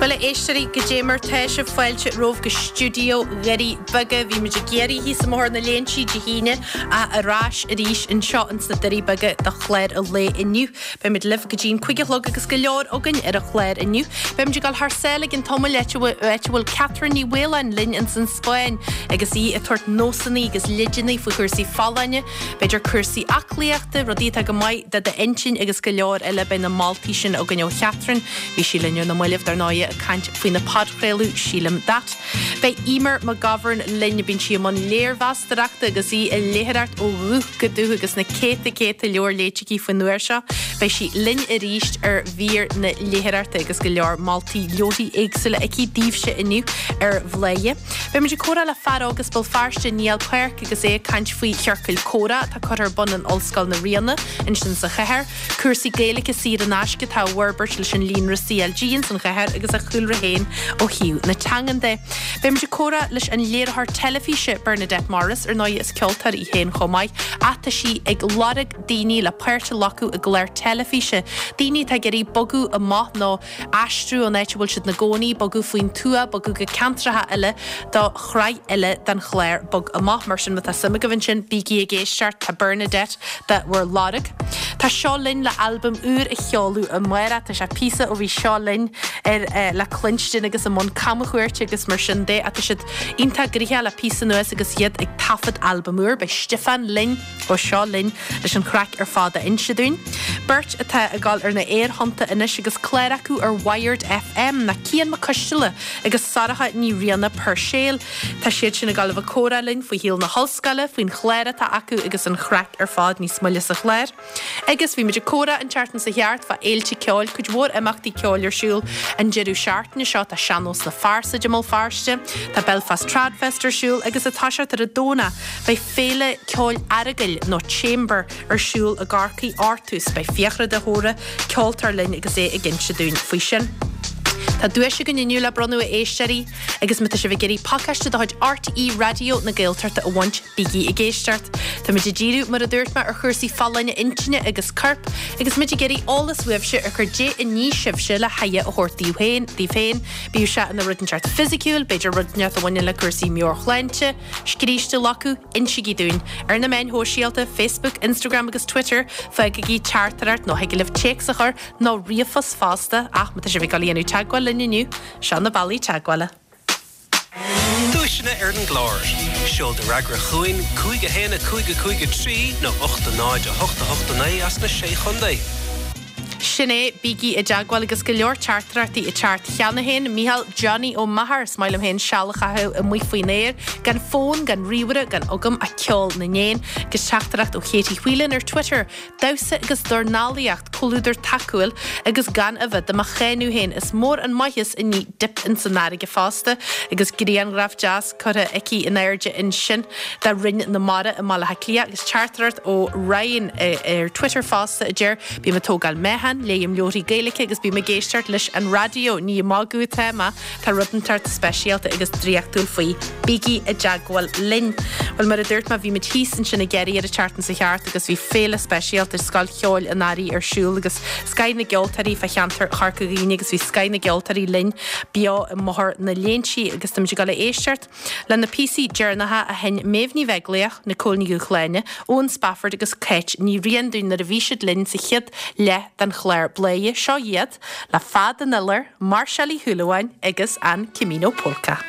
Bhuel, a éisteoirí, goidé mar tá sibh fáilte romhaibh go stiúideo Dhoirí Beaga. Bhí muid ag iarraidh thíos i mBóthar na Léinsí Dé hAoine ach ar ais arís anseo ins na Doirí Beaga do chlár an lae inniu. Beimid libh go dtí an 5 a chlog agus go leor againn ar an chlár inniu. Beimid ag dul thar sáile i gcionn tamaill áit a bhfuil Catherine Ní Mhaoláin linn ins an Spáinn agus í ag tabhairt nósanna agus leideanna faoi chúrsaí folláine. B'fhéidir cúrsaí aclaíochta, rudaí atá go maith do d'intinn agus go leor eile. Beidh na moltaí sin againn ó Chatherine. Bhí sí linn ar na mallaibh, dar ndóighe, ag caint faoina podchraoladh Sílim That. Beidh Eimear McGovern linn. Bíonn sí i mbun léirmheastóireachta agus í ag léitheoireacht ó dhúch go dúch agus na céadta céadta leabhar léite aici faoin uair seo. Beidh sí linn arís ar mhír na léitheoireachta agus go leor moltaí leabharthaí éagsúla aici daoibhse inniu ar Bhladhaire. Beimid ag comhrá le fear óg as Béal Feirste, Niall Páirc, agus é ag caint faoi chiorcail comhrá atá curtha ar bun in Ollscoil na Ríona ansin sa chathair, cúrsaí Gaeilge saor in aisce atá á bhforbairt leis an líonra CLG ins an chathair agus a chúlra féin ó thaobh na teangan de. Beimid ag comhrá leis an léiritheoir teilifíse Bernadette Morris, ar ndóigh is ceoltóir í féin chomh maith, ach tá sí ag lorg daoine le páirt a ghlacadh i gclár teilifíse, daoine atá ag iarraidh bogadh amach nó aistriú ón áit a bhfuil siad ina gcónaí, bogadh faoin tuath, bogadh go ceantracha eile do shraith eile den chlár Bog Amach. Mar sin, má tá suim agaibh ansin, bígí ag éisteacht, tá Bernadette do bhur lorg. Tá Seo Linn le albam úr a sheoladh amárach. Tá sé píosa ó bhí Seo Linn ar le cluinstin agus i mbun camchuairte agus mar sin de ach tá siad iontach gnoitheach le píosa anuas agus iad ag taifead albam úr. Beidh Stiofán linn. ó Seo Linn leis an chraic ar fad a inse dúinn. Beirt atá ag dul ar na aerthonnta anois agus clár acu ar Wired FM ná Cian Mac Coisteala agus Sorcha Ní Riana Puirséil. Tá siad sin ag dul a bheith ag comhrá linn faoi shaol na hollscoile, faoin chlár atá acu agus an chraic ar fad níos moille sa chlár. Agus bhí muid ag comhrá an tseachtain seo thart fá fhéilte ceoil, cuid mhór imeachtaí ceoil ar siúl an deireadh seachtaine seo. Tá Sean-Nós na Fearsaide i mBéal Feirste, tá Belfast Tradfest ar siúl agus ag toiseacht ar an Domhnach beidh Féile Ceoil Aireagail, nó Chamber, ar siúl i gCorcaigh Artús. Beidh Fiachra de hÓra, ceoltóir linn agus é ag inse dúinn faoi sin. Tá duais againn inniu le bronnadh a éisteoirí agus má tá sibh ag iarraidh pacáiste de chuid RTÉ Raidió na Gaeltachta a bhaint, bígí ag éisteacht. Táimid ag díriú, mar a dúirt mé, ar chúrsaí folláine intinne agus coirp agus muid ag iarraidh eolas uaibhse ar cad é a ní sibhse le haire a thabhairt daoibh féin, daoibh féin, bíodh sé ina rud inteacht fisiciúil, b'fhéidir rud inteacht a bhaineann le cúrsaí meabhairshláinte, Scríste acu, insígí dúinn. Ar na meáin shóisialta, Facebook, Instagram agus Twitter, fágaigí teachtaireacht nó thig libh téacs a chur nó ríomhphost fosta ach má tá sibh ag dul a dhéanamh teagmháil linn inniu, seo na bealaí teagmhála. Duaiseanna ar an gclár. Seol do fhreagra chugainn, 5 1 5 5 3 nó 8 0 8 8 9 as na Sé Chontae. Sin é, bígí i dteagmháil agus go leor teachtaireachtaí ag teacht cheana féin. Mícheál Johnny Ó Meachair, Is maith liom féin seal a chaitheamh amuigh faoin aer, gan fón, gan ríomhaire, gan agam ach ceol na n-éan. Agus teachtaireacht ó Katie Whelan ar Twitter, Damhsa agus dornálaíocht, comhluadar tacúil agus gan a bheith do mo cháineadh féin. Is mór an maitheas i ndiaidh dip ins an fharraige fosta. Agus grianghraf deas curtha aici in airde ansin de Rinn na Mara i mBaile Átha Cliath agus teachtaireacht ó Ryan ar Twitter fosta a deir, Bím ag tógáil meáchan, léim leabharthaí Gaeilge agus bím ag éisteacht leis an raidió. Ní ag magadh atá mé, tá rud inteacht speisialta agus draíochtúil faoi. Bígí i dteagmháil linn! Bhuel, mar a dúirt mé, bhí muid thíos ansin i gCiarraí ar an tseachtain seo thart agus bhí féile speisialta Scoil Cheoil an Earraigh ar siúl agus scoth na gceoltóirí fá cheantar Chorca Dhuibhne agus bhí scoth na gceoltóirí linn beo i mBóthar na Léinsí agus táimid ag dul a éisteacht Le na píosaí deireanacha a sheinn Méabh Ní Bheaglaoich, Nicole Ní Dhúshláine, Eoin Spafford agus Cáit Ní Riain dúinn nuair a bhí siad linn sa chéad leath den chlár Bladhaire, seo iad le Fad an Iolair, Máirseáil Uí Shúilleabháin agus an Camino Polka.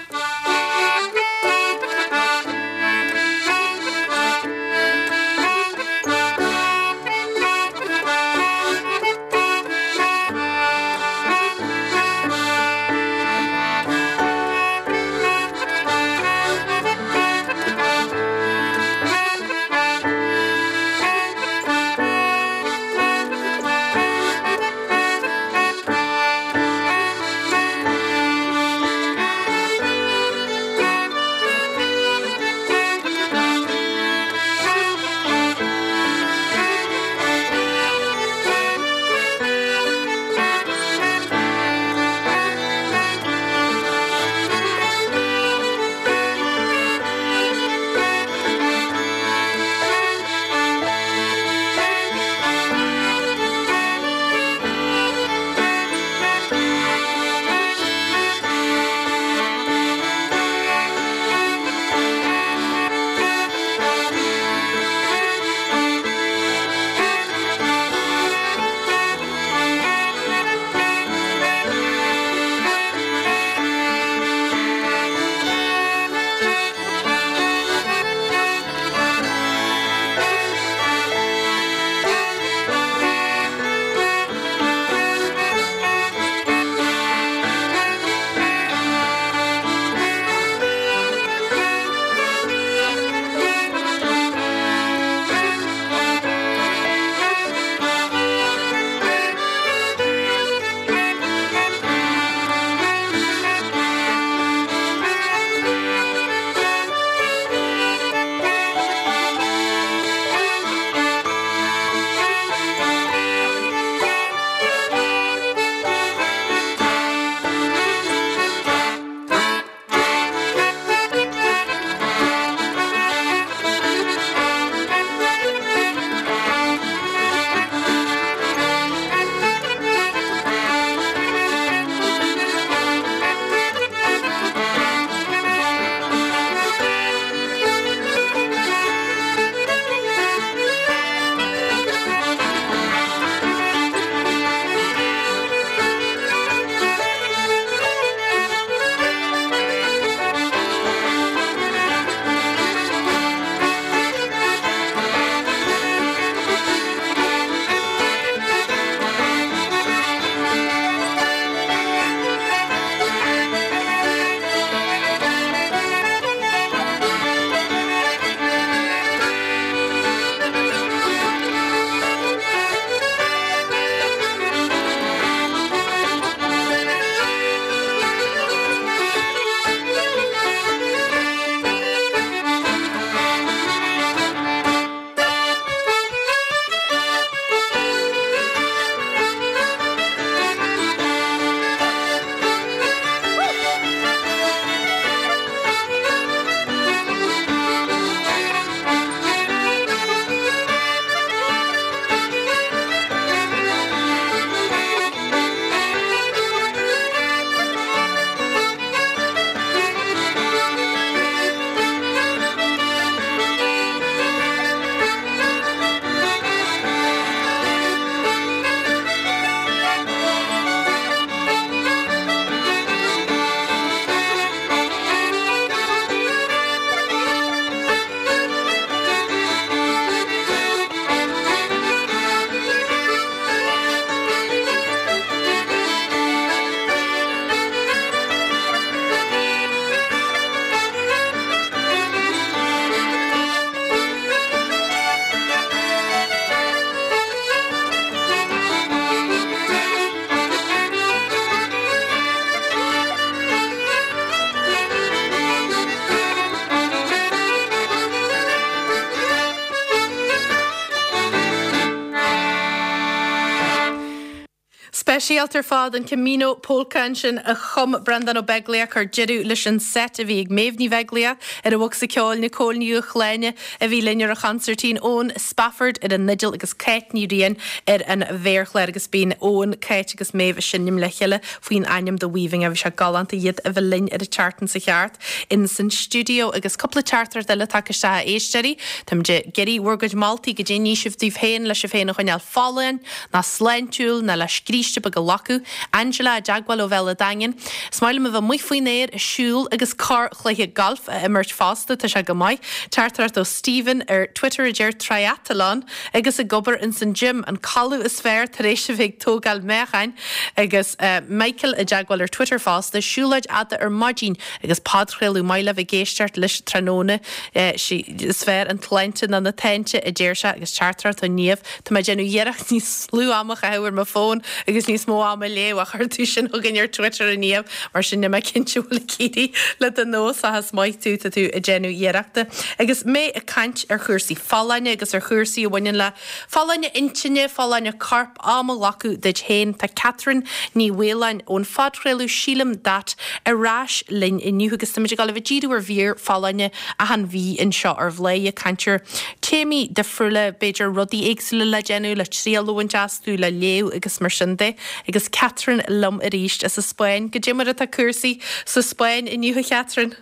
Speisialta ar fad, an Camino Polka ansin a chum Breandán Ó Beaglaoich, chuir deireadh leis an seit a bhí ag Méabh Ní Bheaglaoich ar an bhocsa ceoil, Nicole Ní Dhubhshláine a bhí linn ar an chonsairtín, Eoin Spafford ar an fhidil agus Cáit Ní Riain ar an mhéarchlár agus bíonn Eoin, Cáit agus Méabh ag seinm le chéile faoin ainm The Weaving. Bhí sé galánta iad a bheith linn ar an tseachtain seo cheart in san stiúideo agus cúpla teachtaireacht eile tagtha isteach a éisteoirí. Táimid ag iarraidh bhur gcuid moltaí goidé a ní sibh daoibh féin le sibh féin a choinneáil folláin ná sláintiúil ná le scríste beag a ghlacadh. Angela i dteagmháil ó Bhéal a' Daingin. Is maith liom a bheith amuigh faoin aer ag siúl agus corrchluiche gailf a imirt fosta, tá sé go maith. Teachtaireacht ó Stephen ar Twitter a deir Triathlon agus ag obair ins an gym, an codladh is fearr tar éis a bheith ag tógáil meáchain. Agus Michael i dteagmháil ar Twitter fosta, siúlóid fhada ar maidin agus podchraoladh maith le bheith ag éisteacht leis tráthnóna. Is fearr an tsláinte ná na táinte, a deir sé, agus teachtaireacht ó Niamh, Tá mé ag déanamh iarracht níos lú ama a chaitheamh ar mo fón agus níos mó ama a léamh ach chuir tú sin chugainn ar Twitter a Niamh, mar sin níl mé cinnte an bhfuil ag éirí le do nós ach is maith tú, tá tú ag déanamh iarrachta. Agus mé ag caint ar chúrsaí folláine agus ar chúrsaí a bhaineann le folláine intinne, folláine coirp, am a ghlacadh duit féin, tá Catherine Ní Mhaoláin ón phodchraoladh Sílim That ar ais linn inniu agus táimid ag dul a bheith ag díriú ar mhír folláine achan mhí anseo ar Bhladhaire, ag caint ar téamaí difriúla, b'fhéidir rudaí éagsúla le déanamh, le triail a bhaint astu, le léamh agus mar sin de. Agus Catherine liom arís as an Spáinn. Goidé mar atá cúrsaí sa Spáinn inniu, a Chatherine?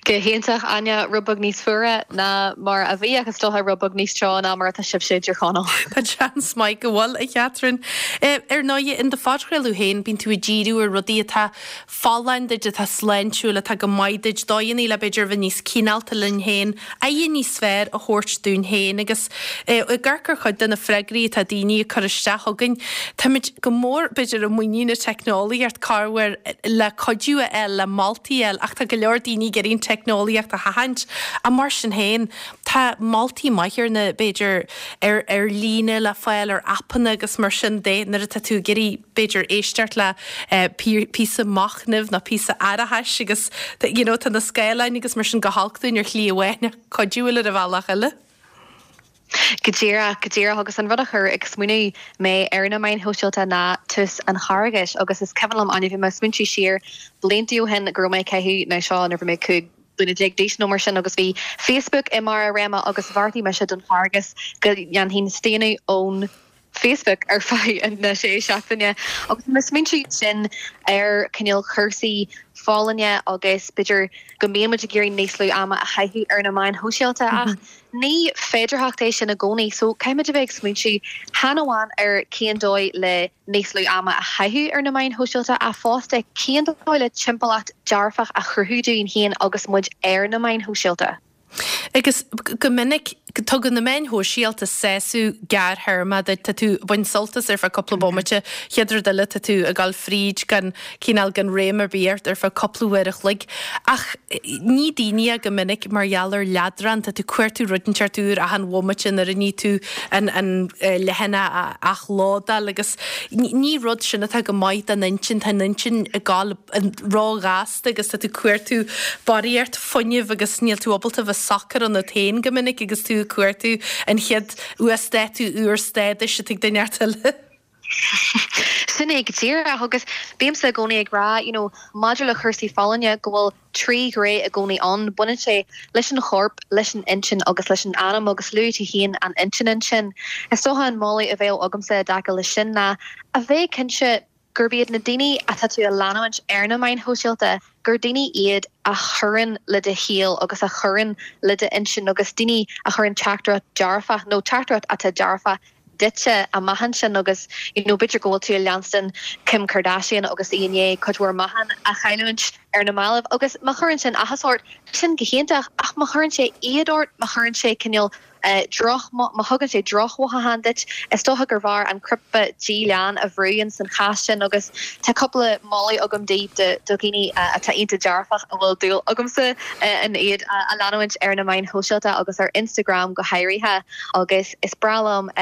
Go hiontach, Áine. Rud beag níos fuaire ná mar a bhí ach is dócha rud beag níos teo ná mar atá sibhse i dTír Chonaill. Tá seans maith go bhfuil, a Chatherine. Ar ndóigh, in do phodchraoladh féin, bíonn tú ag díriú ar rudaí atá folláin duit, atá sláintiúil, atá go maith duit, dóigheanna le b'fhéidir a bheith níos cineálta linn féin, aire níos fearr a thabhairt dúinn féin agus ag amharc ar chuid de na freagraí atá daoine ag cur isteach chugainn, táimid go mór b'fhéidir i muinín na teicneolaíocht corruair le cuidiú a fháil, le moltaí a fháil ach tá go leor daoine ag iarraidh an teicneolaíocht a sheachaint ach mar sin féin tá moltaí maithe ar na b'fhéidir ar ar líne le fáil ar aipeanna agus mar sin de nuair atá tú ag iarraidh b'fhéidir éisteacht le píosa machnaimh nó píosa aireachais agus you know tá na scáileáin agus mar sin go holc dúinn ar shlí amháin ach cuidiúil ar an bhealach eile. Go díreach, go díreach agus an rud a chuir ag smaoineamh mé ar na meáin shóisialta ná tús an Charghais agus is cuimhin liom, Áine, bhí mé ag smaointiú siar blianta ó shin go raibh mé ag caitheamh, nó seo nuair a bhí mé 15 bliana d'aois nó mar sin agus bhí Facebook i mbarr a réime agus bheartaigh mise don Charghas go ndéanfainn staonadh ón Facebook ar feadh na sé seachtaine agus mé ag smaointiú sin ar cineál cúrsaí folláine agus b'fhéidir go mbíonn muid ag iarraidh níos lú ama a chaitheamh ar na meáin shóisialta ach ní féidearthacht é sin i gcónaí so caithfimid a bheith ag smaointiú chan amháin ar cén dóigh le níos lú ama a chaitheamh ar na meáin shóisialta ach fosta cén dóigh le timpeallacht dearfach a chruthú dúinn féin agus muid ar na meáin shóisialta. Agus go minic, tugann na meáin shóisialta sásamh gearrthéarmach duit. Tá tú ag baint sult as ar feadh cúpla bomaite, chéad rud eile tá tú ag dul fríd gan, cineál gan réim ar bith ort ar feadh cúpla uair a chloig. Ach ní daoine é go minic mar gheall ar leadrán, tá tú ag cuartú rud inteacht úr achan bhomaite nuair a ní tú an an leathanach a athlódáil agus ní rud sin atá go maith don intinn, tá an intinn ag dul ró-ghasta agus tá tú ag cuartú barraíocht fuinnimh agus níl tú ábalta bheith socair ionat féin go minic agus tú ag cuartú an chéad uasdátú úr stádais atá ag duine inteacht eile. Sin é go díreach agus bímse i gcónaí ag rá, you know, maidir le cúrsaí folláine go bhfuil trí ghné i gcónaí ann, baineann sé leis an chorp, leis an intinn agus leis an anam agus luaigh tú féin an intinn ansin. Is dócha an moladh a bheadh agamsa i dtaca leis sin ná a bheith cinnte gurb iad na daoine atá tú a leanúint ar na meáin shóisialta, gur daoine iad a chuireann le do shaol agus a chuireann le d'intinn agus daoine a chuireann teachtaireacht dearfach nó teachtaireacht atá dearfach duitse amach ansin agus you know b'fhéidir go bhfuil tú ag leanstan Kim Kardashian agus í i ndiaidh cuid mhór meáchan a chailliúint ar na mallaibh agus má chuireann sin áthas ort, sin go hiontach ach má chuireann sé éad ort, má chuireann sé cineál droch, má thugann sé drochmhothúchán duit, is dócha gurbh fhearr an cnaipe díleán a bhrú ins an chás sin agus tá cúpla moladh agam daoibh do dhaoine atá iontach dearfach a bhfuil dúil agamsa in iad a leanúint ar na meáin shóisialta agus ar Instagram go háirithe agus is breá liom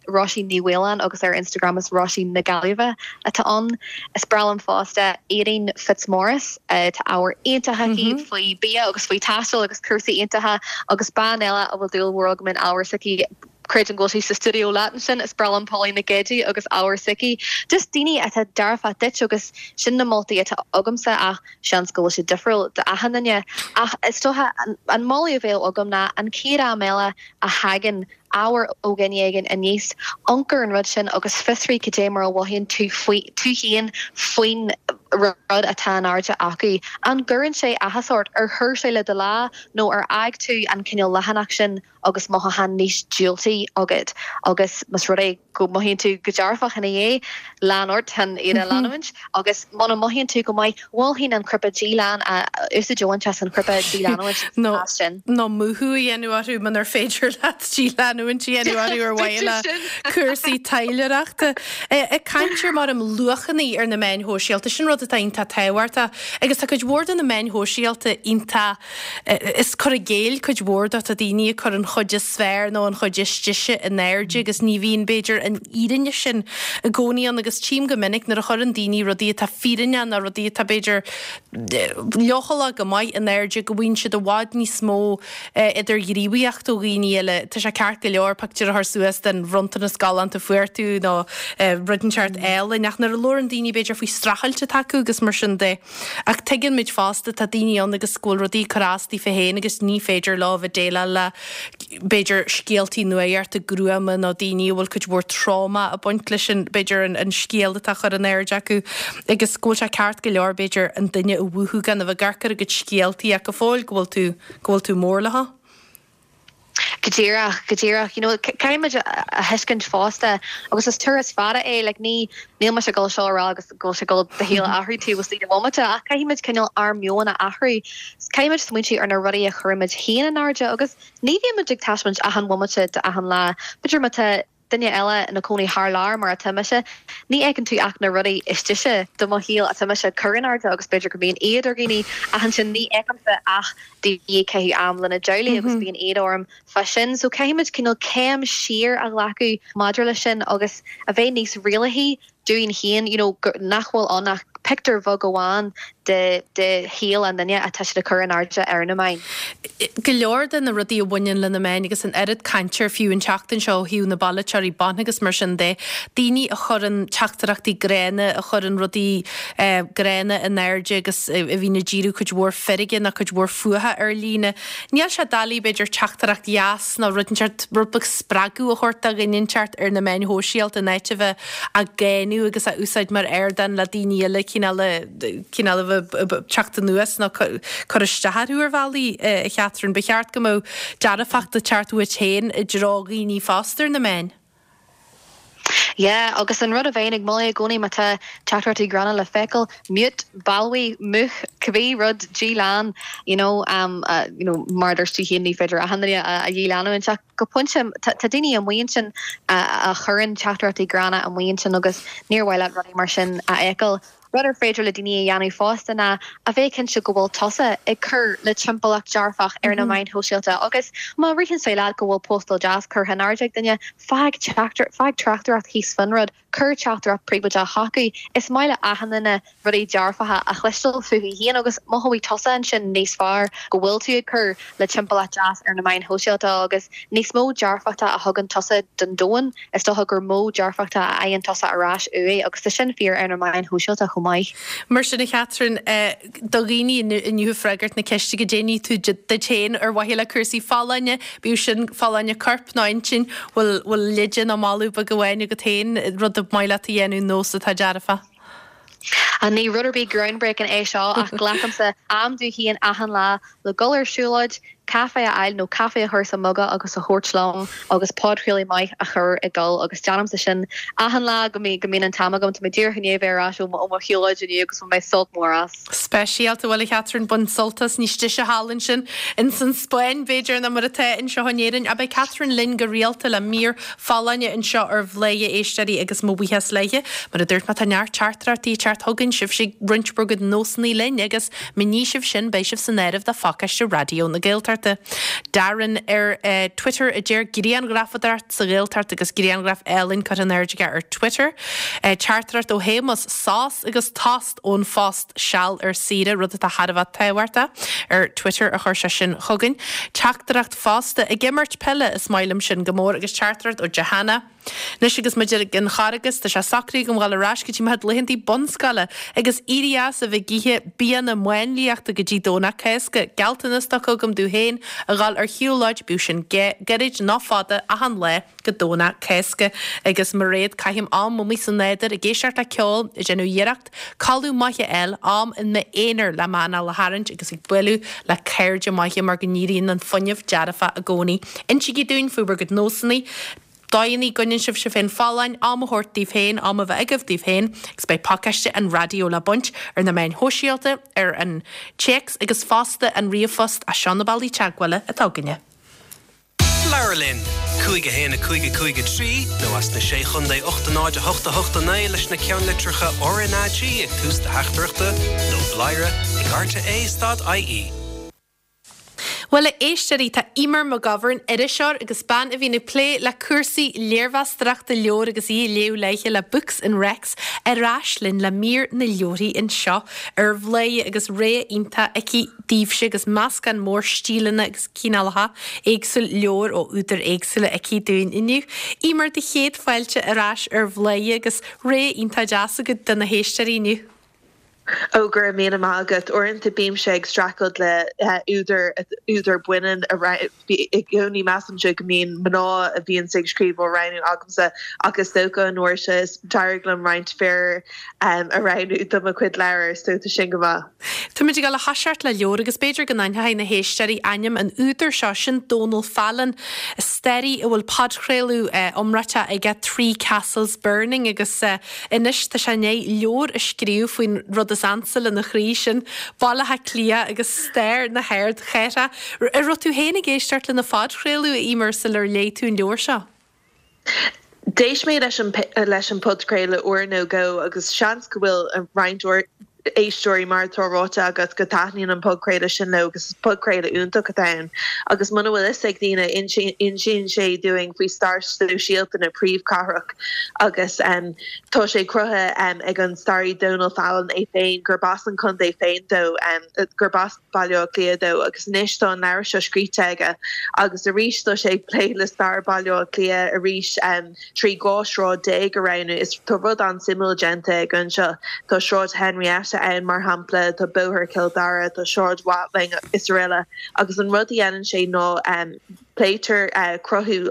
Róisín Ní Mhaoláin agus ar Instagram is Róisín na Gaillimhe atá ann. Is breá liom fosta Éadaoin Fitzmaurice. Tá ábhar iontach aici faoi bia agus faoi taisteal agus cúrsaí iontacha agus bean eile a bhfuil dúil mhór agam in ábhar s'aici. Creidim go bhfuil sí sa stiúideo leat ansin, is breá liom Pauline Nic Géidigh agus ábhar s'aici. Just daoine atá dearfach duit agus sin na moltaí atá agamsa ach seans go bhfuil siad difriúil d'achan duine. Ach is dócha an moladh a bheadh agam ná an chéad am eile a thagann ábhar ó dhuine éigin aníos, amharc ar an rud sin agus fiosraigh cad é mar a mhothaíonn tú faoi, tú féin faoin rud atá in airde acu. An gcuireann sé áthas ort? Ar chuir sé le do lá nó ar fhág tú an cineál leathanach sin agus mothúchán níos diúltaí agat agus más rud é go mothaíonn tú go dearfach ina dhiaidh, lean ort chun iad a leanúint agus muna mothaíonn tú go maith, mholfainn an cnaipe dílean a úsáid a bhaint as an chnaipe díleanúint sa chás sin. Nó múchadh a dhéanamh orthu munar féidir leat díleanúint a dhéanamh orthu ar mhaithe le cúrsaí taidhleoireachta. Ag caint ar mar um luachanna ar na meáin shóisialta, sin rud atá iontach tábhachtach agus tá cuid mhór de na meáin shóisialta iontach Is cur i gcéill cuid mhór de, tá daoine ag cur an chuid is fearr nó an chuid is deise in airde agus ní bhíonn, b'fhéidir, an fhírinne sin i gcónaí ann agus tchím go minic nuair a chuireann daoine rudaí atá fírinneach nó rudaí atá, b'fhéidir, leochaileach go maith in airde go bhfaigheann siad i bhfad níos mó idirghníomhaíocht ó dhaoine eile. Tá sé ceart go leor pictiúr a chur suas den bhronntanas galánta a fuair tú nó rud inteacht álainn ach nuair a labhrann daoine, b'fhéidir, faoi streachailt atá acu agus mar sin de, Ach tuigeann muid fosta, tá daoine ann agus go bhfuil rudaí ag cur as daofa féin agus ní féidir leo a bheith déileáil le, b'fhéidir, scéaltaí nuachta gruama nó daoine a bhfuil cuid mhór tráma ag baint leis an, b'fhéidir, an scéal atá á chur in airde acu agus go bhfuil sé ceart go leor, b'fhéidir, an duine a mhúchadh gan a bheith ag amharc ar a gcuid scéaltaí ach go fóill go bhfuil tú, go bhfuil tú mór leo. Go díreach, go díreach. You know, caithfidh muid a thuiscint fosta, agus is turas fada é, like ní, níl mise ag dul seo a rá agus go bhfuil sé ag dul do shaol a athrú taobh istigh de bhomaite, ach caithfidh muid cineál ár meon a athrú. Caithfidh muid smaointiú ar na rudaí a chuireann muid féin in airde agus ní bhíonn muid ag taispeáint achan bhomaite d'achan lá. B'fhéidir má tá duine eile ina cónaí thar lear mar atá mise, ní fheiceann tú ach na rudaí is deise de mo shaol atá mise ag cur in airde agus b'fhéidir go mbíonn éad ar dhaoine ach ansin ní fheicimse ach daoine ag caitheamh am lena dteaghlaigh agus bíonn éad orm fá sin. So caithfidh muid cineál céim siar a ghlacadh maidir leis sin agus a bheith níos rialaithí dúinn féin, you know, nach bhfuil ann ach pictiúr bheag amháin de de shaol an duine atá siad ag cur in airde ar na meáin. Go leor de na rudaí a bhaineann le na meáin agus an oiread cainte air fiú an tseachtain seo ó thaobh na bpolaiteoirí ban agus mar sin de, daoine a chuireann teachtaireachtaí gránna, a chuireann rudaí gránna in airde agus a bhíonn ag díriú cuid mhór feirge nó cuid mhór fuatha ar líne. Níl sé doiligh, b'fhéidir, teachtaireacht dheas nó rud inteacht, rud beag spreagadh a thabhairt do dhuine inteacht ar na meáin shóisialta in áit a bheith á gcáineadh agus á úsáid mar ardán le daoine eile cineál a, cineál a bheith ag teacht anuas nó cur isteach orthu ar bhealaí, a Chatherine. Ba cheart go mbeadh dearfacht ag teacht uait féin i dtreo dhaoine fosta ar na meáin. Yeah, agus an rud a bheinn ag moladh i gcónaí má tá teachtaireachtaí gránna le feiceáil, mute, balbhaigh, múch, cibé rud, dílean, you know, um, uh, you know, mar a dúirt tú féin ní féidir achan duine a, a dhíleanúint ach go pointe tá, tá daoine amuigh ansin a, a chuireann teachtaireachtaí gránna amuigh ansin agus níor mhaith leat rudaí mar sin a fheiceáil. Rud ar féidir le daoine a dhéanamh fosta ná a bheith cinnte go bhfuil tusa ag cur le timpeallacht dearfach ar na meáin shóisialta agus má ritheann sé leat go bhfuil postáil deas curtha in airde ag duine, fág fág tráchtaireacht thíos faoin rud, cuir teachtaireacht príobháideach chucu. Is maith le achan duine rudaí dearfacha a chloisteáil fúthu féin agus mothóidh tusa ansin níos fearr go bhfuil tú ag cur le timpeallacht deas ar na meáin shóisialta agus níos mó dearfachta a thugann tusa don domhan. Is dócha gur mó dearfachta a fhaigheann tusa ar ais uaidh agus tá sin fíor ar na meáin shóisialta chomh maith. Mar sin, a Chatherine, do dhaoine inniu ag freagairt na ceiste goidé ní tú duit féin ar mhaithe le cúrsaí folláine, bíodh sin folláine coirp nó intinn, bhfuil bhfuil leide nó moladh beag amháin agat féin, rud ab maith leat a dhéanamh, nós atá dearfach? Ní rud ar bith groundbreaking é seo ach glacaimse am dom féin achan lá le dul ar siúlóid, caife a fháil nó caife a chur sa muga agus a thabhairt liom agus podchraoladh maith a chur ag dul agus déanaimse sin achan lá go mbíonn an t-am agam. Tá mé díreach i ndiaidh a bheith ar ais ó mo shiúlóid inniu agus bhain mé sult mór as. Speisialta, bhuel a Chatherine, bain sult as, níos deise thall ansin ins an Spáinn b'fhéidir ná mar atá anseo in Éirinn. Ach beidh Catherine linn go rialta le mír folláine anseo ar Bhladhaire a éisteoirí agus mo bhuíochas léithe. Mar a dúirt mé tá neart teachtaireachtaí ag teacht chugainn, sibhse ag roinnt bhur gcuid nósanna linn agus má ní sibh sin beidh sibh san áireamh do phacáiste Raidió na Gaeltachta. Gaeltachta. Darren ar Twitter a deir grianghrafadóireacht sa Ghaeltacht agus grianghraf álainn curtha in airde aige ar Twitter. Teachtaireacht ó Shéamus, sos agus tost ón phost seal ar saoire, rud atá thar a bheith tábhachtach, ar Twitter a chuir sé sin chugainn. Teachtaireacht fosta, ag imirt peile, is maith liom sin go mór agus teachtaireacht ó Johanna. Anois agus muid ag an Charghas, tá sé socraithe agam dhul ar ais go dtí mo chuid laethantaí bunscoile agus éirí as a bheith ag ithe bianna máinliachta go dtí Domhnach Cásca. Gealltanas tugtha agam domh féin a dhul ar shiúlóid, bíodh sin gairid nó fada, achan lá go Domhnach Cásca. Agus Mairéad, caithim am amuigh sa nádúr ag éisteacht le ceol, ag déanamh iarracht codladh maith a fháil, am in m'aonar le m'anáil a tharraingt agus ag bualadh le cairde maithe mar go n-éiríonn an fuinneamh dearfach i gcónaí. Insígí dúinn faoi bhur gcuid nósanna, dóigheanna a gcoinníonn sibh sibh féin folláin, am a thabhairt daoibh féin, am a bheith agaibh daoibh féin agus beidh pacáiste an raidió le baint ar na meáin shóisialta, ar an téacs agus fosta an ríomhphost, seo na bealaí teagmhála atá againne. Labhair linn! 5 1 5 5 3 nó as na Sé Chontae 8 0 8 8 9 leis na ceannlitreacha RnaG ag tús do theachtaireachta nó bladhaire ag rte stad ie. Bhuel, a éisteoirí, tá Eimear McGovern, iriseoir agus bean a bhíonn ag plé le cúrsaí léirmheastóireachta leabhar agus í ag léamh léithe le Books and Recs, ar ais linn le mír na leabharthaí anseo ar Bhladhaire agus rogha iontach aici daoibhse agus meascán mór stíleanna agus cineálacha éagsúil leabhar ó údair éagsúla aici dúinn inniu. Eimear, do chéad fáilte ar ais ar Bhladhaire agus rogha iontach deas agat do na héisteoirí inniu. Ó, go raibh míle maith agat. Uaireanta bímse ag streachailt le údar, údar baineann a roghnú. I gcónaí measaimse go mbíonn mná a bhíonns ag scríobh á roghnú agamsa ach is dócha an uair seo is d'éirigh liom roinnt fir a roghnú do mo chuid leabhar so tá sin go maith. Táimid ag dul a thoiseacht le leabhar agus b'fhéidir go n-aithneoidh na héisteoirí ainm an údair seo, sin Dónal Fallon, staraí a bhfuil podchraoladh iomráiteach aige Three Castles Burning agus Anois tá sé i ndiaidh leabhar a scríobh faoin rud is ansa lena chroí, sin Baile Átha Cliath agus stair na hardchathrach. An raibh tú féin ag éisteacht lena phodchraoladh, a Eimear, sular léigh tú an leabhar seo? D'éist mé leis an leis an podchraoladh uair nó dhó agus seans go bhfuil roinnt éisteoirí, mar atá ráite agat, go dtaitníonn an podchraoladh sin leo agus is podchraoladh iontach atá ann. Agus muna bhfuil fhios ag daoine, insíonn sé dúinn faoi stair sóisialta na príomhchathrach agus tá sé cruthaithe ag an staraí Donal Fallon é féin, gurb as an chontae féin dó, gurb as Baile Átha Cliath dó agus anois tá an leabhar seo scríte aige agus arís tá sé ag plé le stair Bhaile Átha Cliath arís. 13 dhá shráid a roghnú. Is tá rud an-suimiúil déanta aige anseo. Tá Sráid Henrietta ann, mar shampla, tá Bóthar Chill Dara, tá Sráid Watling is araile agus an rud a dhéanann sé ná pléitear cruthú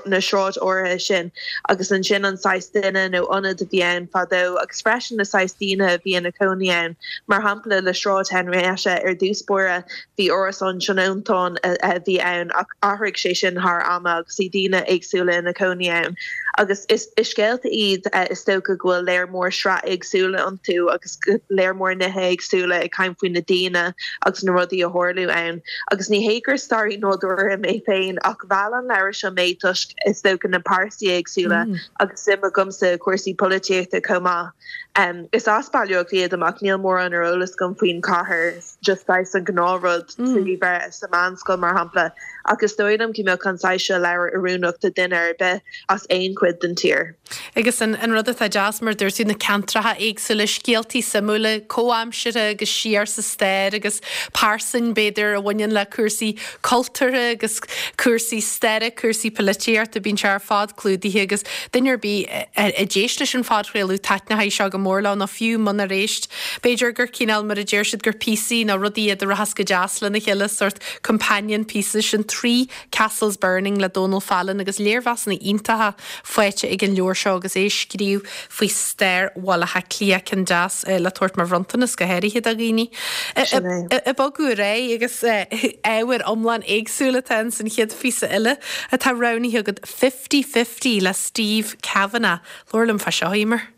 na sráid áirithe sin agus ansin an saghas duine nó ionad a bhí ann fadó agus freisin na saghas daoine a bhí ina cónaí ann. Mar shampla le Sráid Henrietta ar dtús báire, Bhí árasán tionóntán a bhí ann ach athraigh sé sin thar ama agus bhí daoine éagsúla ina cónaí ann. Agus is scéalta iad is dócha go bhfuil léar mór sraith éagsúla iontu agus léar mór nithe éagsúla ag caint faoi na daoine agus na rudaí a tharlú ann. Agus ní hé gur staraí nádúrtha mé féin ach mheall an leabhar seo mé toisc is dócha na pearsaí éagsúla agus suim agamsa i cúrsaí polaitíochta chomh maith. Is as Baile Átha Cliath dom ach níl mórán ar eolas agam faoin chathair. just saghas an gnáthrud trí bheith sa mheánscoil mar shampla, ach is dóigh liom go mbeadh an saghas seo leabhar oiriúnach do duine ar bith as aon chuid den tír. Agus an rud atá deas, mar a dúirt tú, na ceantracha éagsúla, scéaltaí suimiúla, comhaimseartha agus siar sa stair agus pearsain, b'fhéidir, a bhaineann le cúrsaí cultúrtha agus cúrsaí staire, cúrsaí polaitíochta, bíonn sé ar fad clúdaithe agus duine ar bith a d'éist leis an phodchraoladh, taitneoidh seo go mór leo nó fiú munar éist, b'fhéidir gur cineál, mar a deir siad, gur píosaí nó rudaí iad a rachas go deas lena chéile, sórt companion pieces, sin Three Castles Burning le Dónal Fallon agus léirmheasanna iontacha faighte ag an leabhar seo agus é ag scríobh faoi stair Bhaile Átha Cliath, ceann deas le tabhairt mar bhronntanas go háirithe do dhaoine. Ag bogadh ar aghaidh agus ábhar iomlán éagsúil atá ins an chéad phíosa eile atá roghnaithe agat, Fifty Fifty le Steve Cavanagh. Labhair liom fá seo, Eimear.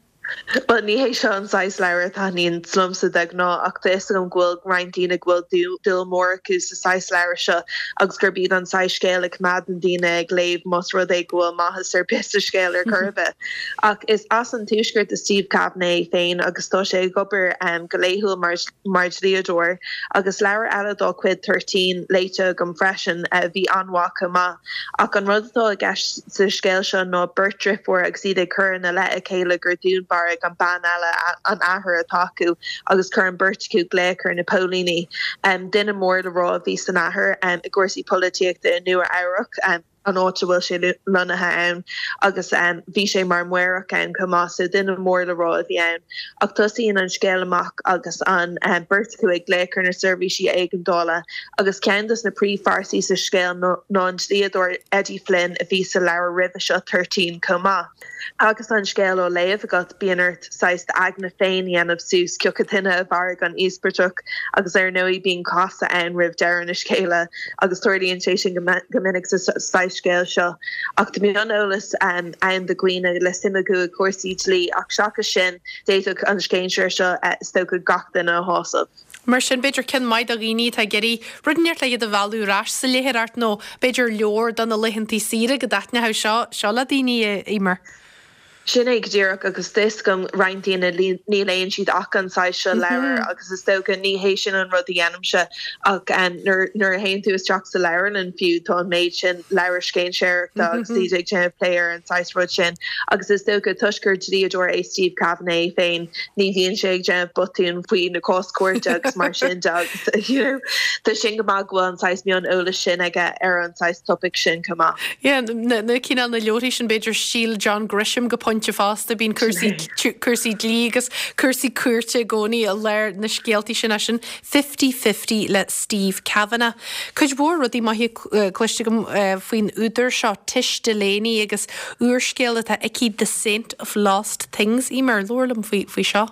Bhuel, ní hé seo an saghas leabhar a thaitníonn liomsa de ghnáth ach tá fhios agam go bhfuil roinnt daoine go bhfuil dúil mór acu sa saghas leabhar seo agus gurb iad an saghas scéal a choimeádann daoine ag léamh más rud é go bhfuil maitheas ar bith sa scéal ar chor ar bith. Ach is as an Tuaisceart do Steve Kavanagh é féin agus tá sé ag obair go laethúil mar mar dhlíodóir agus leabhar eile dá chuid, Thirteen, léite agam freisin a bhí an-mhaith chomh maith. Ach an rud atá i gceist sa scéal seo ná beirt driofúr agus iad ag cur ina leith a chéile gur dúnmharaigh an bean eile an athair atá acu agus chuir an beirt acu glaoch ar na póilíní. Duine mór le rá a bhí san athair i gcúrsaí polaitíochta i Nua Eabhrac, an áit a bhfuil sé lonnaithe ann, agus bhí sé mar mhaorach ann chomh maith, so duine mór le rá a bhí ann. Ach tosaíonn an scéal amach agus an beirt acu ag glaoch ar na seirbhísí éigeandála Agus ceann dos na príomhphearsaí sa scéal ná an dlíodóir Eddie Flynn a bhí sa leabhar roimhe seo, Thirteen, chomh maith. Agus an scéal á léamh agat, bíonn ort saghas d'aigne féin a dhéanamh suas cioca duine a mharaigh an íospartach agus ar ndóigh bíonn casadh ann roimh deireadh na scéala agus tarlaíonn sé sin go minic sa saghas scéal seo. Ach tá mioneolas ann do dhaoine le suim acu i gcúrsaí dlí ach seachas sin, d'fhéadfadh an scéinséir seo is dócha gach duine a shásamh. Mar sin, b'fhéidir ceann maith do dhaoine atá ag iarraidh rud inteacht le iad a mhealladh ar ais sa léitheoireacht nó b'fhéidir leabhar do na laethantaí saoire go dtaitneodh seo seo le daoine, a Eimear. Sin é go díreach agus tá fhios agam roinnt daoine ní léann siad ach an saghas seo leabhar agus is dócha ní hé sin an rud a dhéanaimse ach nuair nuair a théann tú isteach sa leabharlann fiú tá an méid sin leabhar scéinséireachta agus iad ag déanamh plé ar an saghas rud sin agus is dócha toisc gur dlíodóir é Steve Kavanagh é féin Ní bhíonn sé ag déanamh botúin faoi na cás cúirte agus mar sin de agus you know tá sin go maith go bhfuil an saghas mion eolais sin aige ar an saghas topaic sin chomh maith. Yeah, na na cineál na leabharthaí sin b'fhéidir stíl John Grisham go pointe fosta, bíonn cúrsaí cúrsaí dlí agus cúrsaí cúirte i gcónaí i lár na scéaltaí sin é sin Fifty Fifty le Steve Cavanagh. Cuid mhór rudaí maithe cloiste agam faoin údar seo, Tish Delaney, agus úrscéal atá aici The Saint of Lost Things. Eimear, labhair liom faoi faoi seo.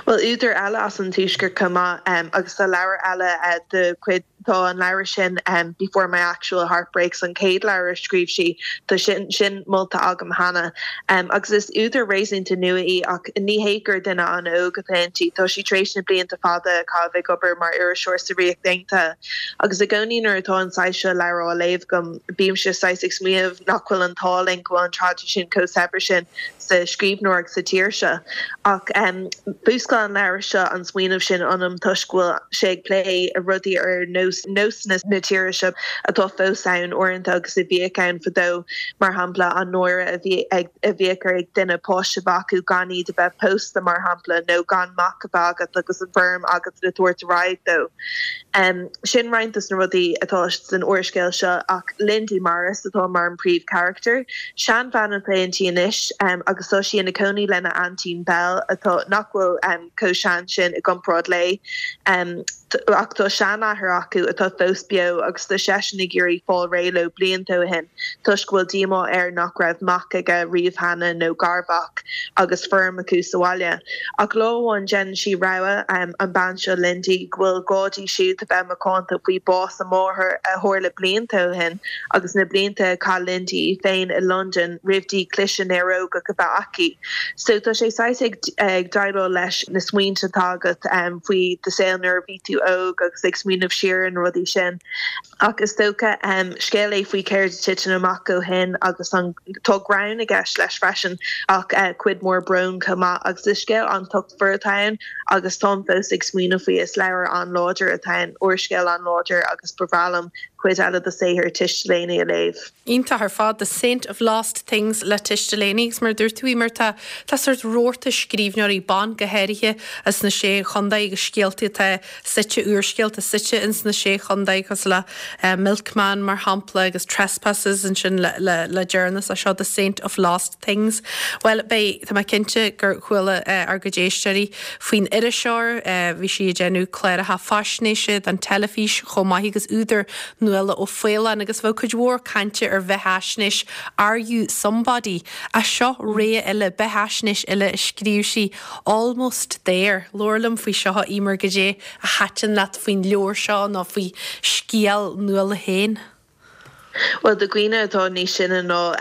Bhuel, údar eile as an Tuaisceart chomh maith, agus tá leabhar eile de chuid, tá an leabhar sin Before My Actual Heart Breaks, an chéad leabhar a scríobh sí, tá sin sin molta agam cheana. Agus is údar réasúnta nua í ach ní hé gur duine an-óg atá inti, tá sí tar éis na blianta fada a chaitheamh ag obair mar iriseoir sa Ríocht Aontaithe. Agus i gcónaí nuair atá an saghas seo leabhar á léamh agam, bímse saghas ag smaoineamh nach bhfuil an t-ádh linn go bhfuil an traidisiún chomh saibhir sin sa scríbhneoireacht sa tír seo. Ach mhúscail an leabhar seo an smaoineamh sin ionam toisc go bhfuil sé ag plé rudaí ar nós nósanna na tíre seo atá fós ann uaireanta agus a bhíodh ann fadó, mar shampla an náire a bhí ag a bhíodh ar duine páiste a bheith acu gan iad a bheith pósta, mar shampla, nó gan mac a bheith agat agus an feirm agat le tabhairt ar aghaidh dó. Sin roinnt dos na rudaí atá san úrscéal seo ach Lindy Morris atá mar an príomhcharachtar. Seanbhean atá inti anois agus tá sí ina cónaí lena aintín Belle atá nach bhfuil chomh sean sin i gcomparáid léi. Ach tá seanathair acu atá fós beo agus tá seisean ag iarraidh fáil réidh leo blianta ó shin toisc go bhfuil díomá air nach raibh mac aige riamh cheana nó garmhac agus feirm acu sa bhaile. Ach lá amháin déanann sí rogha, an bean seo Lindy, go bhfuil gá di siúd a bheith macánta faoi bás a máthar a tharla blianta ó shin agus na blianta a chaith Lindy í féin i Londain roimh di cliseadh néarógach a bheith aici. So tá sé saghas ag ag déileáil leis na smaointe atá agat faoi do saol nuair a bhí tú óg agus ag smaoineamh siar ar na rudaí sin. Ach is dócha, scéal é faoi céard a titeann amach ó shin agus an, tá greann i gceist leis freisin ach cuid mhór bróin chomh maith agus is scéal an-tochtmhar atá ann agus táim fós ag smaoineamh faoi. Is leabhar an-láidir atá ann, úrscéal an-láidir agus ba bhreá liom cuid eile de saothar Tish Delaney a léamh. Iontach ar fad, The Saint of Lost Things le Tish Delaney agus mar a dúirt tú Eimear tá tá sórt rabharta scríbhneoirí ban go háirithe as na Sé Chontae agus scéalta atá suite, úrscéalta suite ins na Sé Chontae cosúil le Milkman mar shampla agus Trespassers ansin le le le deireanas é seo The Saint of Lost Things. Bhuel beidh, tá mé cinnte gur chuala ár gcuid éisteoirí faoin iriseoir, bhí sí ag déanamh cláracha faisnéise don teilifís chomh maith agus údar Nuala O'Faoláin agus bheadh cuid mhór cainte ar bheathaisnéis Are You Somebody? Ach seo rogha eile, beathaisnéis eile a scríobh sí, Almost There. Labhair liom faoi seo, a Eimear, goidé a thaitin leat faoin leabhar seo nó faoi scéal Nuala féin? Bhuel, do dhaoine atá níos sine ná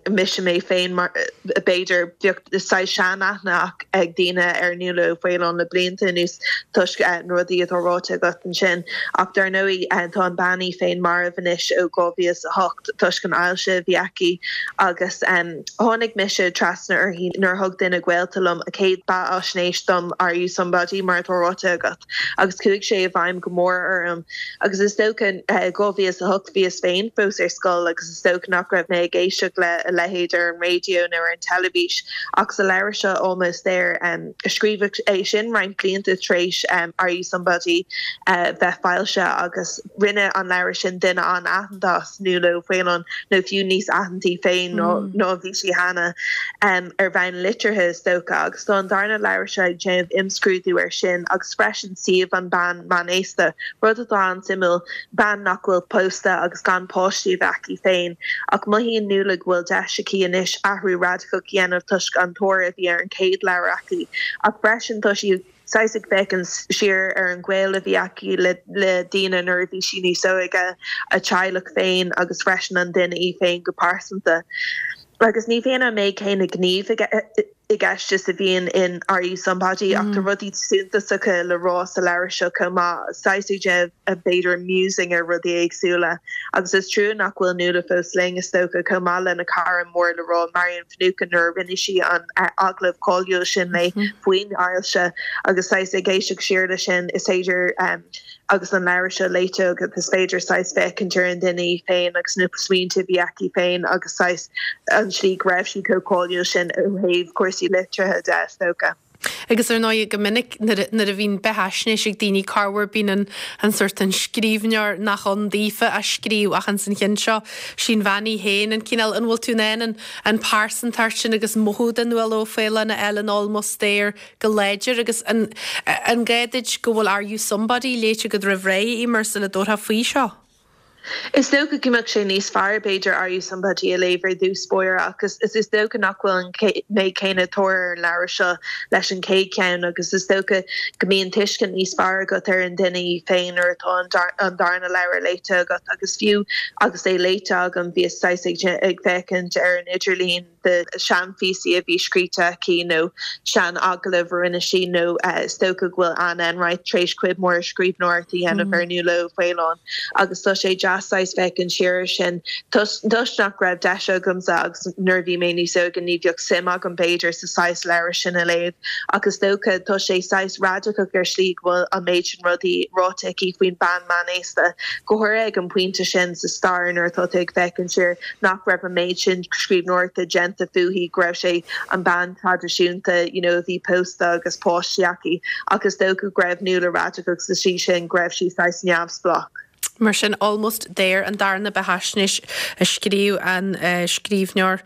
mise mé féin, mar, b'fhéidir, bheadh saghas seanaithne ag daoine ar Nuala Ó Faoláin le blianta anuas toisc na rudaí atá ráite agat ansin. Ach dar ndóigh, tá an bean í féin marbh anois ó 2008 toisc an ailse a bhí aici agus tháinig mise trasna uirthi nuair a thug duine gaolta liom a céad beathaisnéis dom, Are You Somebody? mar atá ráite agat, agus chuaigh sé i bhfeidhm go mór orm. Agus is dócha, 2008 bhíos féin fós ar scoil agus is dócha nach raibh mé ag éisteacht le a leithéid ar an raidió nó ar an teilifís ach sa leabhar seo Almost There, scríobhadh é sin roinnt blianta tar éis Are You Somebody bheith foilsithe agus rinne an leabhar sin duine an-aitheanta as Nuala Ó Faoláin nó fiú níos aitheantaí féin ná a bhí sí cheana ar bhonn liteartha is dócha agus tá an darna leabhar seo ag déanamh imscrúdú air sin agus freisin suíomh an bean meánaosta, rud atá an-suimiúil, bean nach bhfuil pósta agus gan páistí a bheith aici féin. Ach mothaíonn Nuala go bhfuil deis aici anois athrú radacach a dhéanamh toisc an tóir a bhí ar an chéad leabhar aici. Ach freisin tá sí saghas ag féachaint siar ar an ghaol a bhí aici le daoine nuair a bhí sí níos óige, a teaghlach féin agus freisin an duine í féin go pearsanta. Agus ní bhíonn an méid céanna gnímh i gceist is a bhíonn in Are You Somebody ach tá rudaí suntasacha le rá sa leabhar seo chomh maith, saghas ag déanamh b'fhéidir musing ar rudaí éagsúla. Agus is trua nach bhfuil Nuala fós linn, is dócha, chomh maith lena cara mór le rá, Marian Finucane, nuair a rinne sí an agallamh cáiliúil sin léi faoin ailse agus saghas ag éisteacht siar leis sin, is féidir Agus an leabhar seo léite agat, is féidir saghas féachaint ar an duine í féin agus na smaointe a bhí aici féin agus saghas an tslí go raibh sí chomh cáiliúil sin ó thaobh cúrsaí liteartha de, is dócha. Agus ar ndóigh, go minic nuair a bhíonn beathaisnéis ag daoine, corruair bíonn an an sórt an scríbhneoir nach ann daofa á scríobh ach ins an cheann seo, sí an bhean í féin, an cineál, an bhfuil tú in ann an an pearsantacht sin agus mothú de Nuala Ó Faoláin a fháil in Almost There go láidir agus an an gá duit go bhfuil Are You Somebody léite agat roimh ré, Eimear, sula dtabharfá faoi seo? Is dócha go mbeadh sé níos fearr, b'fhéidir, Are You Somebody a léamh ar dtús báire ach is is dócha nach bhfuil an méid céanna tóir ar an leabhar seo leis an chéad cheann agus is dócha go mbíonn tuiscint níos fearr agat ar an duine í féin nuair atá an darna leabhar léite agat agus fiú agus é léite agam bhíos saghas ag féachaint ar an idirlíon de seanphíosaí a bhí scríte aici nó sean-agallaimh a rinne sí nó is dócha go bhfuil Anne Enright tar éis cuid mhór scríbhneoireacht a dhéanamh ar Nuala Ó Faoláin agus tá sé deas saghas féachaint siar air sin toisc nach raibh deis agamsa agus nuair a bhí mé níos óige ní bheadh suim agam b'fhéidir sa saghas leabhar sin a léamh ach is dócha tá sé saghas radacach ar shlí go bhfuil an méid sin rudaí ráite aici faoin bean meánaosta go háirithe ag an bpointe sin sa stair nuair atá tú ag féachaint siar nach raibh an méid sin scríbhneoireachta déanta fúithi, go raibh sí an bean traidisiúnta you know a bhí pósta agus páistí aici ach is dócha go raibh Nuala radacach sa tslí sin, go raibh sí saghas neamhspleách. Mar sin, Almost There, an darna beathaisnéis a scríobh an scríbhneoir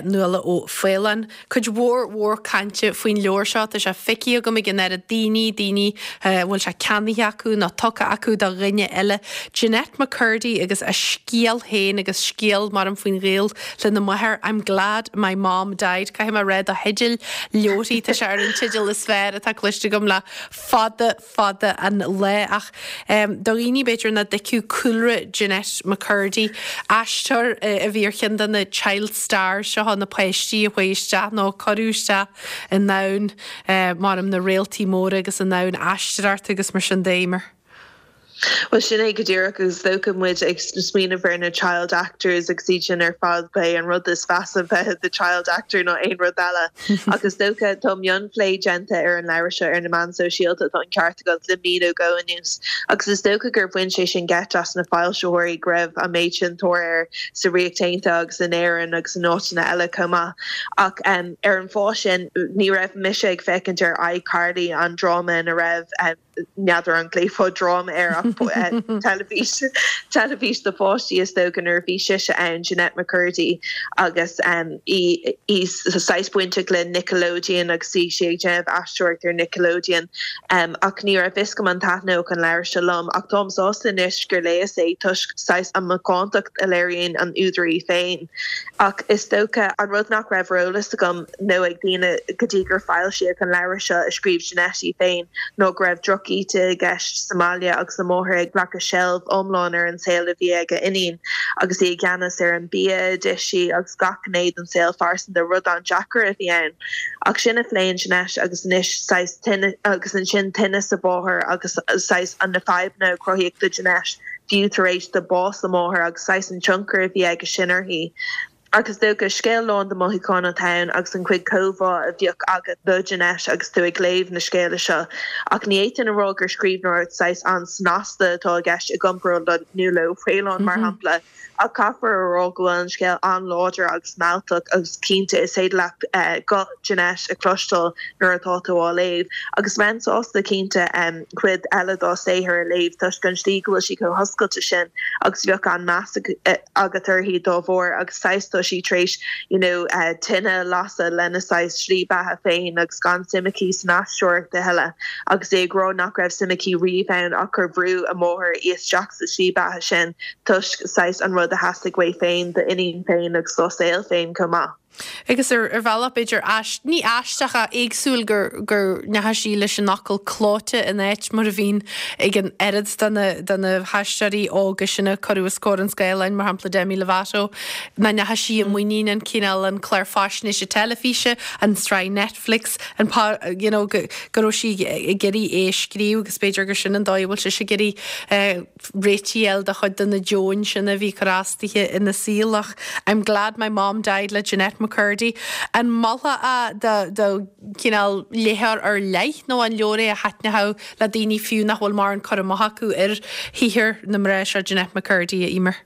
Nuala Ó Faoláin. Cuid mhór mhór cainte faoin leabhar seo. Tá sé feicthe agam ag an oiread daoine, daoine a bhfuil sé ceannaithe acu nó tugtha acu do dhuine eile. Jennette McCurdy agus a scéal féin agus scéal maram faoin ghaol lena máthair, I'm glad my mom died. Caithfidh mé a rá do theideal leabharthaí, tá sé ar an teideal is fearr atá cloiste agam le fada fada an lá. Ach do dhaoine, b'fhéidir, nach dtuigfeadh cúlra Jennette McCurdy, aisteoir a bhí ar cheann de na child stars seo, na páistí a chuaigh isteach nó a cuireadh isteach i ndomhan, maram, na réaltaí móra agus i ndomhan aisteoireachta agus mar sin de, Eimear. Bhuel, sin é go díreach agus is dócha muid ag smaoineamh ar na child actors agus iad sin ar fad, ba é an rud is mheasa bheith i do child actor ná aon rud eile. Ach is dócha, tá mionphlé déanta ar an leabhar seo ar na meáin sóisialta, tá an ceart agat, le mí nó dhó anuas. Agus is dócha gur bhain sé sin geit as na foilsitheoirí go raibh an méid sin tóir air sa Ríocht Aontaithe agus in Éirinn agus in áiteanna eile chomh maith. Ach ar an fáth sin, ní raibh mise ag féachaint ar iCarly, an dráma ina raibh, n'fheadar an nglaofá dráma air ach teilifís, teilifís do pháistí is dócha nuair a bhí sise ann, Jennette McCurdy agus í í saghas bainteach le Nickelodeon agus bhí sí ag déanamh aisteoireacht ar Nickelodeon ach ní raibh fhios agam an taitneodh an leabhar seo liom ach táim sásta anois gur léas é toisc saghas an macántacht a léiríonn an údar í féin. Ach is dócha an rud nach raibh ar eolas agam nó ag daoine go dtí gur foilsíodh an leabhar seo a scríobh Jennette í féin ná go raibh droch. drochíde i gceist sa mbaile agus a máthair ag glacadh seilbh iomlán ar an saol a bhí ag a iníon agus í i gceannas ar an bia a d'ith sí agus gach gné den saol phearsanta, rud an-deacair a bhí ann. Ach sin a phléann Jeanette agus anois saghas tinneas agus ansin tinneas a mháthar agus saghas na fadhbanna a cruthaíodh do Jeanette fiú tar éis do bás a máthar agus saghas an tionchar a bhí aige sin uirthi. Ach is dócha, scéal lán de mhothúcháin atá ann agus an chuid comhbhá a bheadh agat do Jeanette agus tú ag léamh na scéala seo. Ach ní fhéadfainn a rá gur scríbhneoireacht saghas an-snasta atá i gceist i gcomparáid le Nuala Ó Faoláin, mar shampla. Ach caithfear a rá go bhfuil an scéal an-láidir agus mealltach agus cinnte is féidir leat guth Jeanette a chloisteáil nuair atá tú á léamh. Agus bheinn sásta cinnte cuid eile dá saothar a léamh toisc an tslí go bhfuil sí chomh hoscailte sin agus bheadh an-meas agat uirthi dá bharr agus saghas tá sí tar éis you know tine a lasadh lena saghas slí beatha féin agus gan suim aici san aisteoireacht a thuilleadh agus í ag rá nach raibh suim aici riamh ann ach gur bhrú a máthair í isteach sa slí beatha sin toisc saghas an rud a theastaigh uaithi féin dá iníon féin agus dá saol féin chomh maith. Agus ar bhealach b'fhéidir ní aisteach ach éagsúil gur go ndeachaigh sí leis an fhocal clóite in áit mar a bhíonn ag an oiread de na de na haisteoirí óga sin a cuireadh os comhair an scáileáin, mar shampla Demi Lovato, nach ndeachaigh sí i muinín an cineál an clár faisnéise teilifíse, an tsraith Netflix, an you know go go raibh sí ag iarraidh é a scríobh agus b'fhéidir gur sin an dóigh a bhfuil sise ag iarraidh réitigh a fháil do chuid de na deoin sin a bhí ag cur as dithe ina saol ach I'm glad my mom died le Jennette McCurdy. An molfá é do do chineál léitheoir ar leith nó an leabhar é a thaitneochadh le daoine fiú nach bhfuil mórán cur amach acu ar shaothar na mná seo Jennette McCurdy, a Emer?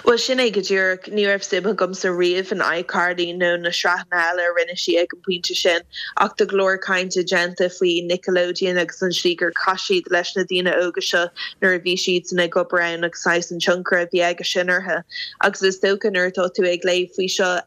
Bhuel, sin é go díreach. Ní raibh suim agamsa riamh in iCarly nó na sraitheanna eile a rinne sí ag an bpointe sin, ach tá go leor cainte déanta faoi Nickelodeon agus an tslí gur chaith siad leis na daoine óga seo nuair a bhí siadsan ag obair ann agus saghas an tionchar a bhí aige sin orthu. Agus is dócha nuair atá tú ag léamh faoi seo,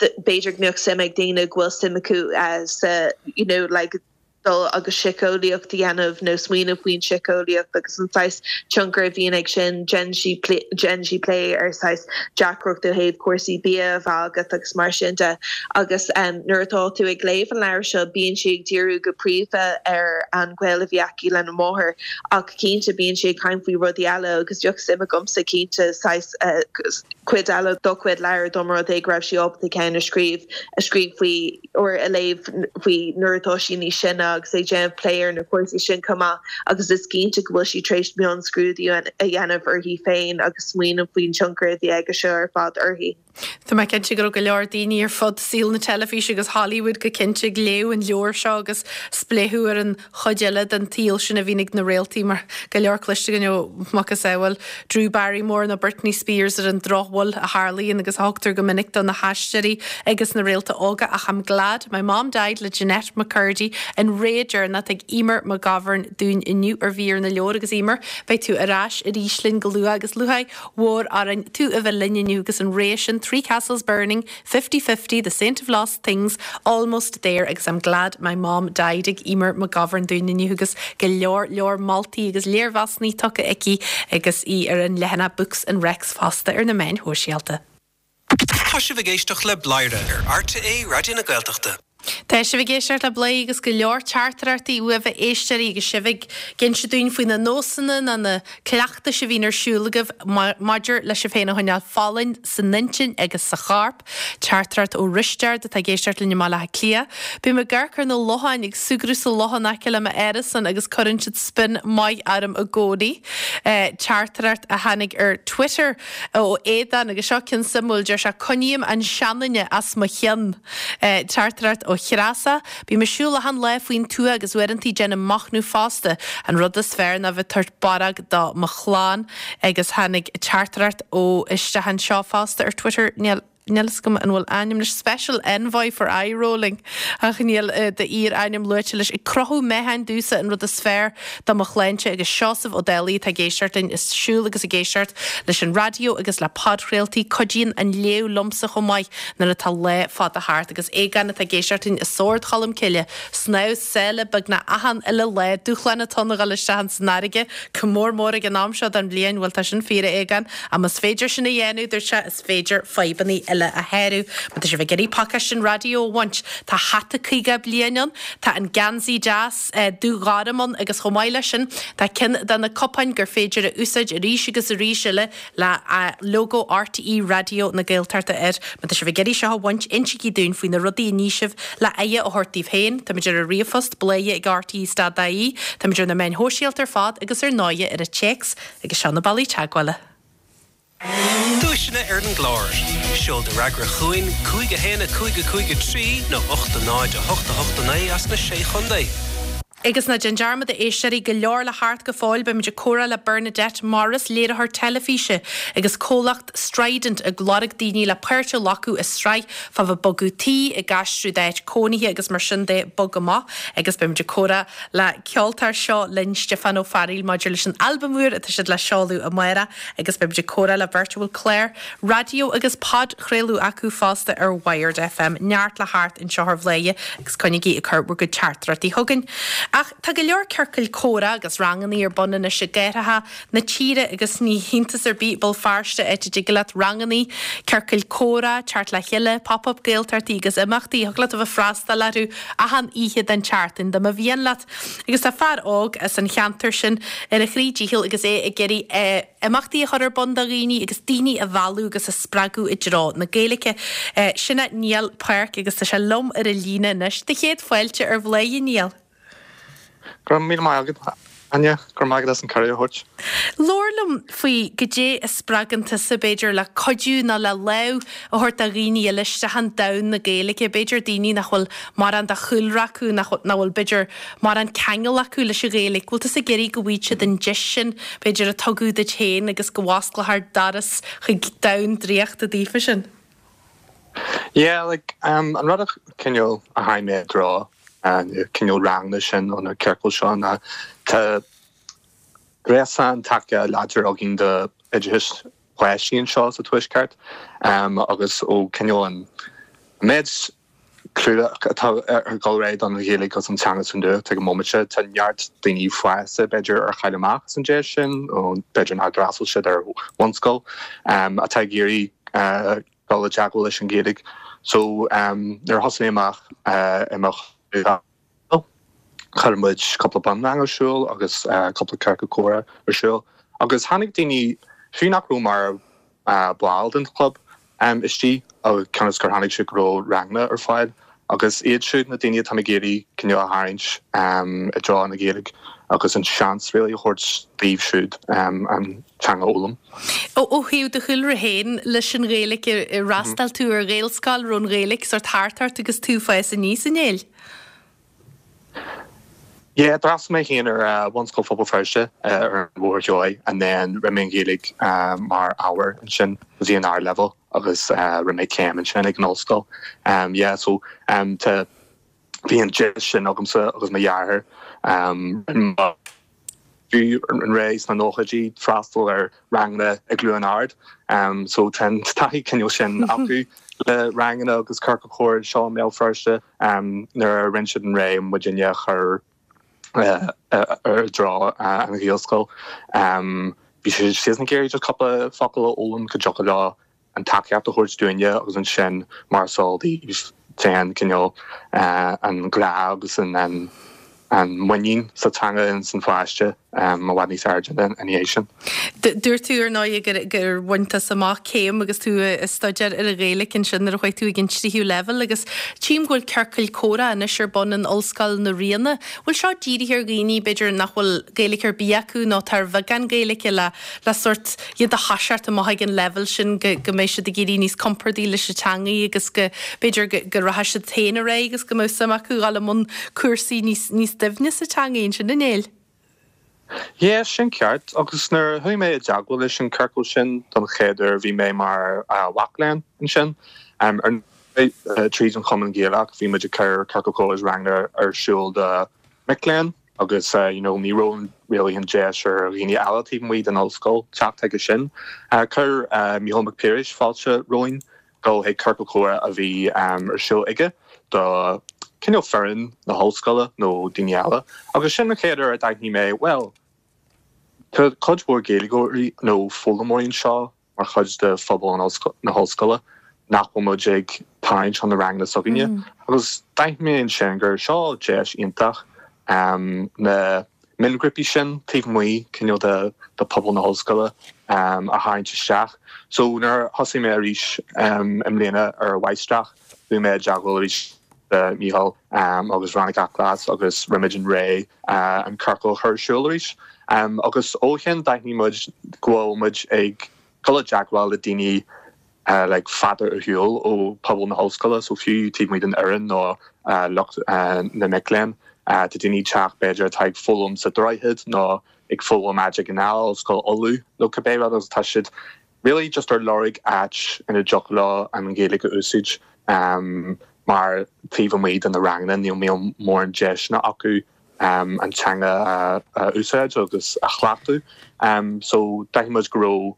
b'fhéidir go mbeadh suim ag daoine go bhfuil suim acu sa, you know, like, dul agus síceolaíocht a dhéanamh nó smaoineamh faoin síceolaíocht agus an saghas tionchar a bhíonn ag sin. Déanann sí déanann sí plé ar saghas deacracht ó thaobh cúrsaí bia a bheith agat agus mar sin de. Agus nuair atá tú ag léamh an leabhair seo bíonn sí ag díriú go príomha ar an ghaol a bhí aici lena máthair ach cinnte bíonn sí ag caint faoi rudaí eile agus bheadh suim agamsa cinnte saghas cuid eile dá cuid leabhar dá mba rud é go raibh sí ábalta ceann a scríobh a scríobh faoi or a léamh faoi nuair atá sí níos sine agus ag déanamh plé ar na cúrsaí sin chomh maith agus is cinnte go bhfuil sí tar éis mionscrúdú a dhéanamh uirthi féin agus smaoineamh faoin tionchar a bhí aige seo ar fad uirthi. Tá mé cinnte go raibh go leor daoine ar fud saol na teilifíse agus Hollywood go cinnte ag léamh an leabhair seo agus spléachadh ar an chuid eile den tsaol sin a bhíonn ag na réaltaí mar go leor cloiste againn ó macasamhail Drew Barrymore nó Britney Spears ar an drochbhail a tharlaíonn agus a thugtar go minic do na haisteoirí agus na réalta óga ach I'm glad my mom died le Jennette McCurdy an rogha deireanach ag Eimear McGovern dúinn inniu ar Mhír na Leabhar agus Eimear beidh tú ar ais arís linn go luath agus lúcháir mhór orainn tú a bheith linn inniu agus an rogha sin Three Castles Burning Fifty Fifty, The Saint of Lost Things, Almost There agus I'm Glad My Mom Died ag Eimear McGovern dúinn inniu agus go leor leor moltaí agus léirmheasanna tugtha aici agus í ar an leathanach Books and Recs fosta ar na meáin shóisialta. Tá sibh ag éisteacht le Bladhaire ar RTÉ Raidió na Gaeltachta. Tá sibh ag éisteacht le Bladhaire agus go leor teachtaireachtaí uaibh a éisteoirí agus sibh ag inse dúinn faoi na nósanna nó na cleachtais a bhíonn ar siúl agaibh maidir le sibh féin a choinneáil folláin san intinn agus sa chorp. Teachtaireacht ó Risteard atá ag éisteacht linn i mBaile Átha Cliath. Bím ag amharc ar na locháin ag súgradh sa loch in aice le m'árasán agus cuireann siad spion maith orm i gcónaí. Teachtaireacht a tháinig ar Twitter ó Aodán agus seo ceann suimiúil, deir sé 'Coinním an seanduine as mo chionn'. Teachtaireacht ó Threasa, Bím ag siúl achan lá faoin tuath agus uaireantaí déanaim machnamh fosta. An rud is fearr ná bheith tabhairt barróg do mo chlann. Agus tháinig teachtaireacht ó isteach anseo fosta ar Twitter, níl níl fhios agam an bhfuil ainm leis, Special Envoy for Eye Rolling, ach níl d'fhíor-ainm luaite leis. Ag crochadh meáchain domhsa an rud is fearr do mo shláinte agus Seosamh Ó Dálaigh atá ag éisteacht linn ag siúl agus ag éisteacht leis an raidió agus le podchraoltaí. Cuidíonn an léamh liomsa chomh maith nuair atá lá fada thart agus Aogán atá ag éisteacht linn i Sord Cholm Cille, snámh sáile beagnach achan uile lá, dúshlán atá ann a dhul isteach ins an fharraige, go mór mór ag an am seo den bhliain, bhuel tá sin fíor a Aogáin, ach más féidir sin a dhéanamh, dúirt sé, is féidir fadhbanna eile. eile a shárú. Má tá sibh ag iarraidh pacáiste an raidió a bhaint, tá hata 50 bliain ann, tá an geansaí deas dúghorm ann agus chomh maith leis sin tá ceann de na cupáin gur féidir a úsáid arís agus arís eile le lógó RTÉ Raidió na Gaeltachta air. Má tá sibh ag iarraidh seo a bhaint, insígí dúinn faoi na rudaí a ní sibh le aghaidh a thabhairt daoibh féin. Táimid ar an ríomhphost, bladhaire ag rte stad ie, táimid ar na meáin shóisialta ar fad agus ar ndóighe ar an téacs agus seo na bealaí teagmhála. Duaiseanna ar an gclár. Seol do fhreagra chugainn, 5 1 5 5 3 nó 8 0 8 8 9 as na Sé Chontae. Agus ná déan dearmad, a éisteoirí, go leor le theacht go fóill, beimid ag comhrá le Bernadette Morris, léiritheoir teilifíse agus comhlacht Strident ag lorg daoine le páirt a ghlacadh i sraith fá bheith ag bogadh tí, ag aistriú d'áit cónaithe agus mar sin de, bog amach. Agus beimid ag comhrá le ceoltóir Seo Linn, Stiofán Ó Fearghaíl maidir leis an albam úr atá siad le seoladh amárach agus beimid ag comhrá le beirt a bhfuil clár raidió agus podchraoladh acu fosta ar Wired FM. Neart le theacht anseo ar Bhladhaire agus coinnígí ag cur bhur gcuid teachtaireachtaí chugainn. Ach tá go leor ciorcail comhrá agus rangannaí ar bun anois i gcathracha na tíre agus ní hiontas ar bith Béal Feirste, áit a dtig leat rangannaí, ciorcail comhrá, teacht le chéile, pop-up Gaeltachtaí agus imeachtaí, thig leat a bheith ag freastal orthu achan oíche den tseachtain dá mba mhian leat. Agus tá fear óg as an cheantar sin ar a chroí dícheall agus é ag iarraidh imeachtaí a chur ar bun do dhaoine agus daoine a mhealladh agus a spreagadh i dtreo na Gaeilge. Sin é Niall Parke agus tá sé liom ar an líne anois. Do chéad fáilte ar Bhladhaire, Niall. Go raibh míle maith agat, Áine. Go raibh maith agat as an cuireadh a thabhairt. Labhair liom faoi goidé a spreagann tusa, b'fhéidir, le cuidiú nó le lámh a thabhairt do dhaoine eile isteach in domhan na Gaeilge, b'fhéidir daoine nach bhfuil mórán de chúlra acu, nach bhfuil, b'fhéidir, mórán ceangal acu leis an Ghaeilge. Bhfuil tusa ag iarraidh go bhfaighidh siad an deis sin, b'fhéidir, a tugadh duit féin agus go bhfosclófar doras chuig domhan draíochta daofa sin? Yeah, like, an rud a cineál a tháinig mé i dtreo na cineál ranganna sin nó na ciorcail seo ná tá gréasán taca láidir againn do oideachas páistí anseo sa Tuaisceart agus ó cineál an méid clú atá ag dul ar aghaidh don Ghaeilge agus an teanga sa nuacht ag an móimint. Tá neart daoine fásta b'fhéidir ar chaill amach as an deis sin nó b'fhéidir nár d'fhreastail siad ar bhunscoil atá ag iarraidh dul i dteagmháil leis an Ghaeilge. So nuair a thosaigh mé amach i mo chuir muid cúpla bunrang ar siúl agus cúpla ciorcal comhrá ar siúl agus tháinig daoine, fiú nach raibh mar bhall den chlub, istigh cionn is gur chonaic siad go raibh ranganna ar fáil agus iad siúd na daoine atá ag iarraidh cineál a tharraingt i dtreo na Gaeilge agus an seans really a thabhairt daoibh siúd an teanga a fhoghlaim. Ó thaobh do chúlra féin leis an Ghaeilge, ar fhreastail tú ar Ghaelscoil, raibh an Ghaeilge sórt thart ort agus tú ag fás aníos, a Néill? Yeah, d'fhreastail mé féin ar Bhunscoil Phobal Feirste ar an Bhóthar Seoighe and then rinne mé an Ghaeilge mar ábhar ansin go dtí an ardleibhéal agus rinne mé céim ansin ag an ollscoil. Yeah, so tá, bhí an deis sin agamsa agus mo dheartháir. Rinne fiú an ré sna nóchaidí freastal ar ranganna i gCluain Ard so tá an taithí cineál sin acu le ranganna agus ciorcail chomhrá anseo i mBéal Feirste nuair a rinne siad an ré muidinne a chur i dtreo an Ghaelscoil. Bhí siad ag iarraidh just cúpla focal a fhoghlaim go dtiocfadh leo an tacaíocht a thabhairt dúinne agus ansin mar is eol daoibh téann cineál an grá agus an muinín sa teanga ins an pháiste i bhfad níos airde ina dhiaidh sin. Dúirt tú ar ndóigh gur gur bhain tusa amach céim agus tú ag staidéar ar an Ghaeilge ansin nuair a chuaigh tú ag an tríú leibhéal agus tchím go bhfuil ciorcail comhrá anois ar bun in Ollscoil na Ríona. Bhfuil seo dírithe ar dhaoine b'fhéidir nach bhfuil Gaeilge ar bith acu nó atá ar bheagán Gaeilge le le sórt iad a thoiseacht amach ag an leibhéal sin go go mbeidh siad ag éirí níos compordaí leis an teangaidh agus go b'fhéidir go go rachaidh siad féin ar aghaidh agus go mbeadh suim acu dhul i mbun cúrsaí níos níos doimhne sa teangaidh ansin, a Néill. Yeah, sin ceart. Agus nuair a chuaigh mé i dteagmháil leis an ciorcal sin don chéad uair bhí mé mar mhac léinn ansin. Ar ndóigh tríd an Chumann Gaelach bhí muid ag cur ciorcal comhrá agus ranganna ar siúl do mic léinn. agus you know ní raibh really an deis ar dhaoine eile taobh amuigh den ollscoil teacht chuige sin. Chuir Mícheál Mac Piarais fáilte romhainn dul chuig ciorcal comhrá a bhí ar siúl aige do cineál foireann na hollscoile nó daoine eile agus sin an chéad uair a d'aithnigh mé bhuel tá cuid mhór Gaeilgeoirí nó foghlaimeoirí anseo mar chuid de phobal na hollscoile. nach bhfuil muid ag tarraingt chun na ranganna s'againne. Agus d'aithin mé ansin gur seo deis iontach na mionghrúpaí sin taobh amuigh cineál de de pobal na hollscoile a tharraingt isteach. So nuair a thosaigh mé arís i mbliana ar an mháistreacht, bhí mé i dteagmháil arís le Mícheál agus Veronica Glas agus rinne muid an réidh an ciorcal a chur ar siúl arís. Agus ó shin d'aithnigh muid go bhfuil muid ag dul i dteagmháil le daoine like fada ar shiúl ó pobal na hollscoile, so fiú taobh amuigh den fhoireann nó lucht na mic léinn, tá daoine ag teacht b'fhéidir atá ag foghlaim sa Droichead nó ag foghlaim áit éigin eile, Ollscoil Uladh nó cibé rud agus tá siad really just ar lorg áit ina dtiocfadh leo an Ghaeilge a úsáid mar taobh amuigh de na ranganna níl mórán deiseanna acu an teanga a úsáid agus a chleachtadh. So d'aithin muid go raibh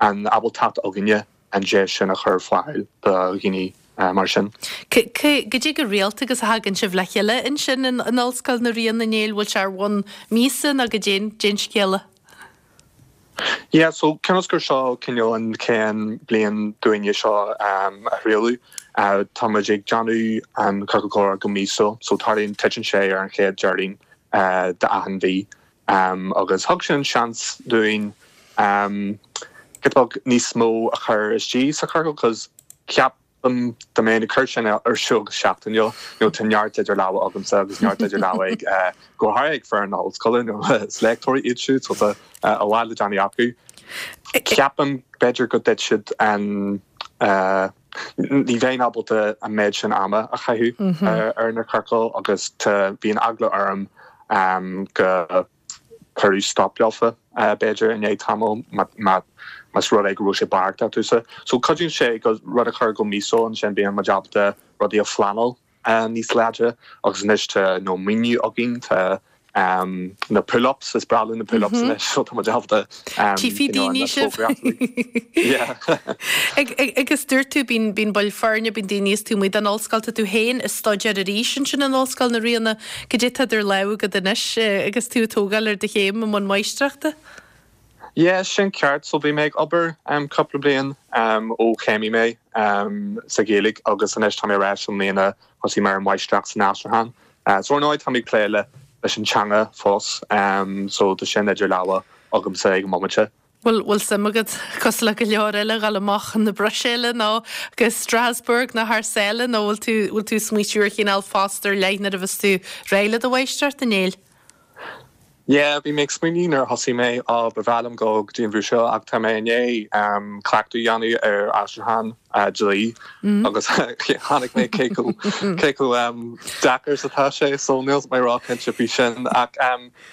an ábaltacht againne an deis sin a chur ar fáil do dhaoine mar sin. Goidé chomh rialta agus a thagann sibh le chéile ansin in Ollscoil na Ríona, a Néill, bhfuil sé ar bhonn míosa nó goidé an scéal? Yeah, so cionn is gur seo cineál an chéad bliain dúinne seo a thrialú, tá muid ag déanamh an Ciorcal Comhrá go míosúil, so tarlaíonn, titeann sé ar an chéad Déardaoin d'achan mhí. Agus thug sin seans dúinn giota beag níos mó a chur istigh sa chiorcal cos ceapaim dá mbeinn ag cur sin ar siúl go seachtainiúil you know tá neart idir lámha agamsa agus neart idir lámha ag go háirithe ag foireann na hollscoile you know is léachtóirí iad siúd so tá a lán le déanamh acu. Ceapaim b'fhéidir go dtitfeadh an ní bheinn ábalta an méid sin ama a chaitheamh ar na ciorcail agus tá bíonn eagla orm go cuireadh stop leofa b'fhéidir i ndiaidh tamaill más rud é go raibh sé beartaithe domhsa. So cuidíonn sé go rud a chur go míosúil ansin bíonn muid ábalta rudaí a phleanáil níos láidre agus anois tá you know maoiniú againn tá na pull-ups, is breá linn na pull-ups anois so tá muid ábalta Tchífidh daoine sibh. Agus dúirt tú, bíonn bíonn baill foirne, bíonn daoine is taobh amuigh den ollscoil, tá tú féin ag staidéar arís ansin in Ollscoil na Ríona. Cad é atá idir lámha agat anois agus tú ag tógáil ar do chéim i mbun máistreachta? Yeah, sin ceart. So bhí mé ag obair cúpla bliain ó chéimigh mé sa Ghaeilge agus anois tá mé ar ais i mbliana, thosaigh mé ar an mháistreacht san aistriúchán. So ar ndóigh tá mé ag plé le leis an teanga fós so tá sin idir lámha agamsa ag an mbomaite. Bhfuil bhfuil suim agat, cosúil le go leor eile, dhul amach chun na Bruiséile nó go Strasbourg nó thar sáile nó bhfuil tú bhfuil tú ag smaoitiú ar chineál post ar leith nuair a bheas tú réidh le do mháistreacht, a Néill? Yeah, bhí mé ag smaoineamh nuair a thosaigh mé, á, ba bhreá liom dul go dtí an Bhruiséil ach tá mé i ndiaidh cleachtadh a dhéanamh ar aistriúchán dlí agus chonaic mé cé chomh cé chomh deacair is atá sé so níl mé róchinnte faoi sin ach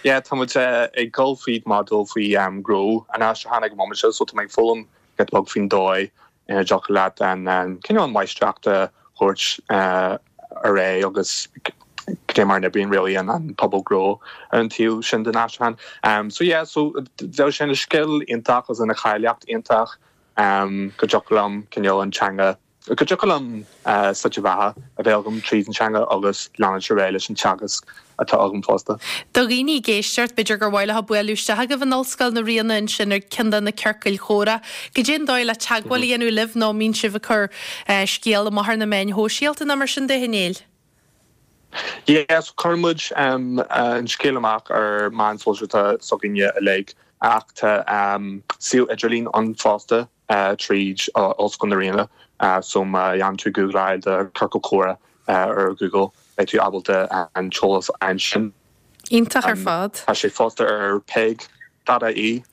yeah tá muid ag dul fríd modúl faoi gnó an aistriúcháin ag an móimint seo so tá mé ag foghlaim giota beag faoin dóigh ina dtiocfadh leat an cineál máistreacht a thabhairt ar aghaidh agus cad é mar a n-oibríonn really an pobal gnó ar an taobh sin den aistriúchán. So yeah, so bheadh sé ina scil iontach agus ina cháilíocht iontach go dtiocfadh liom cineál an teanga, go dtiocfadh liom slite bheatha a bheith agam tríd an teanga agus leanúint ar aghaidh leis an teagasc atá agam fosta. Do dhaoine ag éisteacht, b'fhéidir gur mhaith leo bualadh isteach agaibh in Ollscoil na Ríona ansin ar ceann de na ciorcail chomhrá. Goidé an dóigh le teagmháil a dhéanamh libh nó an mbíonn sibh ag cur scéal amach ar na meáin shóisialta nó mar sin de, a Néill? Yes, cuireann muid an scéal amach ar meáin shóisialta s'againne uilig ach tá suíomh idirlín ann fosta tríd Ollscoil na Ríona so má dhéanann tú googláil do Ciorcal Comhrá ar Google beidh tú ábalta an t-eolas a fháil ansin. Iontach ar fad. Tá sé fosta ar peig dot ie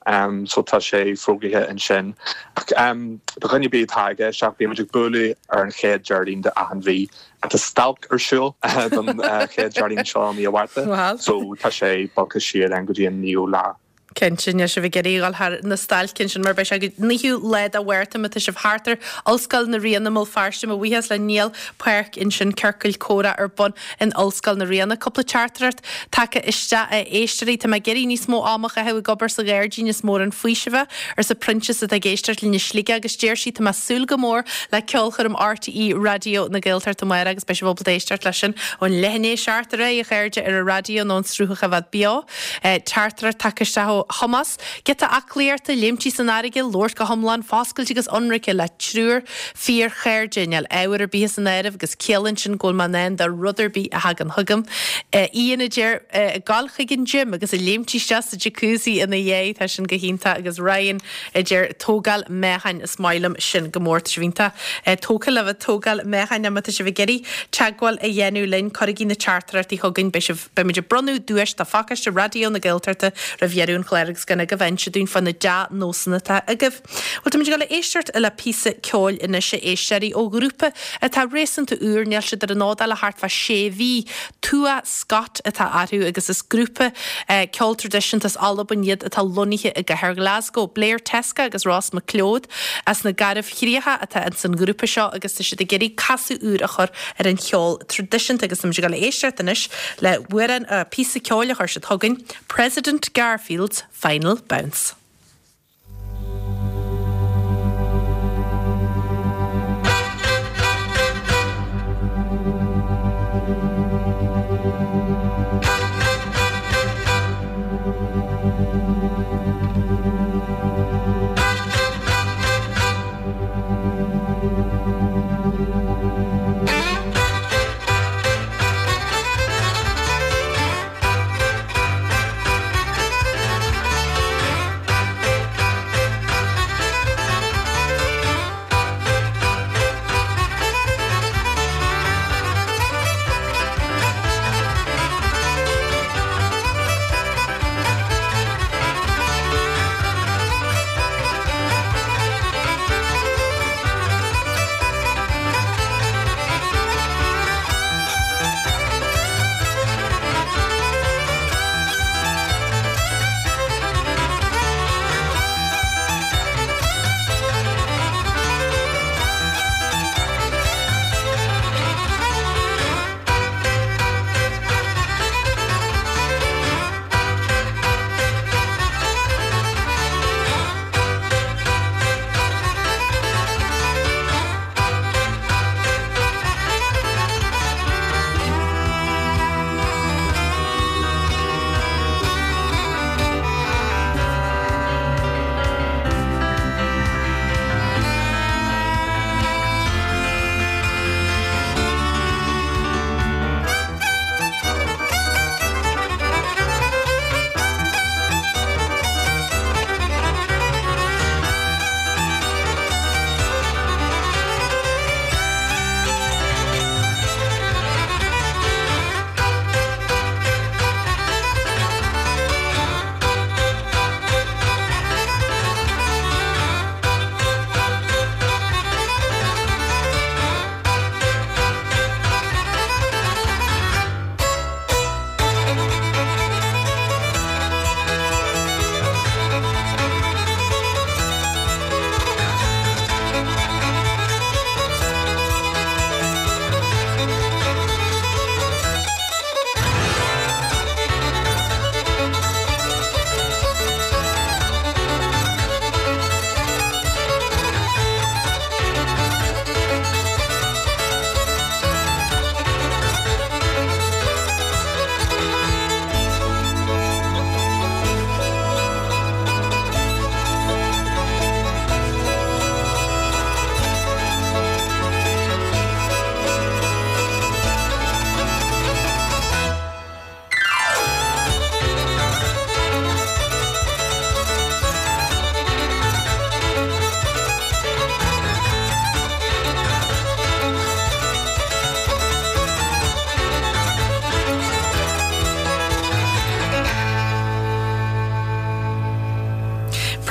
so tá sé fógraithe ansin. Ach do dhuine ar bith atá ag éisteacht, bíonn muid ag bualadh ar an chéad Déardaoin de achan mhí. Tá stailc ar siúl don chéad Déardaoin seo i mí an Mhárta so tá sé bogtha siar then go dtí an naoú lá. Cinnte, níl sibh ag iarraidh a dhul thar na stailce ansin mar beidh sé go 9ú lá de Mhárta má tá sibh thart ar Ollscoil na Ríona i mBéal Feirste. Mo bhuíochas le Niall Páirc ansin, ciorcal comhrá ar bun in Ollscoil na Ríona. Cúpla teachtaireacht tagtha isteach a éisteoirí. Tá mé ag iarraidh níos mó ama a chaitheamh ag obair sa ghairdín is mór an faoiseamh é, arsa Proinsias atá ag éisteacht linn i Sligeach agus deir sí tá mé ag súil go mór le ceolchoirm RTÉ Raidió na Gaeltachta amárach agus beidh sibh ábalta éisteacht leis sin ón leath i ndiaidh a 7 ar aghaidh a chairde ar an raidió nó an sruth a choimhéad beo. Teachtaireacht tagtha isteach ó. ó Thomás, Giota aclaíochta, léimtí san fharraige, labhairt go hiomlán foscailte agus ionraice le triúr fíorchairde, níl ábhar ar bith san áireamh agus ciallaíonn sin go bhfuil mé in ann do rud ar bith a thagann chugam. Ian a deir, ag gabháil chuig an gym agus ag léimtí isteach sa jacuzzi ina dhiaidh, tá sin go hiontach agus Ryan a deir, tógáil meáchain, is maith liom sin go mór, tá sibh iontach tógtha le bheith ag tógáil meáchain, má tá sibh ag iarraidh teagmháil a dhéanamh linn, cuirigí na teachtaireachtaí chugainn, beidh sibh, beimid ag bronnadh duais do phacáiste Raidió na Gaeltachta roimh dheireadh an chláir agus gan agaibh a inse dúinn fá na dea-nósanna atá agaibh. Bhuel, táimid ag dul a éisteacht le píosa ceoil anois, a éisteoirí, ó ghrúpa atá réasúnta úr, níl siad ar an fhód ach le thart fá sé mhí. Tuath Scott atá orthu agus is grúpa ceoil traidisiúnta as Albain iad atá lonnaithe i gcathair Ghlasgow. Blair Teska agus Ross MacLeod as na Garbhchríocha atá ins an ghrúpa seo agus tá siad ag iarraidh casadh úr a chur ar an cheol traidisiúnta agus táimid ag dul a éisteacht anois le hamhrán, píosa ceoil a chuir siad chugainn, President Garfield's Final Bounce.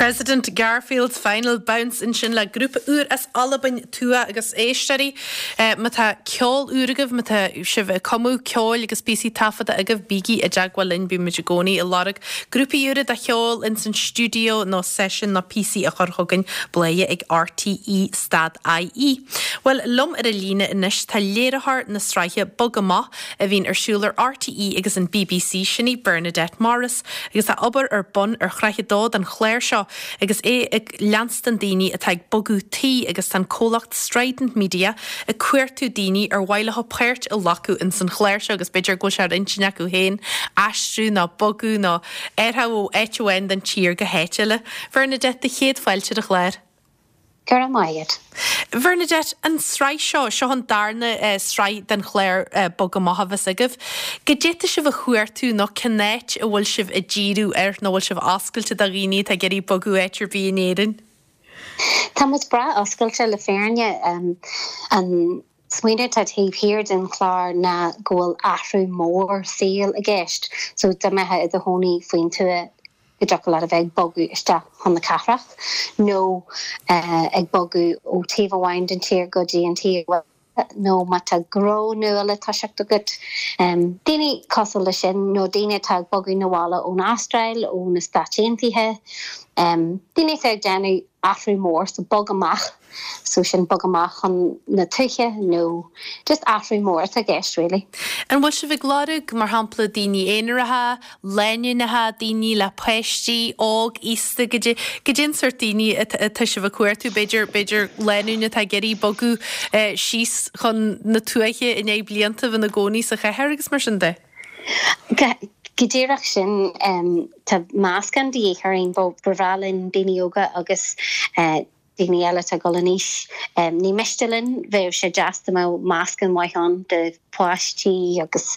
President Garfield's Final Bounce ansin le grúpa úr as Albain, Tuath agus éisteoirí. Má tá ceol úr agaibh, má tá sibh ag cumadh ceoil agus píosaí taifeadta agaibh, bígí i dteagmháil linn, bímid i gcónaí ag lorg grúpaí úra de cheol ins an stiúideo nó seisiún nó píosaí a chur chugainn, bladhaire ag RTÉ stad IE. Bhuel, liom ar an líne anois tá léiritheoir na sraithe Bog Amach a bhíonn ar siúl ar RTÉ agus an bbc, sin í Bernadette Morris, agus tá obair ar bun ar shraith a dó den chlár seo. seo agus é ag leanstan daoine atá ag bogadh tí agus tá an comhlacht Strident Media ag cuartú daoine ar mhaith leo páirt a ghlacadh ins an chlár seo agus b'fhéidir go bhfuil sé ar intinn acu féin aistriú nó bogadh nó athrú ó áit amháin den tír go háit eile. Bhernadette, do chéad fáilte ar an chlár. Go raibh maith agat. Bhernadette, an tsraith seo, seo an darna sraith den chlár Bog Amach a bheas agaibh. Goidé tá sibh a chuartú nó cén áit a bhfuil sibh ag díriú air nó bhfuil sibh oscailte do dhaoine atá ag iarraidh bogadh áit ar bith in Éirinn? Tá muid breá oscailte le fírinne. An smaoineamh atá taobh thiar den chlár ná go bhfuil athrú mór saoil i gceist. So dá mbeifeá i do chónaí faoin tuath go dtiocfadh leat a bheith ag bogadh isteach chun na cathrach nó ag bogadh ó taobh amháin den tír go dtí an taobh eile nó má tá gnó nua le toiseacht agat. Daoine cosúil leis sin nó daoine atá ag bogadh 'na bhaile ón Astráil, ó na Stáit Aontaithe, daoine atá ag déanamh athrú mór, so bog amach. So sin bog amach chun na tuaithe nó just athrú mór atá i gceist really. An bhfuil sibh ag lorg, mar shampla, daoine aonaracha, lánúineacha, daoine le páistí, óg, aosta, goidé, goidé an sórt daoine atá sibh ag cuartú? B'fhéidir, b'fhéidir lánúin atá ag iarraidh bogadh síos chun na tuaithe i ndiaidh blianta a bheith ina gcónaí sa chathair agus mar sin de? Go díreach sin. Tá meascán de dhíth orainn. Ba bhreá linn daoine óga agus daoine eile atá ag dul in aois. Ní miste linn, bheadh sé deas dá mbeadh meascán maith ann de pháistí agus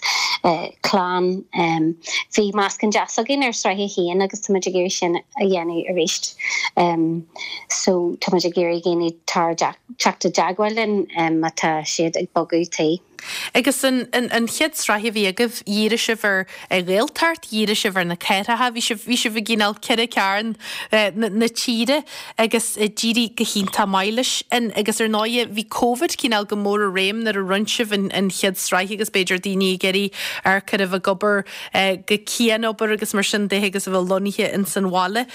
clann. Bhí meascán deas againn ar sraith a haon agus tá muid ag iarraidh sin a dhéanamh arís. So tá muid ag iarraidh daoine teacht i dteagmháil linn má tá siad ag bogadh tí. Agus an chéad sraith a bhí agaibh, dhírigh sibh ar Ghaeltacht, dhírigh sibh ar na cathracha, bhí sibh, bhí sibh i gcineál ceithre cearn na tíre agus d'éirigh go hiontach maith leis sin. Agus ar ndóighe, bhí Covid cineál go mór i réim nuair a rinne sibh an chéad sraith agus b'fhéidir daoine ag iarraidh amharc ar a bheith ag obair go cianobair agus mar sin de agus a bheith lonnaithe ins an bhaile.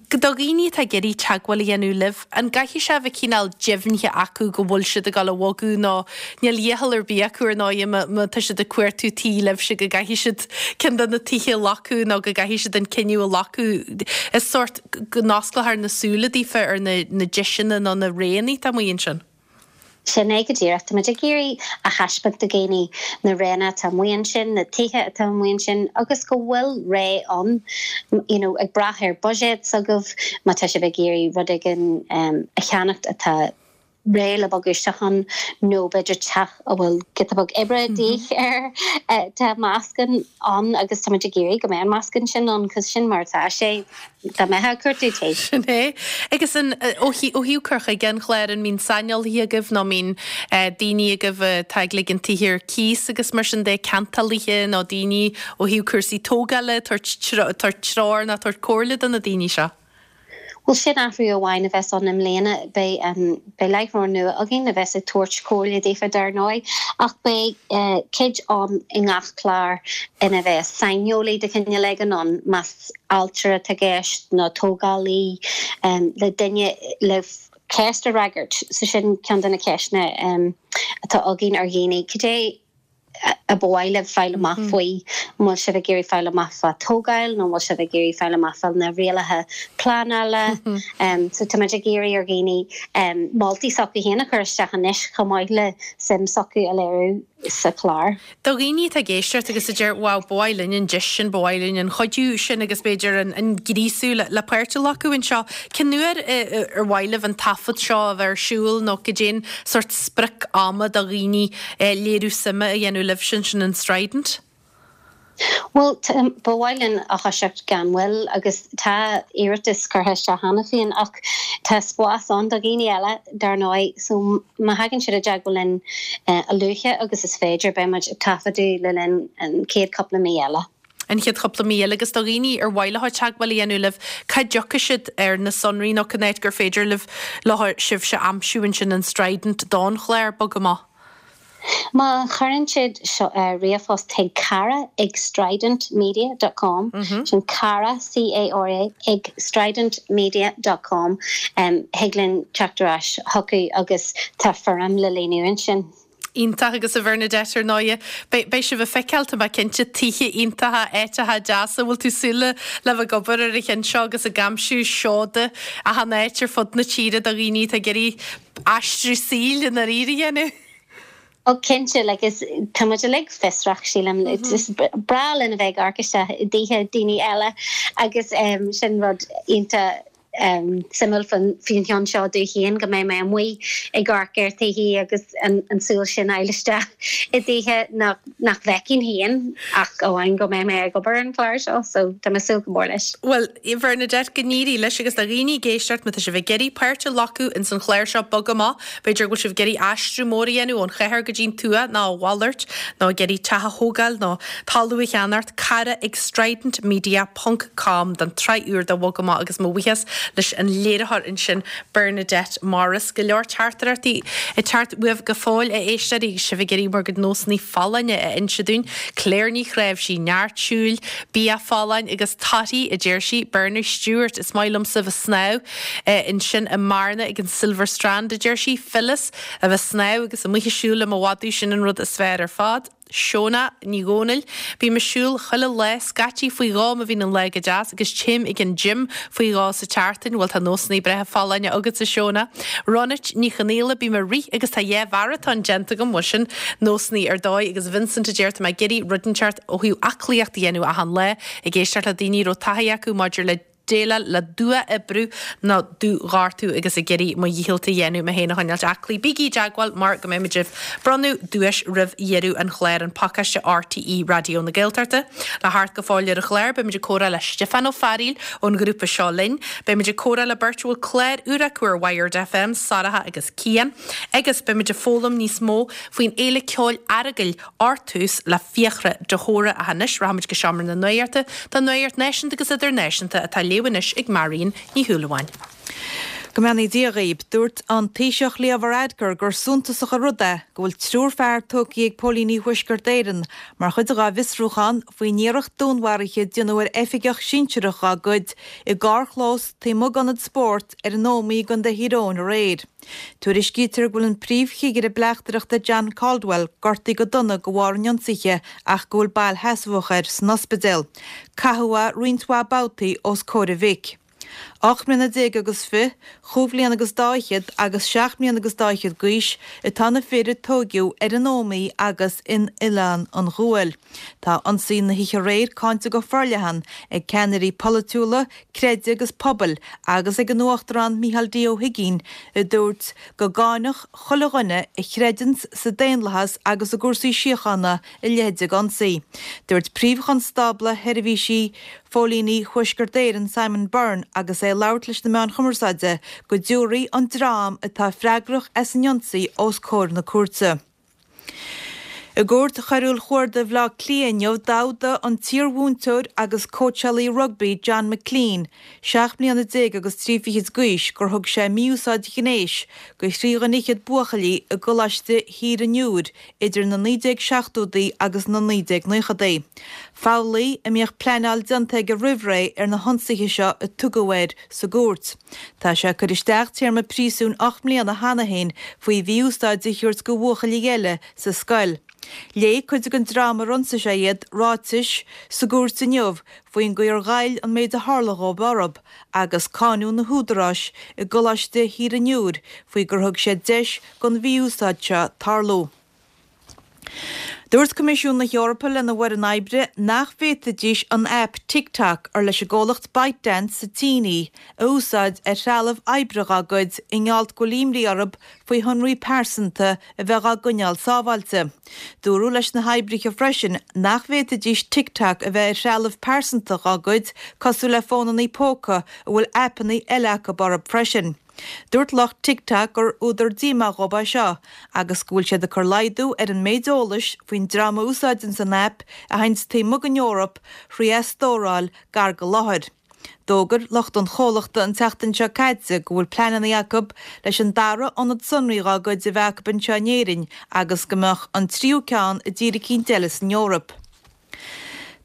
Do dhaoine atá ag iarraidh teagmháil a dhéanamh libh, an gcaithfidh sé a bheith cineál deimhnithe acu go bhfuil siad ag dul a bhogadh nó níl iachall ar bith acu ar ndóighe má tá siad ag cuartú tí libhse go gcaithfidh siad ceann de na tithe a ghlacadh nó go gcaithfidh siad an cinneadh a ghlacadh. Is sórt go n-osclófar na súile daofa ar na deiseanna nó na roghanna atá amuigh ansin. Sin é go díreach. Tá muid ag iarraidh a thaispeáint do dhaoine na roghanna atá amuigh ansin, na tithe atá amuigh ansin agus go bhfuil rogha ann, you know, ag brath ar buiséad s'agaibh, má tá sibh ag iarraidh rud éigin a cheannacht atá réidh le bogadh isteach ann nó b'fhéidir teach a bhfuil giota beag oibre de dhíth air, tá meascán ann agus tá muid ag iarraidh go mbeidh an meascán sin ann 'cause sin mar atá sé. Dá mbeifeá ag cuartú tí. Sin é. Agus an, ó thaobh cur chuige an chláir, an mbíonn saineolaithe agaibh nó an mbíonn daoine agaibh atá ag ligean tithe ar cíos agus mar sin de, ceantálaithe nó daoine ó thaobh cúrsaí tógála, ag tabhairt treoir nó ag tabhairt comhairle do na daoine seo? Bhuel, sin athrú amháin a bheas ann i mbliana. Beidh, beidh láithreoir nua againn a bheas ag tabhairt comhairle daofa dar ndóigh, ach beidh cuid ann i ngach clár ina bheas saineolaí de chineál éigin ann, más ailtire atá i gceist nó tógálaí le duine le ceist a fhreagairt. So sin ceann de na ceisteanna atá againn ar dhaoine, cad é a ba mhaith libh fáil amach faoi? An bhfuil sibh ag iarraidh fáil amach fá tógáil nó an bhfuil sibh ag iarraidh fáil amach fá na rialacha pleanála? So tá muid ag iarraidh ar dhaoine moltaí s'acu féin a chur isteach anois chomh maith le suim s'acu a léiriú sa chlár. Do dhaoine atá ag éisteacht agus a deir wow, ba mhaith linn an deis sin, ba mhaith linn an cuidiú sin agus b'fhéidir an gríosú le páirt a ghlacadh anseo, cén uair ar mhaith libh an taifead seo a bheith ar siúl nó cad é an sórt sprioc ama do dhaoine léiriú suime a dhéanamh libhse ansin in Strident? Bhuel, ba mhaith linn a thoiseacht gan mhoill agus tá iarratas curtha isteach cheana féin ach tá spás ann do dhaoine eile, dar ndóigh, so má thagann siad i dteagmháil linn a luaithe agus is féidir, beidh muid ag taifeadadh le linn an chéad chúpla mí eile. An chéad chúpla mí eile agus do dhaoine ar mhaith leo teagmháil a dhéanamh libh, cá dtiocfaidh siad ar na sonraí nó cén áit gur féidir libh leo sibhse a aimsiú ansin in Strident don chlár Bog Amach? Má chuireann siad ríomhphost chuig cara ag stridentmedia dot com, sin cara, C-A-R-A, ag stridentmedia dot com, thig linn teacht ar ais chucu agus tá foirm le líonadh ansin. Iontach agus a Bhernadette ar ndóighe beidh sibh ag feiceáil tá mé cinnte tithe iontacha, áiteacha deasa, bhfuil tú súil le le bheith ag obair ar an cheann seo agus ag aimsiú seoda achan áit ar fud na tíre do dhaoine atá ag iarraidh aistriú saoil i ndáiríre a dhéanamh? Ó cinnte, like is tá muid uilig fiosrach sílim, is breá linn a bheith ag amharc isteach i dtithe daoine eile agus sin rud iontach suimiúil faoin cheann seo domh féin go mbeidh mé amuigh ag amharc ar thithe agus an tsúil sin a fháil isteach i dtithe nach nach bhfeicfinn féin ach amháin go mbeidh mé ag obair ar an chlár seo so tá mé ag súil go mór leis. Bhuel, a Bhernadette, go n-éirí leis agus do dhaoine ag éisteacht má tá sibh ag iarraidh páirt a ghlacadh ins an chlár seo Bog Amach, b'fhéidir go bhfuil sibh ag iarraidh aistriú mór a dhéanamh ón chathair go dtí'n tuath nó a mhalairt nó ag iarraidh teach a thógáil nó talamh a cheannacht, cara ag stridentmedia ponc com don tsraith úr de Bhog Amach agus mo bhuíochas leis an léiritheoir ansin Bernadette Morris. Go leor teachtaireachtaí ag teacht uaibh go fóill a éisteoirí agus sibh ag iarraidh bhur gcuid nósanna folláine a inse dúinn. Claire Ní Chnáimhsí, neart siúil, bia folláin agus torthaí a deir sí. Bernie Stewart, is maith liomsa bheith snámh ansin i mBearna ag an Silver Strand a deir sí. Phyllis, a bheith snámh agus amuigh ag siúl le mo mhadadh sin an rud is fearr ar fad. Shona Ní Dhomhnaill, Bím ag siúl chuile lá, scaití faoi dhó má bhíonn an lá go deas agus téim ag an gym faoi dhó sa tseachtain. Bhuel tá nósanna breátha folláine agatsa Shona. Ronit Ní Chonaola, Bím ag rith agus tá dhá mharatón déanta agam, bhuel sin nósanna ar dóigh agus Vincent a deir tá mé ag iarraidh rud inteacht ó thaobh aclaíocht a dhéanamh achan lá, ag éisteacht le daoine a raibh taithí acu maidir le déileáil le dua-oibriú nó dúghortú agus ag iarraidh mo dhícheall a dhéanamh mé féin a choinneáilt aclaí. Bígí i dteagmháil mar go mbeidh muid ag bronnadh duais roimh dheireadh an chláir, an pacáiste RTÉ Raidió na Gaeltachta. Le theacht go fóill ar an chlár, beidh muid ag comhrá le Stiofán Ó Fearaíl ón ghrúpa Seo Linn. Beidh muid ag comhrá le beirt a bhfuil clár úr acu ar Wired FM, Sorcha agus Cian. Agus beidh muid ag foghlaim níos mó faoin Fhéile Ceoil Earagail Artús le Fiachra de hÓra ach anois rachaimid go Seomra na Nuachta don Nuacht Náisiúnta agus Idirnáisiúnta atá á léamh anois ag Marion Ní Shúilleabháin. Go mbeannaí Dia dhaoib. Dúirt an Taoiseach Leo Varadkar gur suntasach an rud é go bhfuil triúr fear tógtha ag póilíní Thuaisceart Éireann mar chuid dhá bhfiosrúchán faoin iarracht dúnmharaithe a déanadh ar oifigeach sinsearach dhá gcuid i gcarrchlós taobh amuigh d'ionad spóirt ar an Ómaigh i gContae Thír Eoghain aréir. Tuairiscítear go bhfuil an príomhchigire bleachtaireachta John Caldwell gortaithe go dona de bharr an ionsaithe ach go bhfuil bail sheasmhach air san ospidéal. Caitheadh é roinnt mhaith babhtaí os comhair a mhic. Ocht mbliana déag agus fi, chúig bhliana agus dá fhichead agus seacht mbliana agus dá fhichead d'aois atá na fir a tóigeadh ar an Ómaigh agus in Oileán an Ghuail. Tá ionsaí na hoíche aréir cáinte go forleathan ag ceannairí polaitiúla, creidimh agus pobail agus ag an Uachtarán Micheál D. Ó hUigínn a dúirt go gcáinfeadh chuile dhuine a chreideanns sa daonlathas agus i gcúrsaí síochána a leithéid de ionsaí. Dúirt Príomh-Chonstábla Sheirbhísí Phóilíní Thuaisceart Éireann Simon Byrne agus é ag labhairt leis na meáin chumarsáide go dtabharfaí an dream atá freagrach as an ionsaí os comhair na cúirte. I gCúirt Choiriúil Chuarda Bhaile Átha Cliath inniu d'fhódaigh an t-iarmhúinteoir agus cóitseálaí rugbaí John McClean, 17 mbliana agus 3 fichid d'aois, gur thug sé mí-úsáid ghnéis go thrí dhuine fhichead buachaillí i gColáiste Thír an Iúir idir na 1970idí agus na 1990idí. Foghlaí a mbíodh pleanáil déanta aige roimh ré ar na hionsaithe seo a tugadh air sa gcúirt. Tá sé ag cur isteach téarma príosúin 8 mbliana cheana féin faoi mhí-úsáid a thabhairt go bhuachaillí eile sa scoil. Léigh cuid den dream ar ionsaigh sé iad ráitis sa gcúirt inniu faoin gcaoi ar ghoill an méid a tharla dhóibh orthu agus cáineadh na húdaráis i gColáiste Thír an Iúir faoi gur thug siad deis don mhí-úsáid seo tarlú. Dúirt Coimisiún na hEorpa lena bhfoireann oibre nach bhféadfaidís an aip TikTok, ar leis an gcomhlacht ByteDance sa tSín í, a úsáid ar threalamh oibre dá gcuid i ngeall go bhfuil imní orthu faoi shonraí pearsanta a bheith á gcoinneáil sábháilte. Dúradh leis na hoibrithe freisin nach bhféadfaidís TikTok a bheith ar threalamh pearsanta dá gcuid cosúil le fónanna póca a bhfuil aipeanna eile acu orthu freisin. Dúirt lucht TikTok gur údar díomá dhóibh é seo agus go bhfuil siad ag cur laghdú ar an méid eolais faoin dream a úsáideanns an aip a théanns taobh amuigh den Eoraip thrí é a stóráil gar go láthair. D'fhógair lucht an chomhlachta an tseachtain seo caite go bhfuil pleananna acu leis an dara ionad sonraí dhá gcuid a bheith acu anseo in Éirinn agus go mbeadh an tríú ceann i dtír eicínt eile san Eoraip.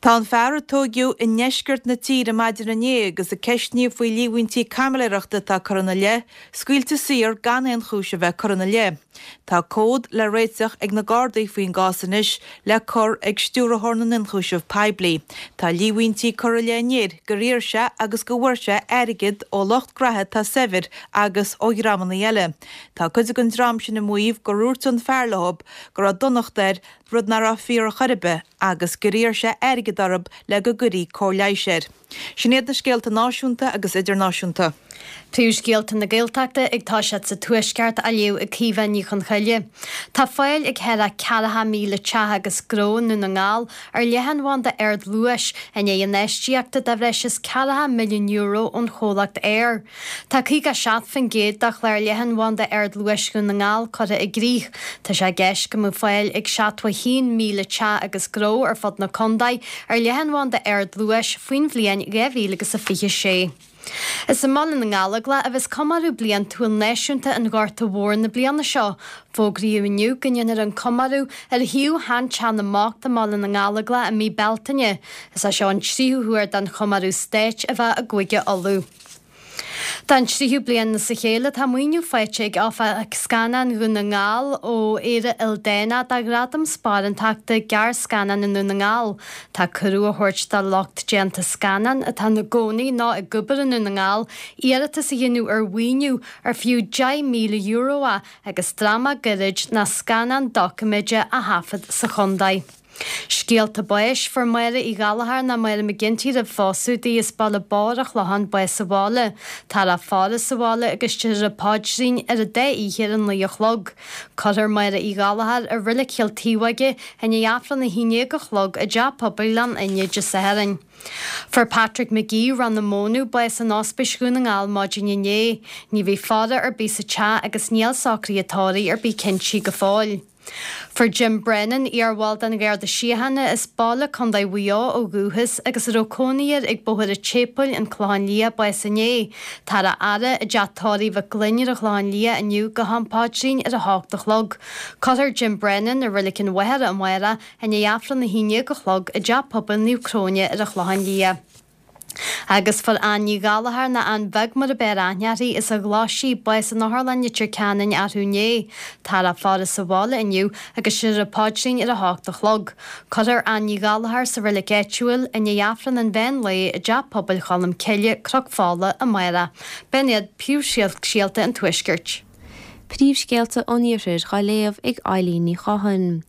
Tá an fear a tóigeadh i ndeisceart na tíre maidin inné agus a ceistníodh faoi líomhaintí caimiléireachta atá curtha ina leith, scaoilte saor gan aon chúis a bheith curtha ina leith. Tá comhad le réiteach ag na Gardaí faoin gcás anois le cur ag Stiúrthóir na nIonchúiseamh Poiblí. Tá líomhaintí curtha i leith an fhir gur iarr sé agus go bhfuair sé airgead ó lucht graithe atá saibhir agus ó dhreamanna eile. Tá cuid den dream sin ag maíomh gur dhúirt an fear leo go raibh donacht air, rud nach raibh fíor ar chor ar bith, agus gur iarr sé airgead orthu le go gcuirí cóir leighis air. Sin iad na scéalta náisiúnta agus idirnáisiúnta. Príomhscéalta na Gaeltachta ag toiseacht sa Tuaisceart á léamh ag Caoimhe Ní Chonchoille. Tá fáil ag thar 40,000 teach agus gnó i nDún na nGall ar leathanbhanda ardluais i ndiaidh infheistíochta de bhreis is €40 milliún ón chomhlacht Eir. Tá 57% de chlár leathanbhanda ardluais Dhún na nGall curtha i gcrích. Tá sé i gceist go mbeadh fáil ag 71,000 teach agus gnó ar fud na contae ar leathanbhanda ardluais faoin bhliain 2026. Is i mBaile na nGallóglach a bheas comóradh bliantúil náisiúnta an Ghorta Mhóir na bliana seo. Fógraíodh inniu go ndéanfar an comóradh ar shuíomh shean-Teach na mBocht i mBaile na nGallóglach i mí Bealtaine. Is é seo an tríú huair don chomóradh stáit a bheith i gCúige Uladh. Don tríú bliain as a chéile tá maoiniú faighte ag Oifig Scannán Dhún na nGall ó Éire Ildánach do Ghradam Sparántachta Gearrscannán i nDún na nGall. Tá cuireadh á thabhairt do lucht déanta scannán atá ina gcónaí nó ag obair i nDún na nGall iarratas a dhéanamh ar mhaoiniú ar fiú €10,000 é agus dráma gairid nó scannán doiciméide a thaifead sa chontae. Scéalta báis, Fuair Máire Uí Ghallchóir nó Máire McGinty roimh phósadh di as Baile Bodhar an Chlocháin bás sa bhaile. Táthar á faire sa bhaile agus déarfar an paidrín ar an dá oíche ar a 9 a chlog. Cuirfear Máire Uí Ghallchóir i Reilig Chill Taobhóige i ndiaidh Aifreann 11 a chlog i dTeach Pobail Ghleann Fhinne Dé Sathairn. Fuair Patrick McGee, Ráth na Mónadh, bás in Ospís Dhún na nGall maidin inné. Ní bhí faire ar bith sa teach agus níl socruithe tórraimh ar bith cinntí go fóill. Fuair Jim Brennan, iarbhall den Gharda Síochána as Baile, Contae Mhaigh Eo ó dhúchas agus a raibh cónaí air ag Bóthar an tSéipéil, An Clochán Liath, bás inné. Táthar á fhaire i dteach tórraimh Mhic Gloinn ar an Chlochán Liath inniu go ham paidrín ar a hocht a chlog. Cuirfear Jim Brennan i Reilig an Mhachaire amárach i ndiaidh Aifreann 11 a chlog i dTeach Pobail Naomh Cróine ar an Chlochán Liath. Agus fuair Ann Ní Ghallchóir, nó Ann Bheag mar a b'fhearr aithne uirthi, as an Ghlaisigh, bás in Otharlann Leitir Ceanainn arú inné. Táthar á faire sa bhaile inniu agus déarfar an paidrín ar a hocht a chlog. Cuirfear Ann Ní Ghallchóir sa reilig áitiúil i ndiaidh Aifreann an mheán lae i dTeach Pobail Cholm Cille, Cnoc Fola, amárach. B'in iad príomhscéalta an Tuaiscirt. Príomhscéalta an Iarthair dhá léamh ag Eilín Ní Chatháin.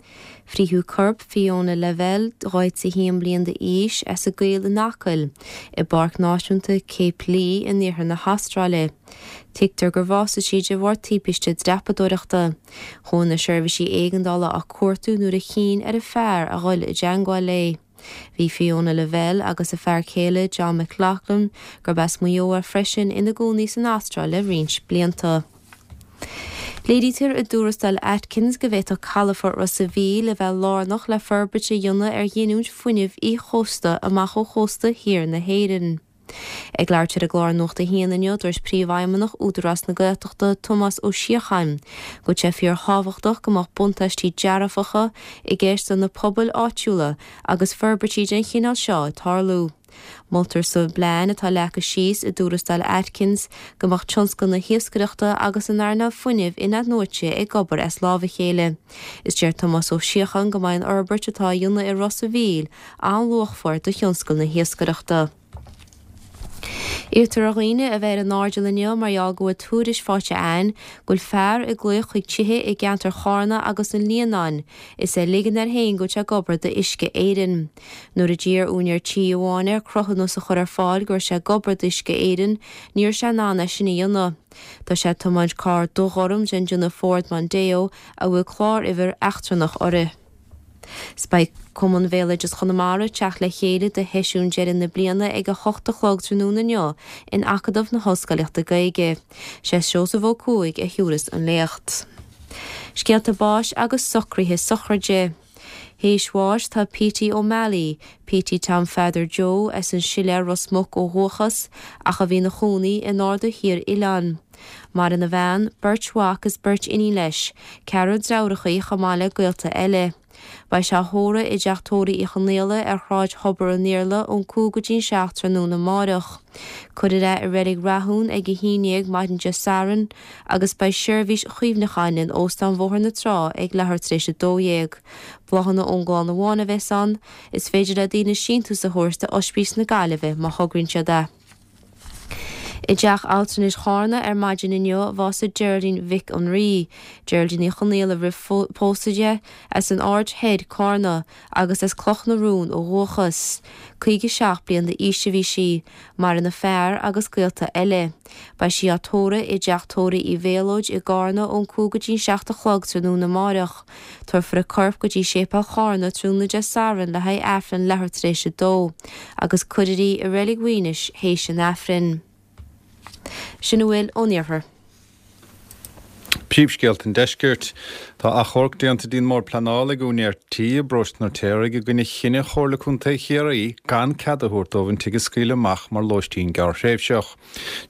Frítheadh corp Fiona Lavelle, 41 bliain d'aois, as an gCoill in Acaill, i bPáirc Náisiúnta Cape Leigh in iarthar na hAstráile. Tuigtear gur bhásaigh sí de bharr timpiste dreapadóireachta. Chuaigh na seirbhísí éigeandála á cuartú nuair a chinn ar an fear a dhul i dteangmháil léi. Bhí Fiona Lavelle agus a fear céile John McLaughlin, gurb as Maigh Eo é freisin, ina gcónaí san Astráil le roinnt blianta. Léirítear i dtuarascáil Atkins go bhféadfadh calafort Ros a' Mhíl a bheith lárnach le forbairt a dhéanamh ar ghiniúint fuinnimh íoschósta amach ó chósta thiar na hÉireann. Ag labhairt ar an gclár Nuacht a hAon inniu, dúirt Príomhfheidhmeannach Údarás na Gaeltachta, Tomás Ó Síocháin, go bhfuil sé fíorthábhachtach go mbeadh buntáistí dearfacha i gceist do na pobail áitiúla agus forbairtí den chineál seo ag tarlú. Moltar sa bplean atá leagtha síos i dtuarascáil Atkins go mbeadh tionscal na hiascaireachta agus an earnáil fuinnimh in-athnuaite ag obair as lámh a chéile. Is deir Tomás Ó Síocháin go mbeidh an fhorbairt atá á dhéanamh i Ros a' Mhíl an-luachmhar do thionscal na hiascaireachta. Iarrtar ar dhaoine a bheith ar a n-airdeall inniu mar gheall go bhfuil tuairisc faighte againn go bhfuil fear ag glaoch chuig tithe i gceantar Chárna agus an Líonáin is é ag ligean air féin go bhfuil sé ag obair d'Uisce Éireann. Nuair a d'iarr úinéir tí amháin air cruthúnas a chur ar fáil go raibh sé ag obair d'Uisce Éireann, ní raibh sé in ann é sin a dhéanamh. Tá sé ag tiomáint carr dubhghorm den déanamh Ford Mondeo a bhfuil cláruimhir eachtrannach uirthi. 'S beidh Cumann Bhéaloideas Chonamara ag teacht le chéile do sheisiún deireadh na bliana ag 8 a chlog tráthnóna inniu in Acadamh na hOllscoilíochta Gaeilge. Sé Seosamh Ó Cuaig a thiúrfas an léacht. Scéalta báis agus socruithe sochraide. Théis bháis tá Petey O'Malley, Petey Tom Pheadair Joe, as an Siléar Ros Muc ó dhúchas, ach a bhí ina chónaí in Aird Thiar Oileáin. Maireann a bhean, beirt mhac is beirt iníon leis, ceathrar deartháireacha chomh maith le gaolta eile. Beidh sé á thórramh i dTeach Tórraimh Uí Chonaola ar Shráid Thobar an Iarla ón 5 go dtí'n 7 tráthnóna amáireach. Cuirfear é i Reilig Rathún ag 11 maidin Dé Sathairn agus beidh seirbhís chuimhneacháin in Óstán Bhóthar na Trá ag leathuair tar éis 12. Bláthanna ón gclann amháin a bheas ann. Is féidir le daoine síntiús a thabhairt do Oispís na Gaillimhe má thograíonn siad é. I dTeach Altranais Chárna ar maidin inniu a bhásaigh Geraldine Mhic an Rí, Geraldine Uí Chonaola roimh pósadh di, as an Aird Thoir, Cárna, agus as Cloch na Rún ó dhúchas. 57 bliain d'aois a bhí sí. Maireann a fear agus gaolta eile. Beidh sí á tórramh i dTeach Tórraimh Uí Mhéalóid i gCárna ón 5 go dtí'n 7 a chlog tráthnóna amáireach. Tabharfar a corp go dtí Séipéal Chárna tráthnóna Dé Sathairn le haghaidh Aifreann leathuair tar éis a dó, agus cuirfear í i Reilig Mhaínis théis an Aifrinn. Sin a bhfuil ón Iarthar. Príomhscéalta an Deiscirt. Tá achomharc déanta dtí'n mBord Pleanála ag úinéir tí i bparóiste an Fheirtéaraigh i gcoinne chinneadh Chomhairle Contae Chiarraí gan cead a thabhairt dóibh an tigh a scaoileadh amach mar lóistín gearrthréimhseach.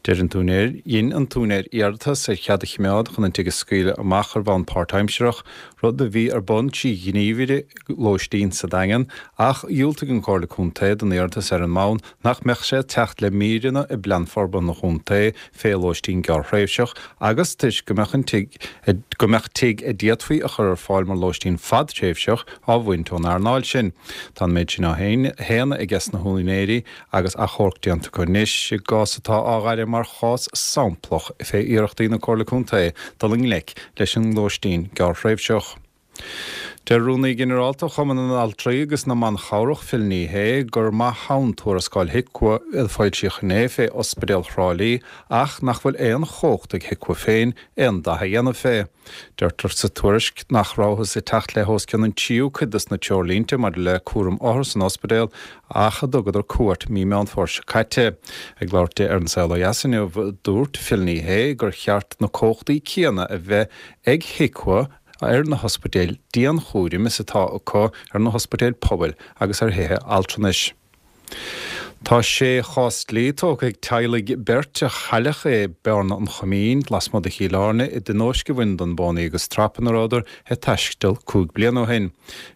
Deir an t-úinéir, dhein an t-úinéir iarratas ar chead a chimeád chun an tigh a scaoileadh amach ar bhonn páirtaimsearach, rud a bhí ar bun trí ghníomhaire lóistín sa Daingean, ach dhiúltaigh an Chomhairle Contae don iarratas ar an mbonn nach mbeadh sé ag teacht le míreanna i bPlean Forbartha an Chontae fé lóistín gearrthréimhseach agus toisc go mbeadh an tigh go mbeadh tigh a d'fhéadfaí a chur ar fáil mar lóistín fadtréimhseach á bhaint ón earnáil sin. Tá an méid sin á shéanadh aiges na húinéirí agus achomharc déanta acu anois i gcás atá á ghaire mar chás samplach fé iarrachtaí na Comhairle Contae dul i ngleic leis an lóistín gearrthréimhseach. Deir Rúnaí Ginearálta Chumann na nAltraí agus na mBan Chabhrach, Phil Ní Sheaghdha, gur maith ann tuarascáil HIQA a foilsíodh inné fé Ospidéal Thrá Lí ach nach bhfuil aon chumhacht ag HIQA féin aon dath a dhéanamh fé. Deirtear sa tuairisc nach rabhthas ag teacht le hos cionn an tríú cuid dos na treoirlínte maidir le cúram othar san ospidéal ach a dtugadar cuairt mí Meán Fómhair seo caite. Ag labhairt di ar An Saol Ó Dheas inniu, dúirt Phil Ní Sheaghdha gur cheart na cumhachtaí céanna a bheith ag HIQA ar na hospidéil dianchúraim is atá acu ar na hospidéil pobail agus ar thithe altranais. Tá sé chás dlí tógtha ag teaghlaigh beirt a cailleadh i Bearna an Choimín, lasmuigh de Chill Airne, i dtionóisc a bhain den bpónaí agus trap ina rabhadar ag taisteal 5 bliana ó shin.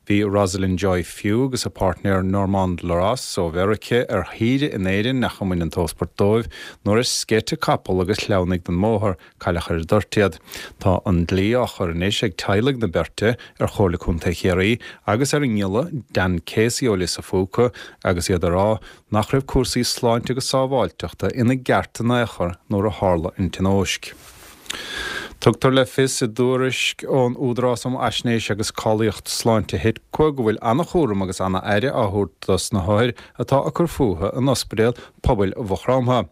Bhí Rosalind Joy Few agus a páirtnéir Normand Loras ó Mheirice ar shaoire in Éirinn ach a mbain an t-ósport dóibh nuair a sceit a capall agus shleamhnaigh den mbóthar. Cailleadh ar an dtoirt iad. Tá an dlí á chur anois ag teaghlaigh na beirte ar Chomhairle Contae Chiarraí agus ar an ngiolla Dan Casey ó Lios a' Phúca agus iad ag rá nach raibh cúrsaí sláinte agus sábháilteachta ina gceart in aon chor nuair a tharla an tionóisc. Tugtar le fios i dtuairisc ón Údarás um Fhaisnéis agus Cáilíocht Sláinte HIQA go bhfuil an-chúram agus an-aire á thabhairt dos na hothair atá ag cur fúthu in Ospidéal Pobail Mhaigh Chromtha.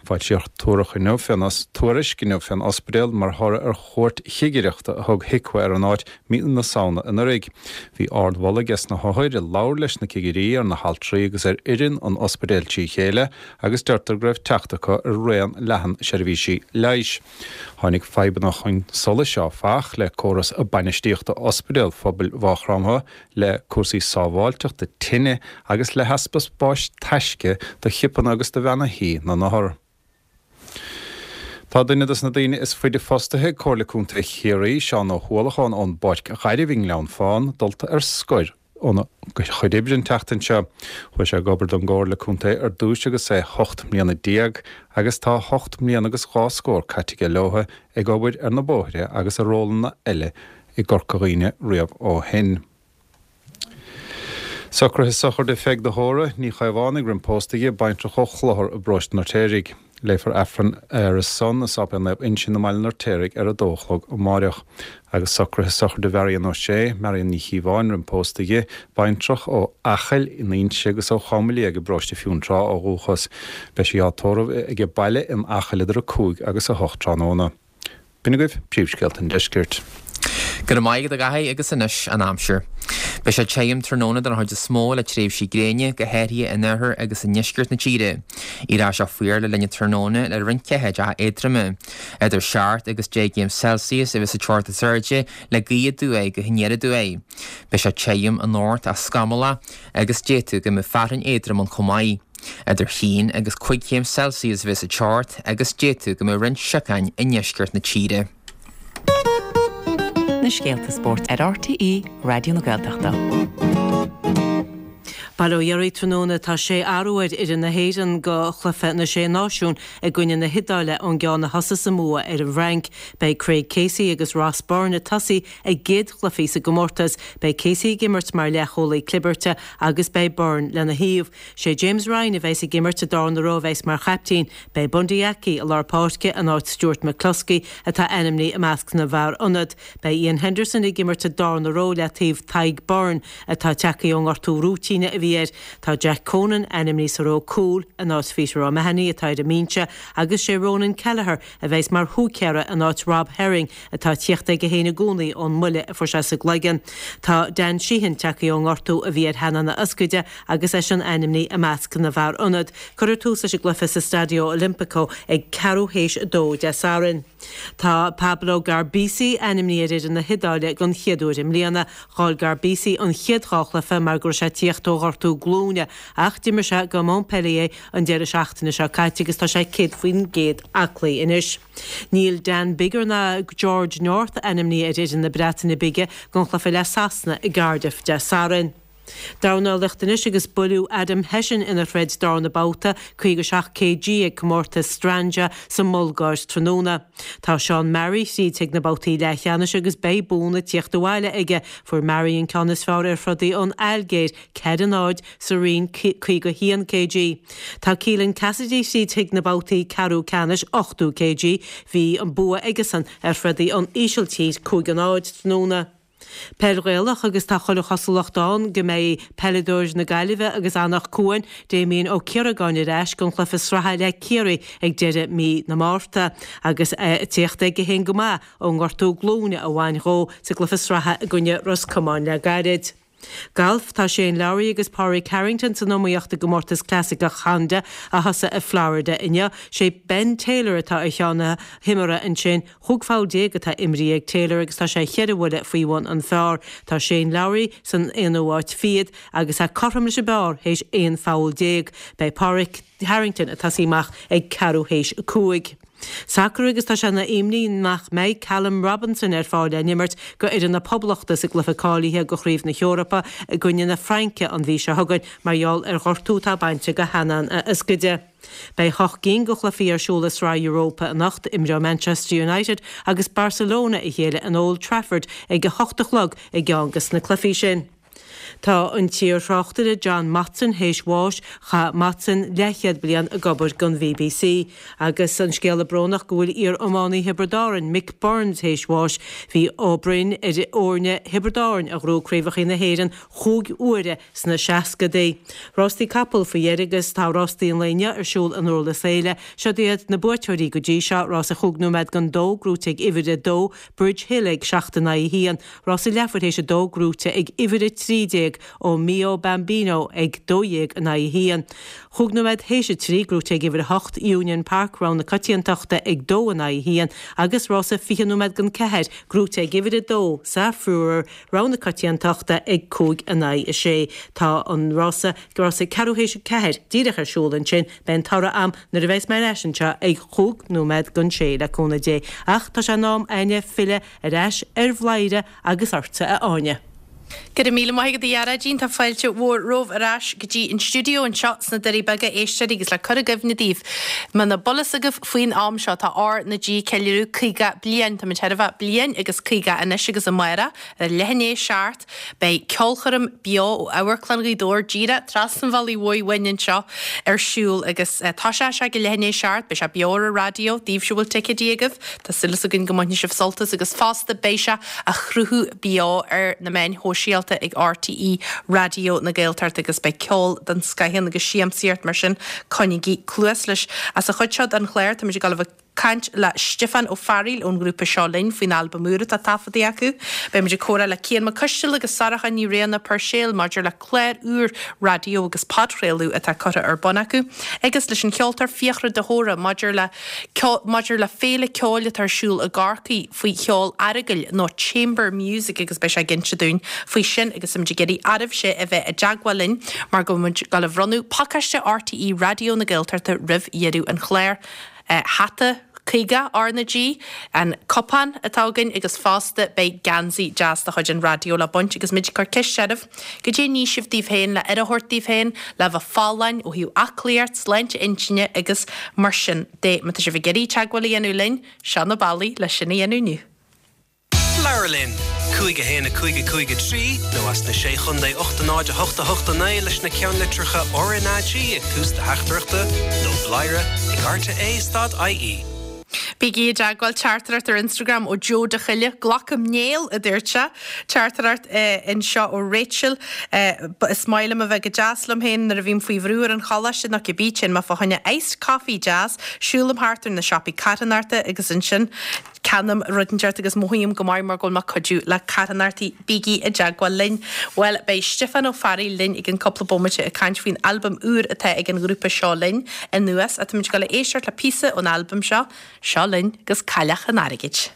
Foilsíodh tuairisc inniu fén tuairisc inniu fén ospidéal mar thoradh ar chuairt chigireachta a thug HIQA ar an áit mí na Samhna anuraidh. Bhí ardmholadh ages na hothair a labhair leis na cigirí ar na haltraí agus ar fhoireann an ospidéil trí chéile agus deirtear go raibh teacht acu ar raon leathan seirbhísí leighis. Tháinig fadhbanna chun solais áfach le córas bainistíochta Ospidéal Phobail Mhaigh Chromtha le cúrsaí sábháilteachta tine agus le heaspa spáis taisce do chipeanna agus do bheanna thí na n-othar. Tá duine dos na daoine is faide fostaithe ag Comhairle Contae Chiarraí, Seán Ó hUallacháin ón bPáirc Ghairbh i nGleann Fána, dulta ar scor óna chuid oibre an tseachtain seo. Chuaigh sé ag obair don gComhairle Contae ar dtúis agus é 18 mbliana agus tá hocht mbliana agus dhá scór caite aige leotha ag obair ar na bóithre agus i rólanna eile i gCorca Dhuibhne riamh ó shin. Socruithe sochraide Pheig de hÓra, Ní Chaomhánaigh roim pósta di, baintreach ó Chlochar i bparóiste an Fheirtéaraigh. Léifear Aifreann ar a son i Sáipéal Naomh Uinseann i mBaile an Fheirtéaraigh ar a dó a chlog amáireach. Agus socruithe sochraide Mharion Ó Sé, Marion Ní Chíobháin roim pósta di, baintreach ó Acaill in Inse agus ó Chom Liag i bparóiste Fionntrá ó dhúchas. Beidh sí á tórramh age baile in Acaill idir 5 agus 8 tráthnóna. B'in agaibh príomhscéalta an deiscirt. Go raibh maith agat a Dhaithí agus anois an aimsir. Beidh sé tirim tráthnóna den chuid is mó le tréimhsí gréine, go háirithe in oirthear agus i ndeisceart na tíre. Éireoidh sé fuar le linn an tráthnóna le roinnt ceathaideacha éadroma. Idir 7 agus 10 gcéim Celsius a bheas an teocht is airde le gaoth aduaidh go haniar aduaidh. Beidh sé tirim anocht ach scamallach agus d'fhéadfadh go mbeadh fearthainn éadrom ann chomh maith. Idir haon agus cuig chéim Celsius a bheas an teocht agus d'fhéadfadh go mbeadh roinnt siocáin i ndeisceart na tíre. na scéalta spóirt ar RTÉ Raidió na Gaeltachta. Bail ó Dhia oraibh tráthnóna tá sé athrú ar fhoireann na hÉireann go chluiche na Sé Náisiún i gcoinne na hIodáile ón gceann a thosaigh sa mbua ar an bhFrainc. Beidh Craig Casey agus Ross Byrne ag tosaí a gcéad chluichí sa gcomórtas. Beidh Casey ag imirt mar leathchúlaí clibirte agus beidh Byrne lena thaobh. Sé James Ryan a bheas ag imirt sa darna ró a bheas mar chaiptín. Beidh Bundee Aki i lár páirce in áit Stuart McCloskey atá ainmnithe i measc na bhfear ionad. Beidh Iain Henderson ag imirt sa darna ró le taobh Tadhg Beirne atá tagtha ón ngortú rúitíne a bhí air. Tá Jack Conan ainmnithe sa ró cúil in áit Peter O'Mahony atá ar an mbinse agus sé Ronan Kelleher a bheas mar húicéara in áit Rob Herring atá ag tíocht aige féin i gcónaí ón mbuille a fuair sé sa gcloigeann. Tá Dan Sheehan tagtha ón ngortú a bhí ar theannán a ioscaide agus eisean ainmnithe i measc na bhfear ionad. Cuirfear tús leis an gcluiche sa Stadio Olimpico ag ceathrú théis a dó Dé Sathairn. Tá Pablo Garbisi ainmnithe ar fhoireann na hIodáile den chéad uair i mbliana. Chaill Garbisi an chéad dhá chluiche mar go raibh sé ag tíocht ó ghortú glúine ach d'imir sé do Montpellier an deireadh seachtaine seo caite agus tá sé 100% aclaí anois. Níl Dan Biggar ná George North ainmnithe ar fhoireann na Breataine Bige don chluiche le Sasana i gCardiff Dé Sathairn. Dornálaíocht anois agus buaileadh Adam Hession ina throid darna babhta, 57 kg, ag comórtas Strandja sa mBulgáir tráthnóna. Tá Sean Murray thríd chuig na babhtaí leathcheannais agus beidh buanna tíocht abhaile aige. Fuair Murray an ceann is fearr ar throdaí ón Ailgéir, 4, 0, sa roinn 51 kg. Tá Keelan Cassidy thríd chuig na babhtaí ceathrú ceannais, 80 kg. Bhí an bua aigesan ar throdaí ón Ísiltír, 5, 0, tráthnóna. Peil Ghaelach agus tá chuile chosúlacht ann go mbeidh peileadóir na Gaillimhe agus Anach Cuain, Damien Ó Ciaragáin ar ais don chluiche sraithe le Ciarraí ag deireadh mí na Márta agus é ag tíocht aige féin go maith ón ngortú glúine a bhain dhó sa gcluiche sraithe i gcoinne Ros Comáin le gairid. Galf, Tá Shane Lowry agus Pádraig Harrington san iomaíocht i gcomórtas clasaiceach Honda a thosaigh i Florida inniu. Sé Ben Taylor atá ar cheann na hiomaire ansin. 15 pholl atá imrithe ag Taylor agus tá sé cheithre bhuille faoi bhun an phar. Tá Shane Lowry san aonú áit fichead agus é cothrom leis an bpar théis 11 pholl. Beidh Pádraig Harrington ag tosaí amach ag ceathrú théis a 5. Sacar agus tá sé ina imní nach mbeidh Callum Robinson ar fáil le n-imirt go fhoireann na Poblachta sa gcluiche cáilithe go Chraobh na hEorpa i gcoinne na Fraince an mhí seo chugainn mar gheall ar ghortú atá bainte go theannán a ioscaide. Beidh hocht gcinn de chluichí ar siúl i Sraith Europa anocht. Imreoidh Manchester United agus Barcelona a chéile in Old Trafford ag a hocht a chlog i gceann de na cluichí sin. Tá an t-iar-thráchtaire John Motson théis bháis. Chaith Motson leathchéad bliain ag obair don bbc. Agus an scéala brónach go bhfuil iar-iománaí Thiobraid Árann, Mick Byrne théis bháis. Bhí Ó Broin ar fhoirne Thiobraid Árann a ghnóthaigh Craobhacha na hÉireann chúig huaire sna seascadaí. Rástaí capall faoi dheireadh agus tá rástaí an lae inniu ar siúl i nDurlas Éile. Siod iad na buaiteoirí go dtí seo, rása chúig nóiméad don dó, gnóite ag uimhir a dó, Bridge Hill ag seacht in aghaidh a haon, rása leathuair théis a dó, gnóite ag uimhir a 13, O Mio Bambino ag 12 in aghaidh a haon. Chúig nóiméad théis a trí, gnóite ag uimhir a hocht, Union Park, rogha na coitiantachta ag dó in aghaidh a haon, agus rása 20 nóiméad don ceathair, gnóite ag uimhir a dó, Saffuror, Rogha na coitiantachta ag 5 in aghaidh 6. Tá an rása, rása ceathrú théis a ceathair, díreach ar siúl ansin. Beidh an toradh a'm nuair a bheas mé ar ais anseo ag chúig nóiméad don sé, le cúnamh Dé. Ach tá sé in am a'inne filleadh ar ais ar Bhladhaire agus ortsa, a Áine. Go raibh míle maith agat a Ghearóidín, tá fáilte mhór romhaibh ar ais go dtí an stiúideo anseo sna Doirí Beaga, a éisteoirí, agus le cur i gcuimhne daoibh, muna bhfuil fhios agaibh faoin am seo, tá R na G ag ceiliúradh 50 bliain. Táimid chóir a bheith bliain agus 50 anois agus amárach ar leath i ndiaidh a 7 beidh ceolchoirm beo ó Amharclann Ghaoth Dobhair díreach trasna an bhealaigh mhóir uainn anseo ar siúl agus tosóidh sé ag leath i ndiaidh a 7. Beidh sé beo ar an raidió daoibhse a bhfuil ticéidí agaibh. Tá súil againn go mbainfidh sibh sult as agus fosta beidh sé á shruthú beo ar na meáin shóisialta ag RTÉ Raidió na Gaeltachta agus beidh ceol den scoth ann agus siamsaíocht mar sin coinnígí cluas leis. Sa chuid seo den chlár táimid ag dul a bheith ag caint le Stiofán Ó Fearghaíl ón ngrúpa Seo Linn faoin albam úr atá taifeadta acu. Beimid ag comhrá le Cian Mac Coistil agus Sorcha Ní Riada Puirséil maidir le clár úr raidió agus podchraoladh atá curtha ar bun acu agus leis an cheoltóir Fiachra de hÓra maidir le maidir le féile ceoil atá ar siúl i gCorcaigh faoi cheol aireagail nó chamber music agus beidh sé ag inse dúinn faoi sin agus táimid ag iarraidh oraibhse a bheith i dteagmháil linn mar go bhfuil muid ag dul a bhronnadh pacáiste RTÉ Raidió na Gaeltachta roimh dheireadh an chláir. Hata. 50 RnaG, an cupán atá againn agus fosta beidh geansaí deas de chuid an raidió le baint agus muid ag cur ceist oraibh, goidé a ní sibh daoibh féin le aire a thabhairt daoibh féin, le bheith folláin ó thaobh aclaíocht, sláinte intinne agus mar sin de. Má tá sibh ag iarraidh teagmháil a dhéanamh linn, seo na bealaí le sin a dhéanamh inniu. Labhair linn! 5 1 5 5 3 nó as na Sé Chontae 8 0 8 8 9 leis na ceannlitreacha RnaG ag tús do theachtaireachta nó bladhaire ag rte stad ie. Bígí i dteagmháil, teachtaireacht ar Instagram ó Joe de Choille, Glacaim néal, a dúirt sé. Teachtaireacht anseo ó Rachel, Is maith liom a bheith go deas liom féin nuair a bhím faoi bhrú ar an choláiste nó cibé, téann mé fá choinne iced coffee deas, siúlaim thart ar na siopaí carthanachta agus ansin ceannaím rud inteacht agus mothaím go maith mar go bhfuil mé ag cuidiú le carthanachtaí. Bígí i dteagmháil linn. Bhuel, beidh Stiofán Ó Fearraigh linn i gcionn cúpla bomaite ag caint faoin albam úr atá ag an ghrúpa Seo Linn anuas. Ach táimid ag dul a éisteacht le píosa ón albam seo, Seo Linn agus Cailleach an Airgid.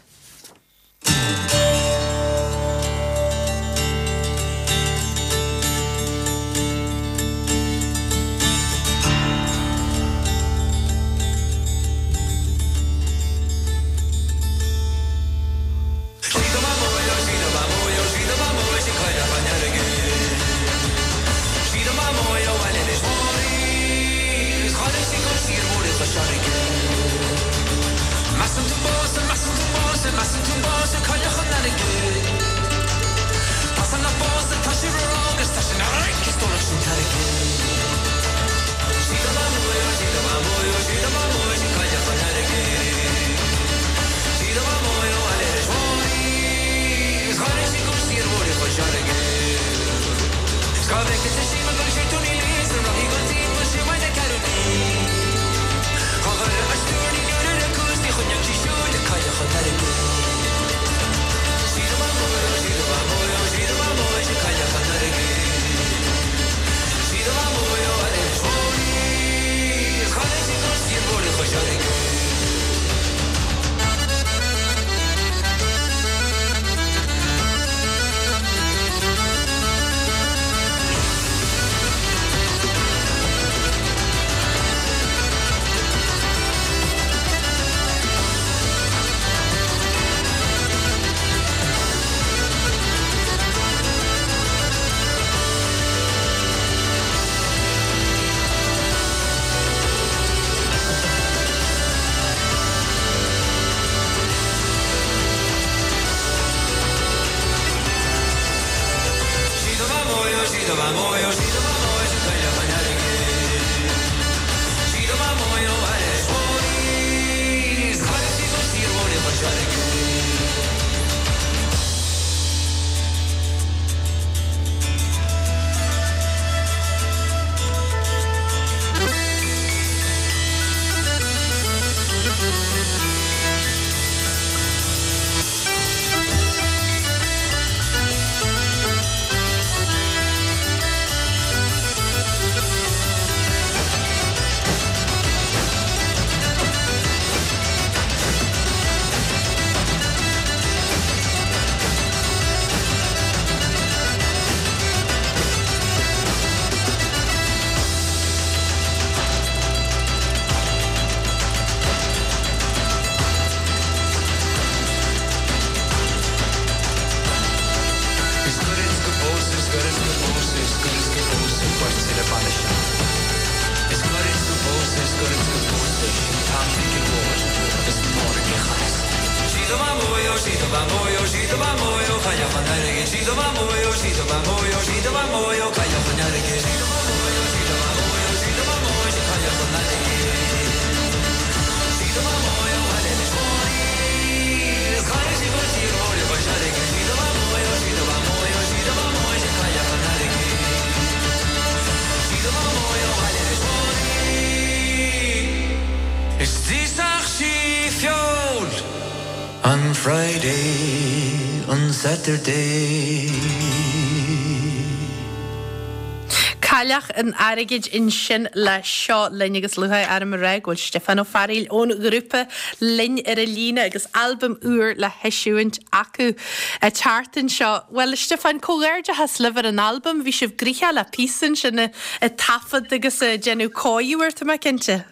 Cailleach an Airgid ansin le Seo Linn agus lúcháir orm a rá go bhfuil Stiofán Ó Fearghaíl ón ghrúpa linn ar an líne agus albam úr le heisiúint acu an tseachtain seo. Bhuel, a Stiofáin, comhghairdeachas libh ar an albam, bhí sibh gnoitheach le píosa ansin ag taifead agus ag déanamh cóiriú air, tá mé cinnte.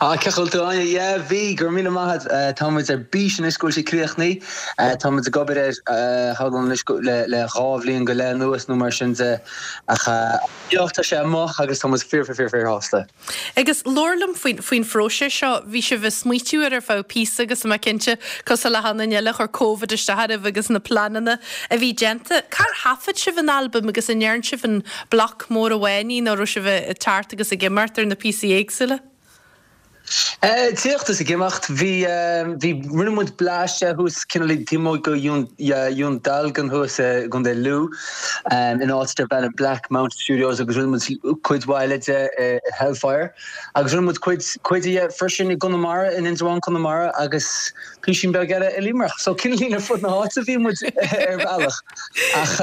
Ah, cén chaoi a bhfuil tú, Áine? Yeah, bhí, go raibh míle maith agat. Tá muid ar bís anois go bhfuil sé críochnaithe. Tá muid ag obair air, shamhlóinn anois le le dhá bhliain go leith anuas nó mar sin de. Ach yeah, tá sé amuigh agus tá muid fíor fíor fíor fíor shásta. Agus labhair liom faoin faoin phróiseas seo. Bhí sibh ag smaoitiú air ar feadh píosa agus tá mé cinnte, cosúil le hachan duine eile, chuir Covid isteach oraibh agus na pleananna a bhí déanta. Cár thaifead sibh an albam agus an ndearn sibh an bloc mór amháin é nó raibh sibh ag teacht agus ag imeacht ar na píosaí éagsúla? Tíocht is ag imeacht. Bhí, bhí, rinne muid blaiseadh thuas cineál taobh amuigh de Dhún Dealgan thuas i gContae Lú in áit darb ainm Black Mountain Studios agus rinne muid cuid mhaith eile de i Hellfire agus rinne muid cuid, cuid de freisin i gConamara, in Indreabhán, Conamara agus písín beag eile i Limerick. So cineál ar fud na háite bhí muid ar bhealach. Ach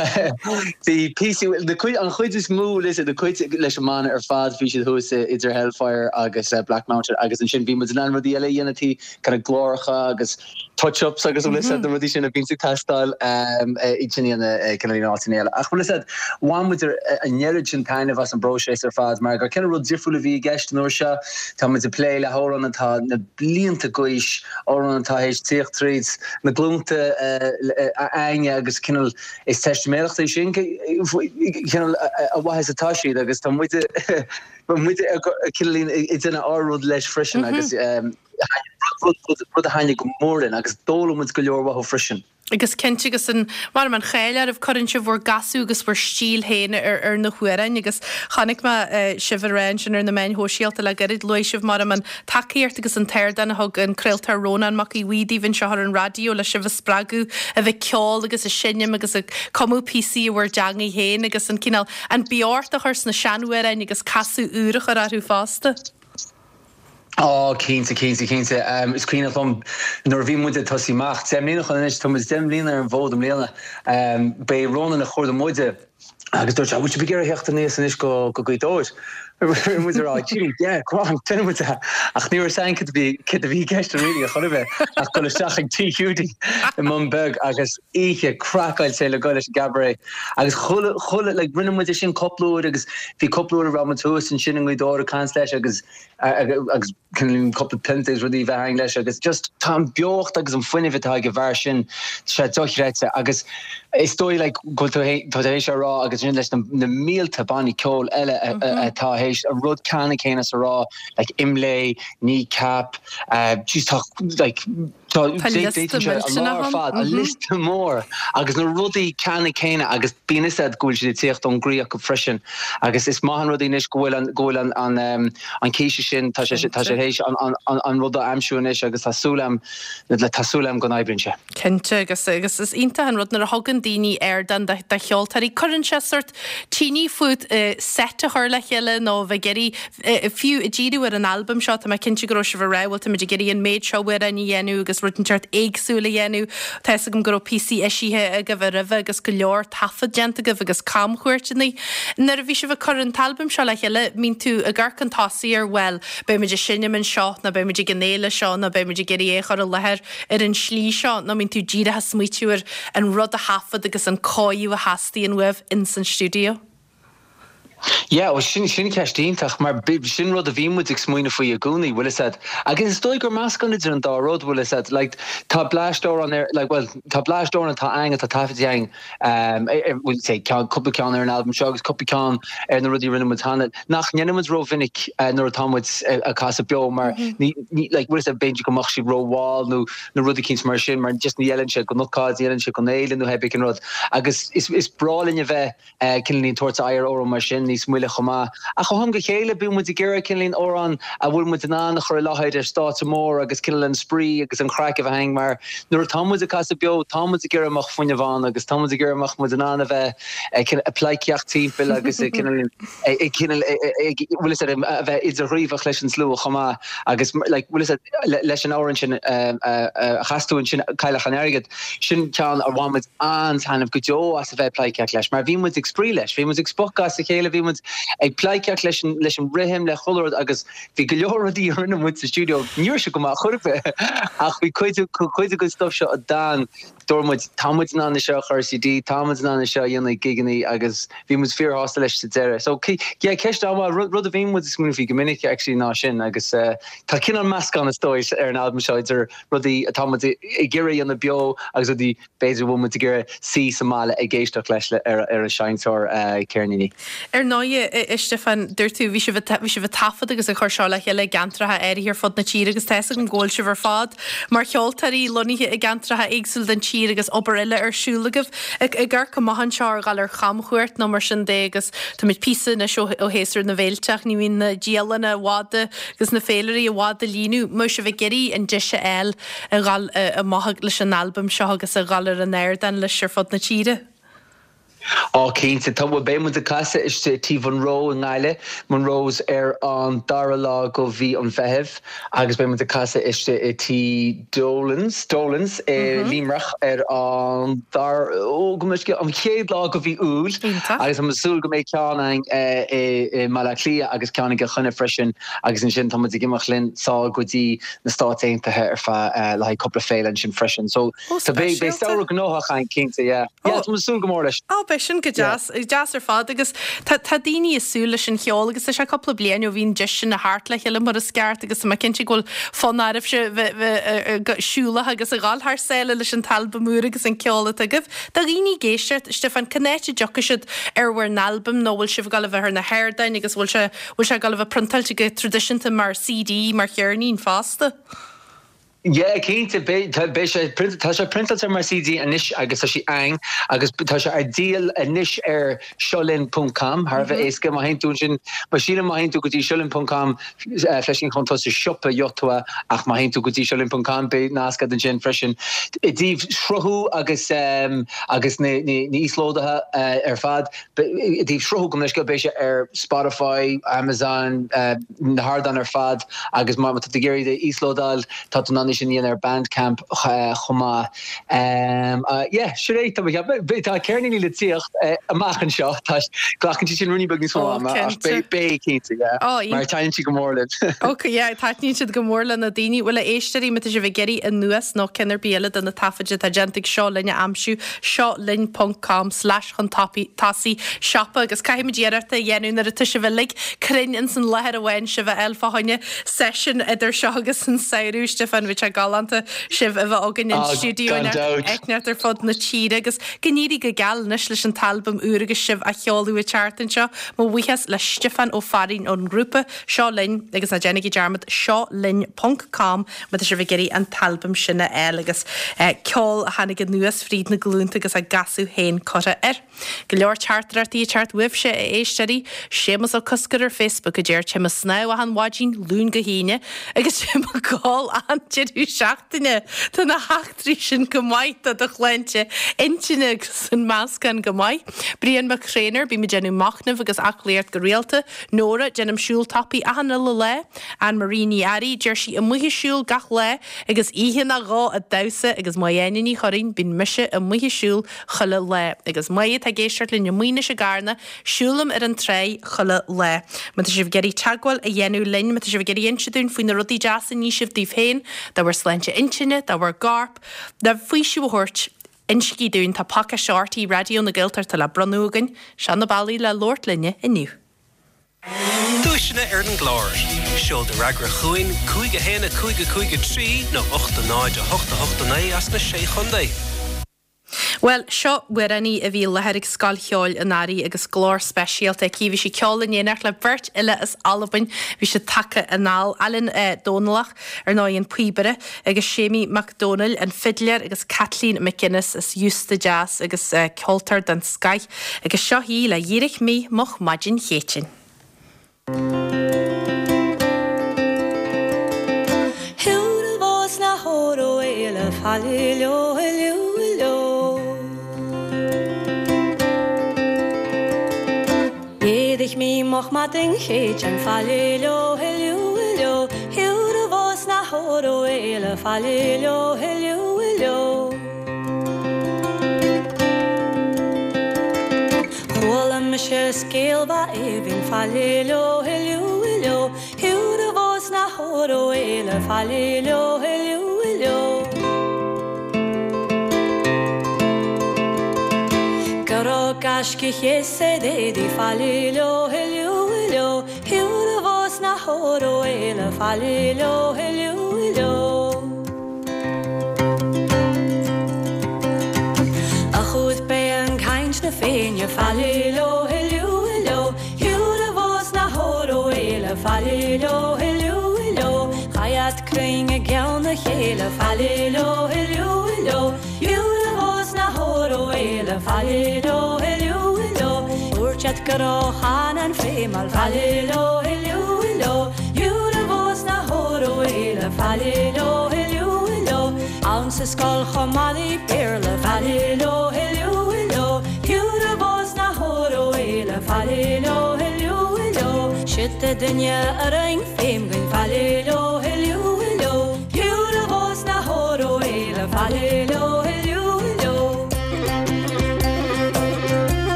bhí píosaí, na cuid, an chuid is mó leis, na cuid leis an mbanna ar fad, bhí siad thuas idir Hellfire agus Black Mountain agus ansin bhí muid in ann rudaí eile a dhéanamh tí, kind of gláracha agus touch-ups agus bhfuil fhios a'd na rudaí sin a bhíonns ag teastáil iad sin a dhéanamh cineál in áiteanna eile. Ach bhfuil fhios a'd, bhain muid an oiread sin taitneamh as an bpróiseas ar fad mar gur cineál rud difriúil a bhí i gceist an uair seo. Tá muid ag plé le hamhráin atá na blianta d'aois, amhráin atá théis tíocht tríd na glúnta a'ainne agus cineál is teistiméireacht é sin cineál a mhaith is atá siad agus tá muid muid cineál ag déanamh ár rud leis freisin agus rud a thaitnigh go mór linn agus d'fhoghlaim muid go leor uathu freisin. Agus cinnte agus an, mar an cháil oraibh, cuireann sibh bhur gcasadh agus bhur stíl féin ar ar na hamhráin agus chonaic mé sibh ag rá ansin ar na meáin shóisialta le gairid, luaigh sibh mar an tacaíocht agus an t-ardán a thug an craoltóir Rónán Mac Aodha Bhuí daoibh anseo ar an raidió le sibh a spreagadh a bheith ag ceol agus ag seinm agus ag cumadh píosaí i bhur dteangaidh féin agus an cineál, an beocht a chur sna seanamhráin agus casadh úr a chur orthu fosta. Á, cinnte, cinnte, cinnte. Is cuimhneach liom nuair a bhí muid ag tosaí amach, 10 mbliana ó shin anois, tá muid 10 mbliana ar an bhfód i mbliana, b'é Rónán a chuardaigh muide agus dúirt sé, bhfuil sibh ag iarraidh theacht aníos anois go Gaoth Dobhair? Bhí muid ag rá, gee, yeah, go on, déanfaidh muid é. Ach ní raibh fhios againn cad a bhí, cad a bhí i gceist really ar chor ar bith ach dul isteach ag Tigh Hiúdaí i mBun Beag agus oíche craiceáilte le goil leis an gcabaret. Agus chuile, chuile, like, rinne muid é sin cúpla uair agus bhí cúpla uair a raibh muid thuas ansin i nGaoth Dobhair ag caint leis agus, agus cúpla pionta agus rudaí a bheith againn leis agus just tá an beocht agus an fuinneamh atá ag an bhfear sin, tá sé dochreidte agus is dóigh like go bhfuil tú tá tú théis a rá agus sin leis na, na mílte bannaí ceoil eile atá théis an rud ceannann céanna a rá like Imlé, Kneecap, uh, jeez tá like Tá liosta millteanach ann. An liosta mór agus na rudaí ceannann céanna agus bíonn fhios a'd go bhfuil siad ag tíocht ón gcroí acu freisin agus is maith an rud é anois go bhfuil an go bhfuil an an an císte sin tá sé tá sé théis an an an rud a aimsiú anois agus tá súil a'm tá súil a'm go n-oibríonn sé. Cinnte agus agus is iontach an rud nuair a thugann daoine ardán do do cheoltóirí cuireann sé sórt tine fút set a chur le chéile nó a bheith ag iarraidh Fiú ag díriú ar an albam seo, tá mé cinnte go raibh sibh ag rá, bhuel, táimid ag iarraidh an méid seo amhráin a dhéanamh agus rud inteacht éagsúil a dhéanamh. Tá fhios agam go raibh píosaí eisithe agaibh roimhe agus go leor taifead déanta agaibh agus camchuairteanna. Nuair a bhí sibh ag cur an t-albam seo le chéile, mbíonn tú ag amharc chun tosaigh ar, bhuel, beidh muid ag seinm anseo nó beidh muid ag an fhéile seo nó beidh muid ag iarraidh é a chur i láthair ar an slí seo nó mbíonn tú díreach ag smaoitiú ar an rud a thaifead agus an cóiriú a theastaíonn uaibh ins an stiúideo? Yeah, bhuel sin, sin ceist iontach mar sin rud a bhí muid ag smaoineamh faoi i gcónaí, bhfuil fhios a'd. Agus is dóigh gur meascán idir an dá rud, bhfuil fhios a'd. Like tá bleaist amhrán ar, like bhuel tá bleaist amhrán atá a'ainn atá taifeadta a'ainn, ehm, bhuel say ceann, cúpla ceann ar an albam seo agus cúpla ceann ar na rudaí a rinne muid cheana, nach ndéanann muid rómhinic nuair atá muid ag casadh beo mar ní, ní, like bhfuil fhios a'd b'fhéidir go mbeadh siad rómhall nó na rudaí eicínt mar sin mar just ní fheileann sé don ócáid, ní fheileann sé don fhéile nó pé ar bith cén rud. Agus is, is breá linn a bheith cineáilín tabhairt aghaidh ar amhrán mar sin níos moille chomh maith. Ach ó am go chéile bíonn muid ag iarraidh cineáilín amhrán a bhfuil muid in ann a chur i láthair ar stáitse mór agus cineál an spraoi agus an chraic a bheith againn mar nuair atá muid ag casadh beo tá muid ag iarraidh go mbeadh fuinneamh ann agus tá muid ag iarraidh go mbeadh muid in ann a bheith ag pleidhcíocht timpeall agus ag cineál ag cineál ag bhfuil fhios a'd a bheith idirghníomhach leis an slua chomh maith agus like bhfuil fhios a'd leis an amhrán sin a chas tú ansin Cailleach an Airgid. Sin ceann a bhain muid an-taitneamh go deo as a bheith ag pleidhcíocht leis, mar bhí muid ag spraoi leis, bhí muid ag spochadh as a chéile, bhí muid ag pleidhcíocht leis an, leis an rithim, le chuile rud agus bhí go leor rudaí a rinne muid sa stiúideo, ní raibh sé go maith chor ar bith ach bhí cuid, cuid den stuff seo a d'fhan. Dúirt muid, tá muid in ann é seo a chur ar CD, tá muid in ann é seo a dhéanamh ag gigeannaí agus bhí muid fíorshásta leis sa deireadh. So, yeah, ceist an-mhaith, rud, rud a bhíonn muid ag smaoineamh faoi go minic actually ná sin agus tá cineál meascán is dóigh ar an albam seo idir rudaí atá muid ag iarraidh a dhéanamh beo agus rudaí b'fhéidir go bhfuil muid ag iarraidh suí sa mbaile ag éisteacht leis ar an seinnteoir ceirníní. Ar ndóigh, a Stiofáin, dúirt tú, bhí sibh bhí sibh ag taifead agus ag cur seo le chéile i gceantracha áirithe ar fud na tíre agus tá fhios agam go bhfuil sibh ar fad mar cheoltóirí lonnaithe i gceantracha éagsúla den tír agus obair eile ar siúl agaibh. Ag amharc amach anseo ar dhul ar chamchuairt nó mar sin de agus táimid píosa anois ó ó shéasúr na bhféilte ach ní bhíonn na dialanna i bhfad agus na féilirí i bhfad a líonadh. Mbeidh sibh ag iarraidh an deis a fháil a dhul amach leis an albam seo agus a dhul ar an ardán leis ar fud na tíre. Á cinnte, tá, bhuel beidh muid ag casadh istigh i Tí Mhonroe i nGaillimh, Monroe's, ar an dara lá go mhí an Mheithimh agus beidh muid ag casadh istigh i Tí Dolan's, Dolan's i Luimneach ar an dara, ó go mbeidh an chéad lá go mhí Iúil agus tá muid ag súil go mbeidh ceann againn i mBaile Átha Cliath agus ceann i gCill Chainnigh freisin agus ansin tá muid ag imeacht linn sall go dtí na Stáit Aontaithe ar feadh le haghaidh cúpla féile ansin freisin. So tá beidh beidh samhradh gnóthach againn cinnte, yeah. Yeah, tá muid ag súil go mór leis. Ó, beidh sin go deas, deas ar fad agus tá tá daoine ag súil leis an cheol agus tá sé cúpla bliain ó bhí an deis sin a theacht le chéile mar is ceart agus tá mé cinnte go bhfuil fonn oraibhse bheith bheith siúlach agus a dhul thar sáile leis an t-albam úr agus an ceol atá agaibh. Do dhaoine ag éisteacht, Stiofán, cén áit a dtiocfaidh siad ar bhur n-albam nó bhfuil sibh ag dul a bheith ar na hardáin agus bhfuil sé Bhfuil sé ag dul a bheith priontáilte go traidisiúnta mar CD, mar cheirnín fosta? Yeah, cinnte, beidh, tá, beidh sé, tá sé priontáilte mar CD anois agus tá sé ann agus tá sé ar díol anois ar seolinn ponc com, thar a bheith éasca, má théann tú ansin, má sílim má théann tú go dtí seolinn ponc com, fleiscín chun tosaigh siopa gheobhaidh tú é ach má théann tú go dtí seolinn ponc com beidh nasc agat ansin freisin. I dtaobh sruthú agus, agus na, na, na íoslódaithe ar fad, I dtaobh sruthú gabh mo leithscéal beidh sé ar Spotify, Amazon, na hardáin ar fad agus má tá tú ag iarraidh é a íoslódáil tá tú in ann é sin a dhéanamh ar Bandcamp chomh maith. Yeah, sin é, tá mé ag ceapadh. Tá ceirníní le tíocht amach anseo, tá, glacann siad sin ruainnín beag níos mó ama ach beidh, beidh cinnte, yeah. Mar taitníonn siad go mór linn. Ok, yeah, taitníonn siad go mór le na daoine. Bhuel, a éisteoirí, má tá sibh ag iarraidh anuas nó ceann ar bith eile de na taifid atá déanta ag Seo Linn a aimsiú, seo linn ponc com slash chun tosaigh siopa agus caithfimid iarracht a dhéanamh nuair atá sibh uilig cruinn ins an láthair amháin sibh a fháil fá choinne seisiún idir seo agus an samhradh. Stiofán, bhí sé galánta sibh a bheith againn in stiúideo inteacht ar fud na tíre agus go n-éirí go geal anois leis an t-albam úr agus sibh á sheoladh an tseachtain seo. Mo bhuíochas le Stiofán Ó Fearraigh ón ngrúpa Seo Linn agus ná déanaigí dearmad seo linn ponc com má tá sibh ag iarraidh an t-albam sin a fháil agus ceol a tháinig anuas fríd na glúnta agus a gcasadh féin curtha air. Go leor teachtaireachtaí ag teacht uaibhse, a éisteoirí. Séamus Ó Cosgair ar Facebook a deir Téim ag snámh achan mhaidin, Luan go hAoine, agus téim ag gol achan deireadh seachtaine. Tá na heachtraí sin go maith do do shláinte intinne agus an meascán go maith. Brian Mac Thréinir, Bím ag déanamh machnaimh agus aclaíocht go rialta. Nóra, Déanaim siúl tapaidh achan uile lá. Ann Marie Ní Fhearraigh, Deir sí amuigh ag siúl gach lá agus oíche nó dhó ag damhsa agus Máire Áine Ní Churraoin, Bíonn mise amuigh ag siúl chuile lá. Agus Máire atá ag éisteacht linn amuigh anois i gCarna, siúlaim ar an tráigh chuile lá. Má tá sibh ag iarraidh teagmháil a dhéanamh linn, má tá sibh ag iarraidh inse dúinn faoi na rudaí deasa a ní sibh daoibh féin, do bhur sláinte intinne, do bhur gcorp, le faoiseamh a thabhairt, Insígí dúinn, tá pacáiste RTÉ Raidió na Gaeltachta le bronnadh againn. Seo na bealaí le labhairt linne inniu. Duaiseanna ar an gclár. Seol do fhreagra chugainn, 5 1 5 5 3 nó 8 0 8 8 9 as na Sé Chontae. Bhuel, seo amhránaí a bhí i láthair ag Scoil Cheoil an Earraigh agus glór speisialta aici. Bhí sí ag ceol in éineacht le beirt fhile as Albain. Bhí siad tagtha anall, Alan Dòmhnallach, ar ndóigh an píobaire, agus Séimí Mac Dónaill, an fidléir, agus Caitlín McGuinness as Iosta Deas agus ceoltóir den scoith. Agus seo í le Dh'éirich Mi Moch Maidin Chéitinn. D'éirigh mé moch maidin Chéitinn faille leo huiliú leo Thiúr a bhás na hóró éile faille leo huiliú leo Chuala mise scéal mhaith aoibhinn faille leo huiliú leo Thiúr a bhás na hóró éile faille leo huiliú leo.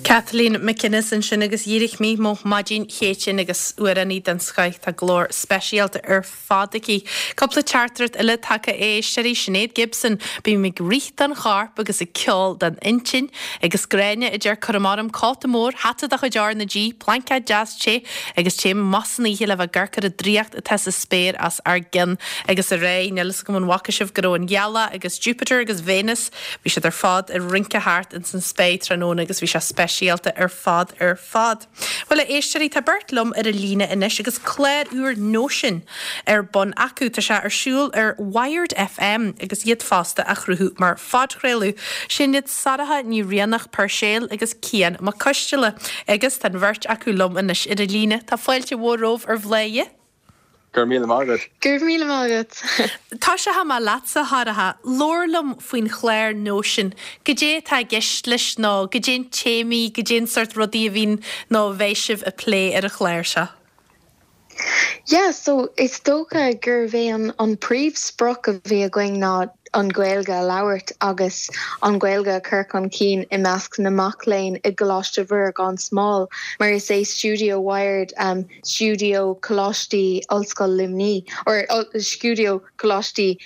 Kathleen McInnes ansin agus dhírigh mé mo maidin Chéitinn agus amhránaí den scoith, tá glór speisialta ar fad aici. Cúpla teachtaireacht eile tagtha a éisteoirí, Sinéad Gibson, Bím ag rith don chorp agus ag ceol don intinn. Agus Gráinne a deir Cuirim orm cóta mór, hata de chuid R na G, plaincéad deas te agus téim amach san oíche le bheith ag amharc ar an draíocht atá sa spéir os ár gcionn. Agus ar aghaidh, níl fhios agam an bhfaca sibh go raibh an ghealach agus Jupiter agus Venus, bhí siad ar fad ag rince thart ins an spéir tráthnóna agus bhí sé speisialta ar fad ar fad. Bhuel, a éisteoirí, tá beirt liom ar an líne anois agus clár úr Nóisean ar bun acu. Tá sé ar siúl ar Wired FM agus iad fosta á chruthú mar phodchraoladh. Sin iad Sorcha Ní Rianach Puirséil agus Cian Mac Coisteala agus tá an bheirt acu liom anois ar an líne. Tá fáilte mhór romhaibh ar Bhladhaire. Go raibh míle maith agat. Go raibh míle maith agat. Tosóidh mé leatsa, a Shorcha. Labhair liom faoin chlár Nóisean. Goidé atá i gceist leis nó goidé na téamaí, goidé an sórt rudaí a bhíonn nó a bheidh sibh ag plé ar an chlár seo? Yeah, so is dócha gurbh é an an príomhsprioc a bhí againn ná an Ghaeilge a labhairt agus an Ghaeilge a chur chun cinn i measc na mac léinn i gColáiste Mhuire gan Smál mar is é Stiúideo Wired stiúideo Coláistí Ollscoil Luimní or stiúideo Coláistí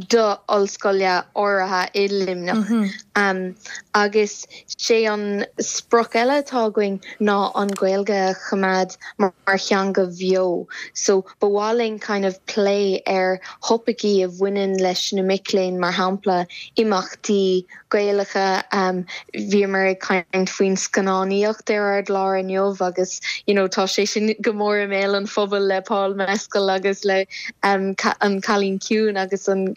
do ollscoile áirithe i Luimneach. Agus sé an sprioc eile atá againn ná an Ghaeilge a choimeád mar theanga bheo. So ba mhaith linn kind of plé ar thopaicí a bhaineann leis na mic léinn, mar shampla imeachtaí Gaelacha. Bhíomar ag caint faoin scannánaíocht ar ár gclár inniu agus you know tá sé sin go mór i mbéal an phobail le Paul Mescal agus le An Cailín Ciúin agus an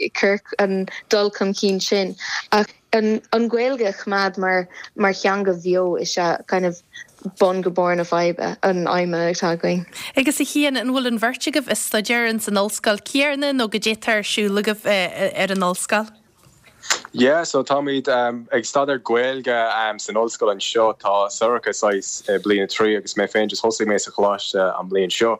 an dul chun cinn sin. Ach an Ghaeilge a choimeád mar mar theanga bheo is ea kind of bun go barr na faidhbe, an aidhme atá againn. Agus a Chian, an bhfuil an bheirt agaibh ag staidéar ins an ollscoil céanna nó goidé atá ar siúl agaibh ar an ollscoil? Yeah, so táimid ag staidéar Gaeilge san ollscoil anseo. Tá Sorcha saghas i bliain a 3 agus mé féin just thosaigh mé sa choláiste an bhliain seo.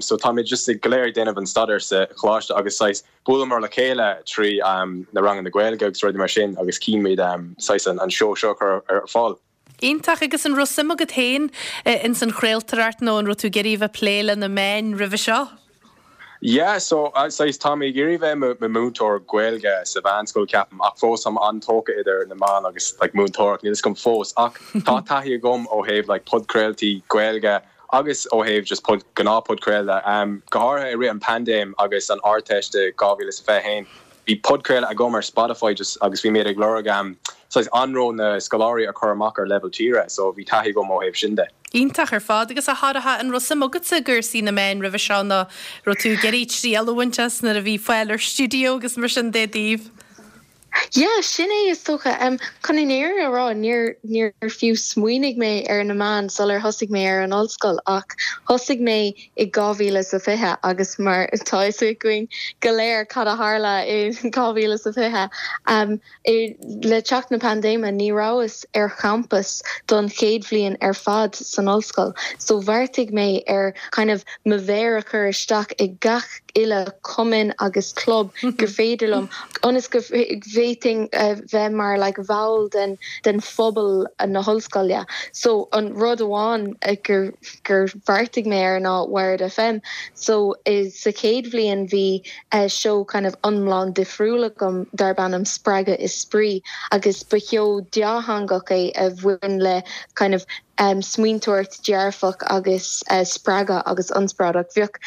So táimid just go léir ag déanamh an staidéar sa choláiste agus saghas buaileamar le chéile trí na ranganna Gaeilge agus rudaí mar sin agus chinn muid saghas an seó seo a chur ar fáil. Iontach, agus an raibh suim agat féin ins an chraoltóireacht nó an raibh tú ag iarraidh a bheith ag plé le na meáin roimhe seo? Yeah, so saghas tá mé ag iarraidh bheith i mo múinteoir Gaeilge sa mheánscoil ceapaim ach fós táim an-tógtha idir na meáin agus like múinteoireacht, níl fhios agam fós ach tá taithí agam ó thaobh like podchraoltaí Gaeilge agus ó thaobh just pod, gnáth podchraoladh. Um, go háirithe i rith an paindéim agus an Ardteist i 2021 bhí podchraoladh agam ar Spotify just agus bhí mé ag lorg um, saghas anró na scoláirí a chur amach ar leibhéal tíre so bhí taithí agam ó thaobh sin de. Iontach ar fad. Agus a Shorcha, an raibh suim agatsa i gcúrsaí na meáin roimhe seo nó raibh tú ag iarraidh triail a bhaint as nuair a bhí fáil ar stiúideo agus mar sin de daoibh? Yeah, sin é is dócha. Chun an fhírinne a rá, níor, níor fiú smaoinigh mé ar na meáin sular thosaigh mé ar an ollscoil ach thosaigh mé i 2020 agus mar tá fhios againn go léir cad a tharla i 2020, Le teacht na paindéime ní rabhas ar champas don chéad bhliain ar fad san ollscoil so bheartaigh mé ar kind of mo mhéar a chur isteach i gach uile cumann agus club gur féidir liom ionas go bhféadfainn bheith mar like bhall den den phobal na hollscoile. So an rud amháin gur gur bheartaigh mé air ná Wired FM so sa chéad bhliain bhí seó kind of iomlán difriúil agam darb ainm Spreagadh is Spraoi agus ba sheó dátheangach é a bhain le kind of smaointeoireacht dearfach agus spreagadh agus ionspráid ach bheadh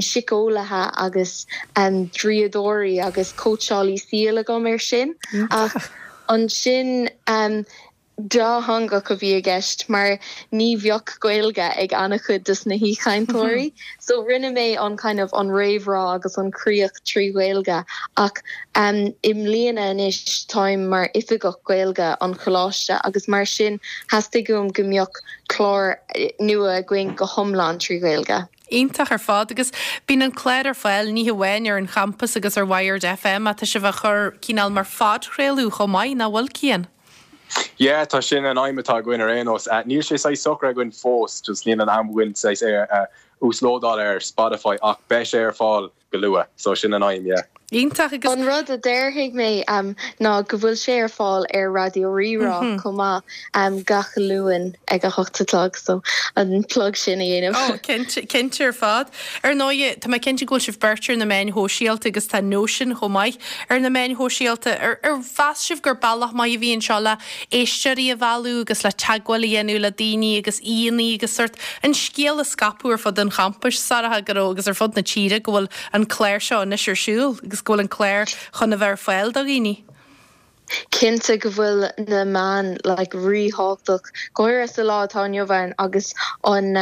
síceolaithe agus draíodóirí agus cóitseálaí saoil agam air sin ach ansin dátheangach a bhí i gceist mar ní bheadh Gaeilge ag an-chuid des na haoichainteoirí so rinne mé an kind of an réamhrá agus an críoch trí Ghaeilge ach i mbliana anois táim mar oifigeach Gaeilge an choláiste agus mar sin theastaigh uaim go mbeadh clár nua againn go hiomlán trí Ghaeilge. Iontach ar fad agus bíonn an clár ar fáil ní hamháin ar an champas agus ar Wired FM ach tá sibh á chur cineál mar phodchraoladh chomh maith, nach bhfuil Cian? Yeah, tá sin an aidhm atá againn ar aon nós. Níl sé saghas socraithe againn fós, just níl an am againn saghas é a uaslódáil ar Spotify ach beidh sé ar fáil go luath, so sin an aidhm, yeah. Iontach agus. An rud a déarfaidh mé ná go bhfuil sé ar fáil ar Raidió Rí-Rá chomh maith gach Luan ag a hocht a chlog, so an plug sin a dhéanamh. Oh, cinnte, cinnte ar fad. Ar ndóigh, tá mé cinnte go bhfuil sibh beirt ar na meáin shóisialta agus tá Nóisean chomh maith ar na meáin shóisialta. Ar mheas sibh gur bealach maith a bhí anseo le éisteoirí a mhealladh agus le teagmháil a dhéanamh le daoine agus aíonna agus sórt an scéal a scaipeadh ar fud an champais, Sorcha, go raibh agus ar fud na tíre go bhfuil an clár seo anois ar siúl agus go bhfuil an clár chun a bheith ar fáil do dhaoine? Cinnte go bhfuil na meáin like ríthábhachtach, go háirithe sa lá atá inniu ann agus an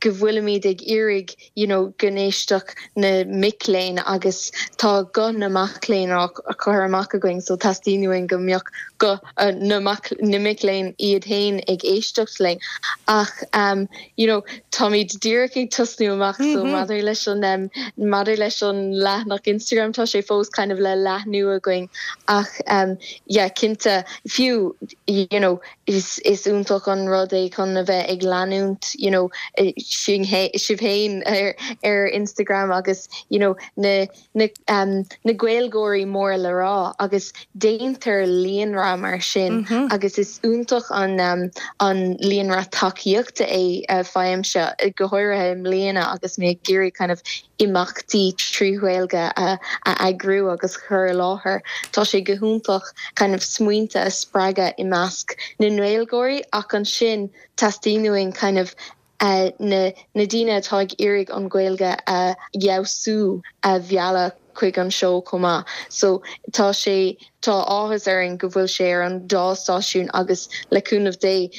go bhfuilimid ag iarraidh you know go n-éistfeadh na mic léinn agus tá guth na mac léinn á chur amach againn so teastaíonn uainn go mbeadh guth na mac na mic léinn iad féin ag éisteacht linn ach um you know táimid díreach ag tosnú amach so maidir leis an um maidir leis an leathanach Instagram tá sé fós kind of le leathnú againn ach um yeah cinnte fiú you know Is iontach an rud é chun a bheith ag leanúint you know sinn sibh féin ar ar Instagram agus you know na na um na Gaeilgeoirí mór le rá agus déantar líonra mar sin agus is iontach an um an líonra tacaíochta é faighimse go háirithe i mbliana agus mé ag iarraidh kind of imeachtaí trí Ghaeilge a eagrú agus a chur i láthair. Tá sé go hiontach kind of smaointe a spreagadh i measc na nGaeilgeoirí ach ansin teastaíonn uainn kind of na na daoine atá ag iarraidh an Ghaeilge a fheabhsú a mhealladh chuig an seó chomh maith. So tá sé tá áthas orainn go bhfuil sé ar an dá stáisiún agus le cúnamh Dé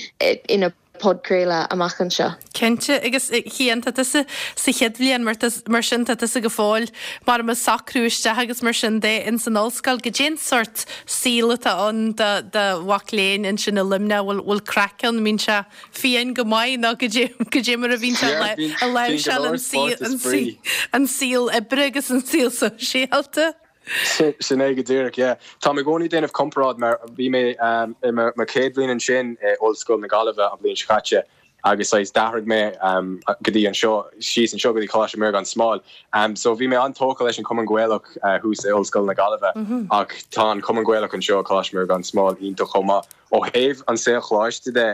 ina podchraoladh amach anseo. Cinnte, agus a Chian, tá tusa sa chéad bhliain, mar sin tá tusa go fóill mar ag socrú isteach agus mar sin de ins an ollscoil. Goidé an sórt saol atá ann do do mhac léinn ansin i Luimneach, bhfuil bhfuil craic ann, mbíonn sé fiáin go maith nó goidé goidé mar a bhíonn sé a láimhseáil an saol an saol oibre agus an saol sóisialta? Sin é go díreach, yeah. Táim i gcónaí ag déanamh comparáid mar bhí mé i mo chéad bhliain ansin i Ollscoil na Gaillimhe an bhliain seo caite agus saghas d'athraigh mé go dtí anseo, síos anseo go dtí Coláiste Mhuire gan Smál. So bhí mé an-tógtha leis an Cumann Gaelach thuas i Ollscoil na Gaillimhe ach tá an Cumann Gaelach anseo i Coláiste Mhuire gan Smál iontach chomh maith. Ó thaobh an saol choláiste de.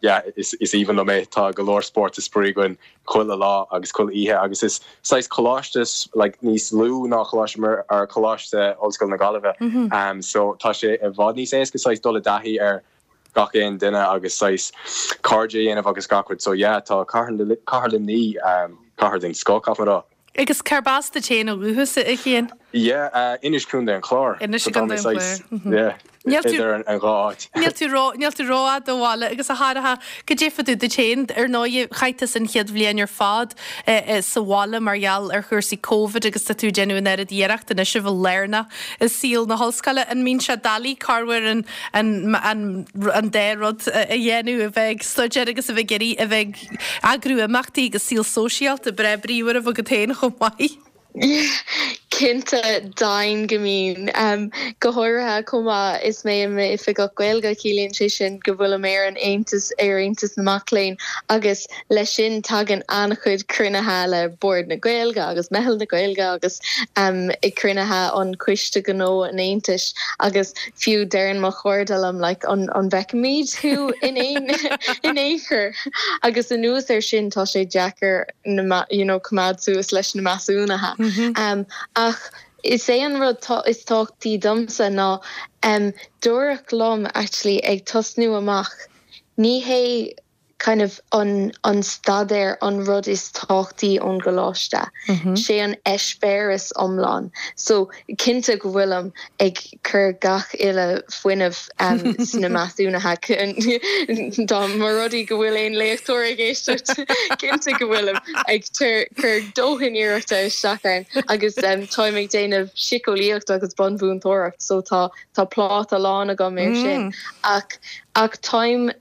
yeah, is aoibhinn liom é. Tá go leor spórt is spraoi againn chuile lá agus chuile oíche agus is saghas coláiste like níos lú ná Coláiste Muire or Coláiste Ollscoile na Gaillimhe so tá sé i bhfad níos éasca saghas dul i dtaithí ar gach aon duine agus saghas cairde a dhéanamh agus gach rud so yeah tá Cathair Luimnigh cathair den scoth caithfidh mé a rá. Agus cárb as duit féin ó dhúchas, a Chian? Yeah, Inis Contae an Chláir. Inis i gContae an Chláir. Yeah, idir an dhá áit. Níl tú ró, níl tú rófhada ó bhaile agus a Shorcha, goidé fá dtaobh duit féin, ar ndóigh, chaith tusa an chéad bhliain ar fad sa bhaile mar gheall ar chúrsaí Covid agus tá tú ag déanamh an oiread iarracht anois a bheith lárnach i saol na hollscoile. An mbíonn sé doiligh corruair an, an, an, an dá rud a dhéanamh, a bheith ag staidéar agus a bheith ag iarraidh a bheith ag Eagrú imeachtaí agus saol sóisialta breá bríomhar a bheith agat féin chomh maith. Cinnte, deimhin go mbíonn. Go háirithe chomh maith is mé i m'Oifigeach Gaeilge, ciallaíonn sé sin go bhfuilim ar an Aontas, ar Aontas na Mac Léinn agus leis sin tagann an-chuid cruinnithe le Bord na Gaeilge agus Meitheal na Gaeilge agus cruinnithe an Coiste Gnó an Aontais agus fiú deireann mo chairde liom like an bhfeicfimid thú in aon in aon chor? Agus anuas air sin tá sé deacair na you know coimeád suas leis na measúnuithe. Um, ach is é an rud is tábhachtaí domsa ná um, dúradh liom actually ag tosnú amach ní hé kind of an an staidéar an rud is tábhachtaí ón gcoláiste. Sé an eispéireas iomlán. So cinnte go bhfuilim ag cur gach uile fuinneamh sna measúnuithe. Dá mba rud é go bhfuil aon léachtóir ag éisteacht, cinnte go bhfuilim ag cur dóthain iarrachta isteach ann agus táim ag déanamh síceolaíocht agus bunmhúinteoireacht so tá tá pláta lán agam air sin ach ach táim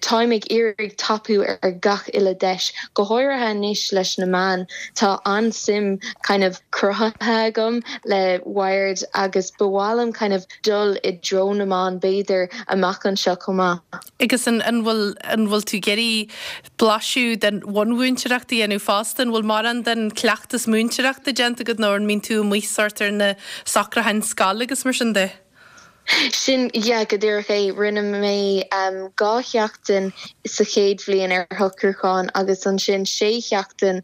Táim ag iarraidh tapú ar gach uile deis, go háirithe anois leis na meáin. Tá an-suim kind of cruthaithe agam le Wired agus ba mhaith liom kind of dul i dtreo na meán b'fhéidir amach anseo chomh maith. Agus an bhfuil an bhfuil tú ag iarraidh blaiseadh den bhunmhúinteoireacht a dhéanamh fosta? An bhfuil mórán den cleachtas múinteoireachta déanta agat nó an mbíonn tú amuigh sórt ar na socrúcháin scoile agus mar sin de? Sin, yeah, go díreach é. Rinne mé 2 sheachtain sa chéad bhliain ar shocrúchán agus ansin 6 sheachtain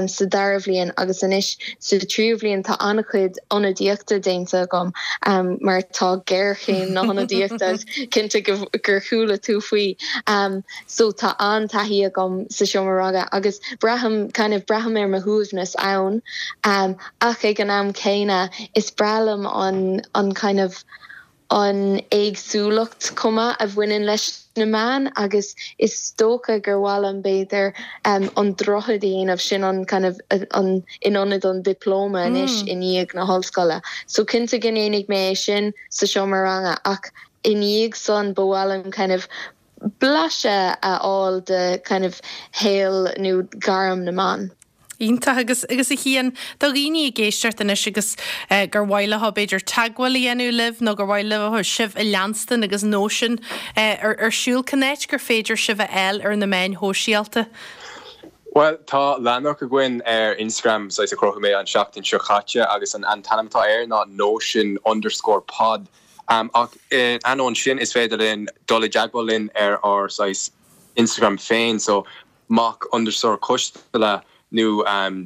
sa dara bhliain agus anois sa tríú bhliain tá an-chuid ionadaíochta déanta agam mar tá géarchéim na hionadaíochta, cinnte gur chuala tú faoi. So tá an-taithí agam sa seomra ranga agus braithim, kind of, braithim ar mo shuaimhneas ann. Ach ag an am céanna, is breá liom an, an kind of, an éagsúlacht chomh maith a bhaineann leis na meáin agus is dócha gur mhaith liom b'fhéidir an droichead a dhéanamh, sin an kind of, an, in ionad an dioplóma anois i ndiaidh na hollscoile. So cinnte go ndéanfaidh mé é sin sa seomra ranga ach i ndiaidh san ba mhaith liom kind of blaiseadh a fháil de kind of shaol nó gairm na meán. Iontach. Agus, agus a Chian, do dhaoine ag éisteacht anois agus gur mhaith leo b'fhéidir teagmháil a dhéanamh libh nó gur mhaith leo sibh a leanstan agus Nóisean ar ar siúl, cén áit gur féidir sibh a fháil ar na meáin shóisialta? Bhuel, tá leathanach againn ar Instagram, saghas a chruthaigh mé an seachtain seo chaite agus an an t-ainm atá air ná Nóisean underscore pod. Ach ainneoin sin, is féidir linn dul i dteagmháil linn ar ár saghas Instagram féin, so mac underscore coisteala nó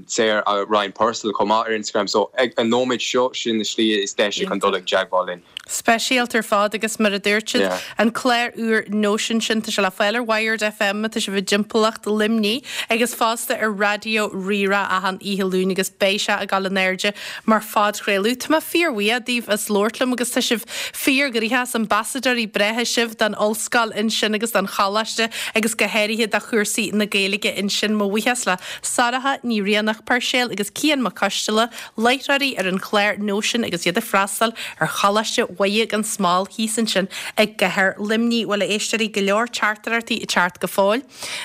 Sarah Ryan Purcell chomh maith ar Instagram. So ag an nóiméad seo, sin na slí is deise chun dul i dteagmháil linn. Speisialta ar fad agus mar a dúirt siad, an clár úr Nóisean sin, tá sé le fáil ar Wired FM má tá sibh i dtimpeallacht Luimnigh agus fosta ar Raidió Rí-Rá achan oíche Luain agus beidh sé ag dul in airde mar phodchraoladh. Tá mé fíorbhuíoch daoibh as labhairt liom agus tá sibh fíorghnoitheach, is ambasadóirí breátha sibh don ollscoil ansin agus don choláiste agus go háirithe do chúrsaí na Gaeilge ansin. Mo bhuíochas le Sorcha Ní Rianach Puirséil agus Cian Mac Coisteala, láithreoirí ar an chlár Nóisean agus iad ag freastal ar Choláiste Mhuire gan Smál thíos ansin i gcathair Luimnigh. Bhuel, a éisteoirí, go leor teachtaireachtaí ag teacht go fóill.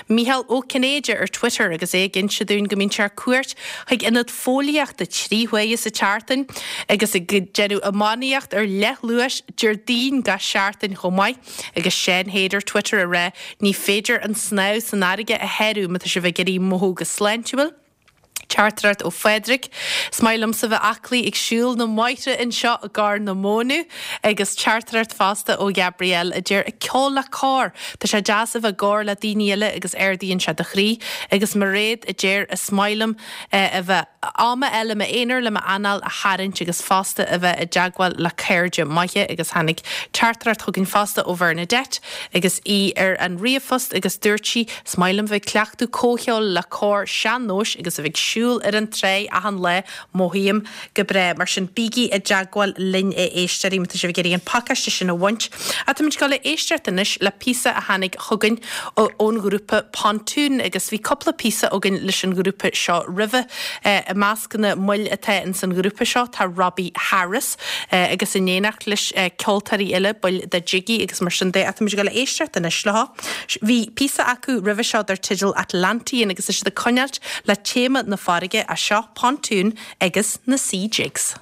Mícheál Ó Cinnéide ar Twitter agus é ag inse dúinn go mbíonn sé ar cuairt chuig ionad fóillíochta 3 huaire sa tseachtain agus ag déanamh iománaíocht ar leathluais Déardaoin gach seachtain chomh maith. Agus Seán Hade ar Twitter ag rá ní féidir an snámh san fharraige a shárú má tá sibh ag iarraidh mothú go sláintiúil. Teachtaireacht ó Phádraig, Is maith liomsa bheith aclaí ag siúl na mbóithre anseo i gCorr na Móna agus teachtaireacht fosta ó Ghabrielle a deir ag ceol le cór, tá sé deas a bheith i gcór le daoine eile agus ardaíonn sé do chroí agus Mairéad a deir is maith liom a bheith am a fháil i m'aonar le m'anáil a tharraingt agus fosta a bheith i dteagmháil le cairde maithe agus tháinig teachtaireacht chugainn fosta ó Bhernadette agus í ar an ríomhphost agus dúirt sí Is maith liom bheith ag cleachtadh comhcheoil le cór sean-nóis agus a bheith ag siúl ar an tráigh achan lá, mothaím go breá. Mar sin, bígí i dteagmháil linn a éisteoirí má tá sibh ag iarraidh an pacáiste sin a bhaint. Ach táimid ag dul a éisteacht anois le píosa a tháinig chugainn ón ghrúpa Pontoon agus bhí cúpla píosa againn leis an ghrúpa seo roimhe. I measc na mbaill atá ins an ghrúpa seo tá Robbie Harris agus in éineacht leis ceoltóirí eile, baill de Jiggy agus mar sin de. Ach táimid ag dul a éisteacht anois leo. Bhí píosa acu roimhe seo dar teideal Atlantean agus tá siad ag coinneáilt le téama na farraige as seo Pontoon agus na Sea Jigs.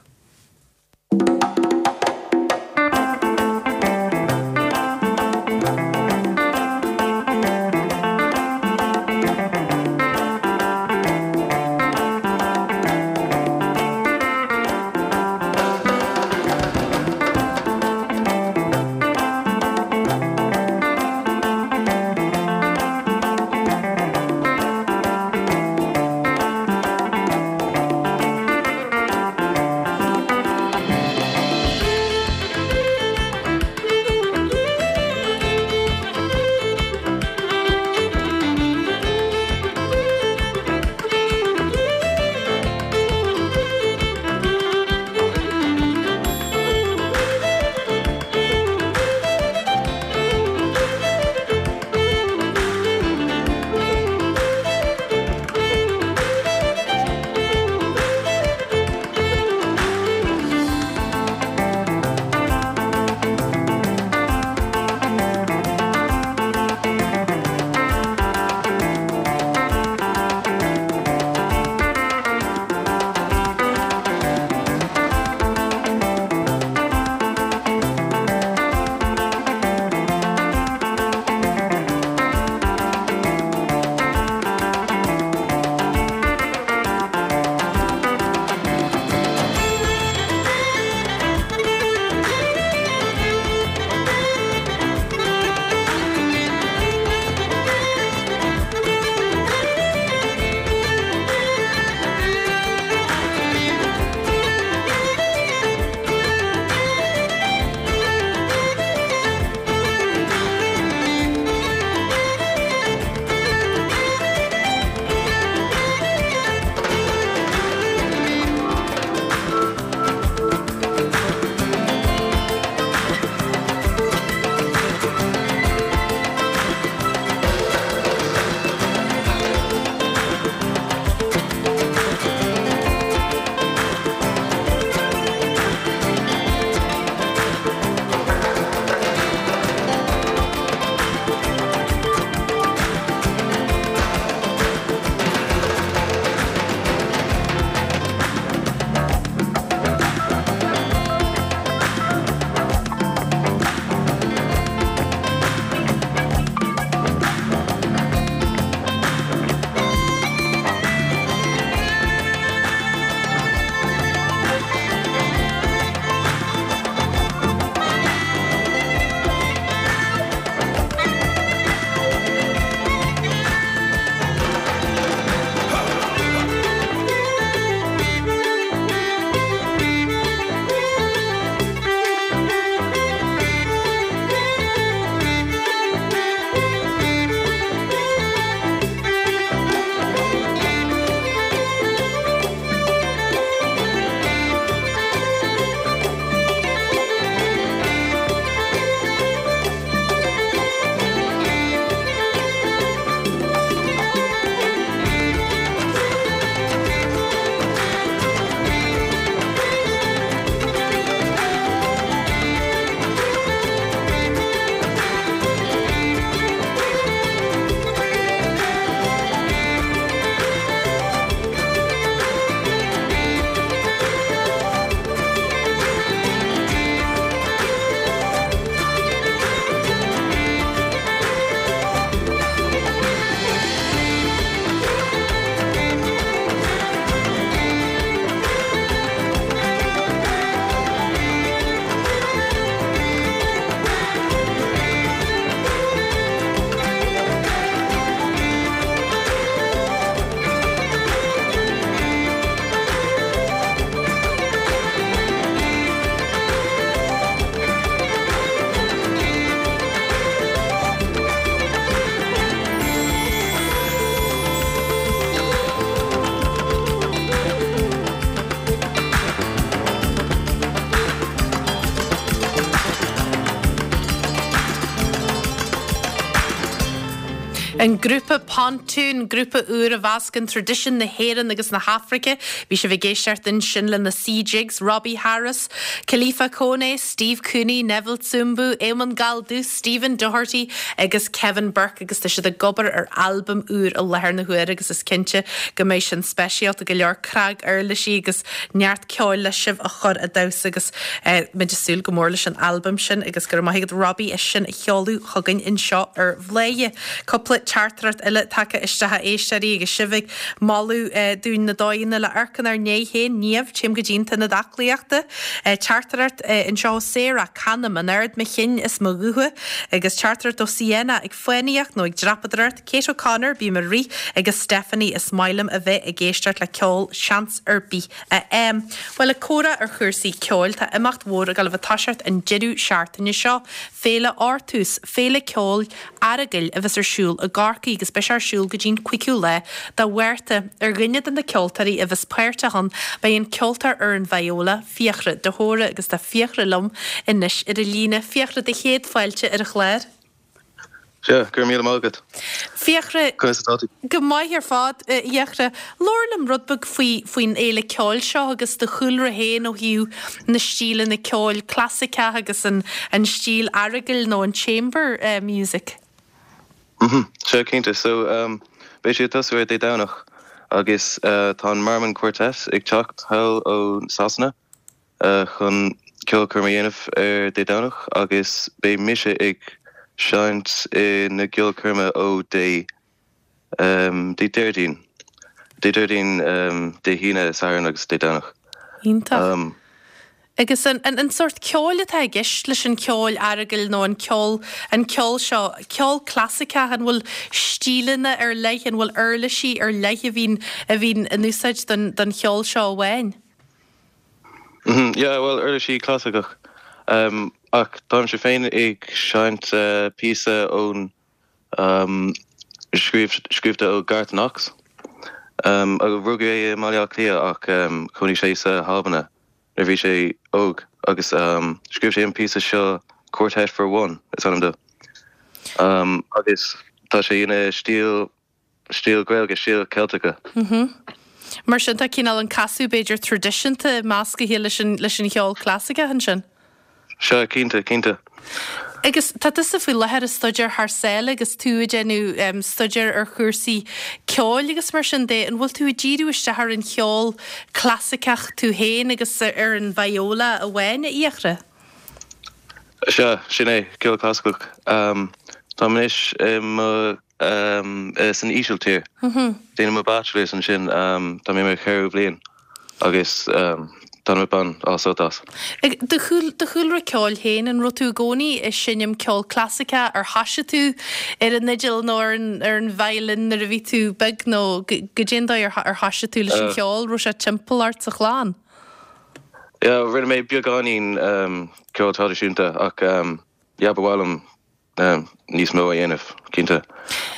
An grúpa Pontoon, grúpa úr a mheascann traidisiún na hÉireann agus na hAfraice. Bhí sibh ag éisteacht ansin le na Sea Jigs, Robbie Harris, Kalifa Kone, Steve Cooney, Neville Tsumbu, Éamonn Galdus, Stephen Doherty agus Kevin Burke agus tá siad ag obair ar albam úr i láthair na huaire agus is cinnte go mbeidh sin speisialta go leor, cnaguirlisí agus neart ceoil le sibh a chur a damhsa agus muid ag súil go mór leis an albam sin agus go raibh maith agat Robbie as sin a sheoladh chugainn anseo ar Bhladhaire. Cúpla teachtaireacht eile tagtha isteach a éisteoirí agus sibh ag moladh dúinn na dóigheanna le amharc inár ndiaidh féin. Niamh, téim go dtí an t-ionad aclaíochta. Teachtaireacht anseo ó Sarah, Canaim in ard mo chinn is mo ghutha. Agus teachtaireacht ó Sienna, ag fánaíocht nó ag dreapadóireacht. Kate O'Connor, bím ag rith. Agus Stephanie, is maith liom a bheith ag éisteacht le ceol seans ar bith a fhaighim. Bhuel, ag comhrá ar chúrsaí ceoil, tá imeacht mhór ag dul a bheith ag toiseacht an deireadh seachtaine seo, Féile Artús, féile ceoil aireagail a bheas ar siúl i gCorcaigh agus beidh sé ar siúl go dtí'n 5ú lá de Mhárta. Ar dhuine de na ceoltóirí a bheas páirteach ann beidh an ceoltóir ar an viola, Fiachra de hÓra agus tá Fiachra liom anois ar an líne. Fiachra, do chéad fáilte ar an chlár. Sea, go raibh míle maith agat. Fiachra, Conas atá tú? Go maith ar fad, a Fhiachra. Labhair liom rud beag faoi, faoin fhéile ceoil seo agus do chúlra féin ó thaobh na stíleanna ceoil clasaiceach agus an, an stíl aireagail nó an chamber music. Mhm, sea, cinnte. So, beidh sé ag tosú ar Dé Domhnach agus tá an Marmon Quartet ag teacht thall ó Sasana. chun ceolchoirm a dhéanamh ar Dé Domhnach agus beidh mise ag seinnt i na gceolchoirme ó Dé Dé Déardaoin, Dé Déardaoin, Dé hAoine, Satharn agus Dé Domhnach. Iontach. Agus an an sórt ceoil atá i gceist leis an cheol aireagail nó an ceol an ceol seo, ceol clasaiceach, an bhfuil stíleanna ar leith, an bhfuil uirlisí ar leith a bhíonn a bhíonn in úsáid don don cheol seo amháin? Yeah, bhuel, uirlisí clasaiceach. Ach táimse féin ag seinnt píosa ón scríobhta ó Garth Knox. Rugadh é i mBaile Átha Cliath ach chónaigh sé sa hAlbain nuair a bhí sé óg agus scríobh sé an píosa seo Quartet for One is ainm dó. Agus tá sé ina stíl stíl Gaeilge, stíl Ceilteacha. Mar sin tá cineál an casadh b'fhéidir traidisiúnta meascaithe leis an leis an cheol clasaiceach ansin. Sea, cinnte, cinnte. Agus tá tusa faoi láthair ag staidéar thar sáile agus tú ag déanamh staidéar ar chúrsaí ceoil agus mar sin de, an bhfuil tú ag díriú isteach ar an cheol clasaiceach tú féin agus ar an viola amháin, a Fhiachra? Sea, sin é, ceol clasaiceach. Táim anois i mo san Ísiltír. Déanaim mo bachelors ansin, tá mé i mo cheathrú bhliain agus táim ag baint an-sult as. Do chúlra ceoil féin, an raibh tú i gcónaí ag seinm ceol clasaiceach, ar thoisigh tú ar an fhidil nó ar an violin nuair a bhí tú beag nó goidé an dóigh ar thoisigh tú leis an cheol, raibh sé timpeall ort sa chlann? Yeah, rinne mé beagáinín ceol traidisiúnta ach yeah, ba mhaith liom níos mó a dhéanamh, cinnte.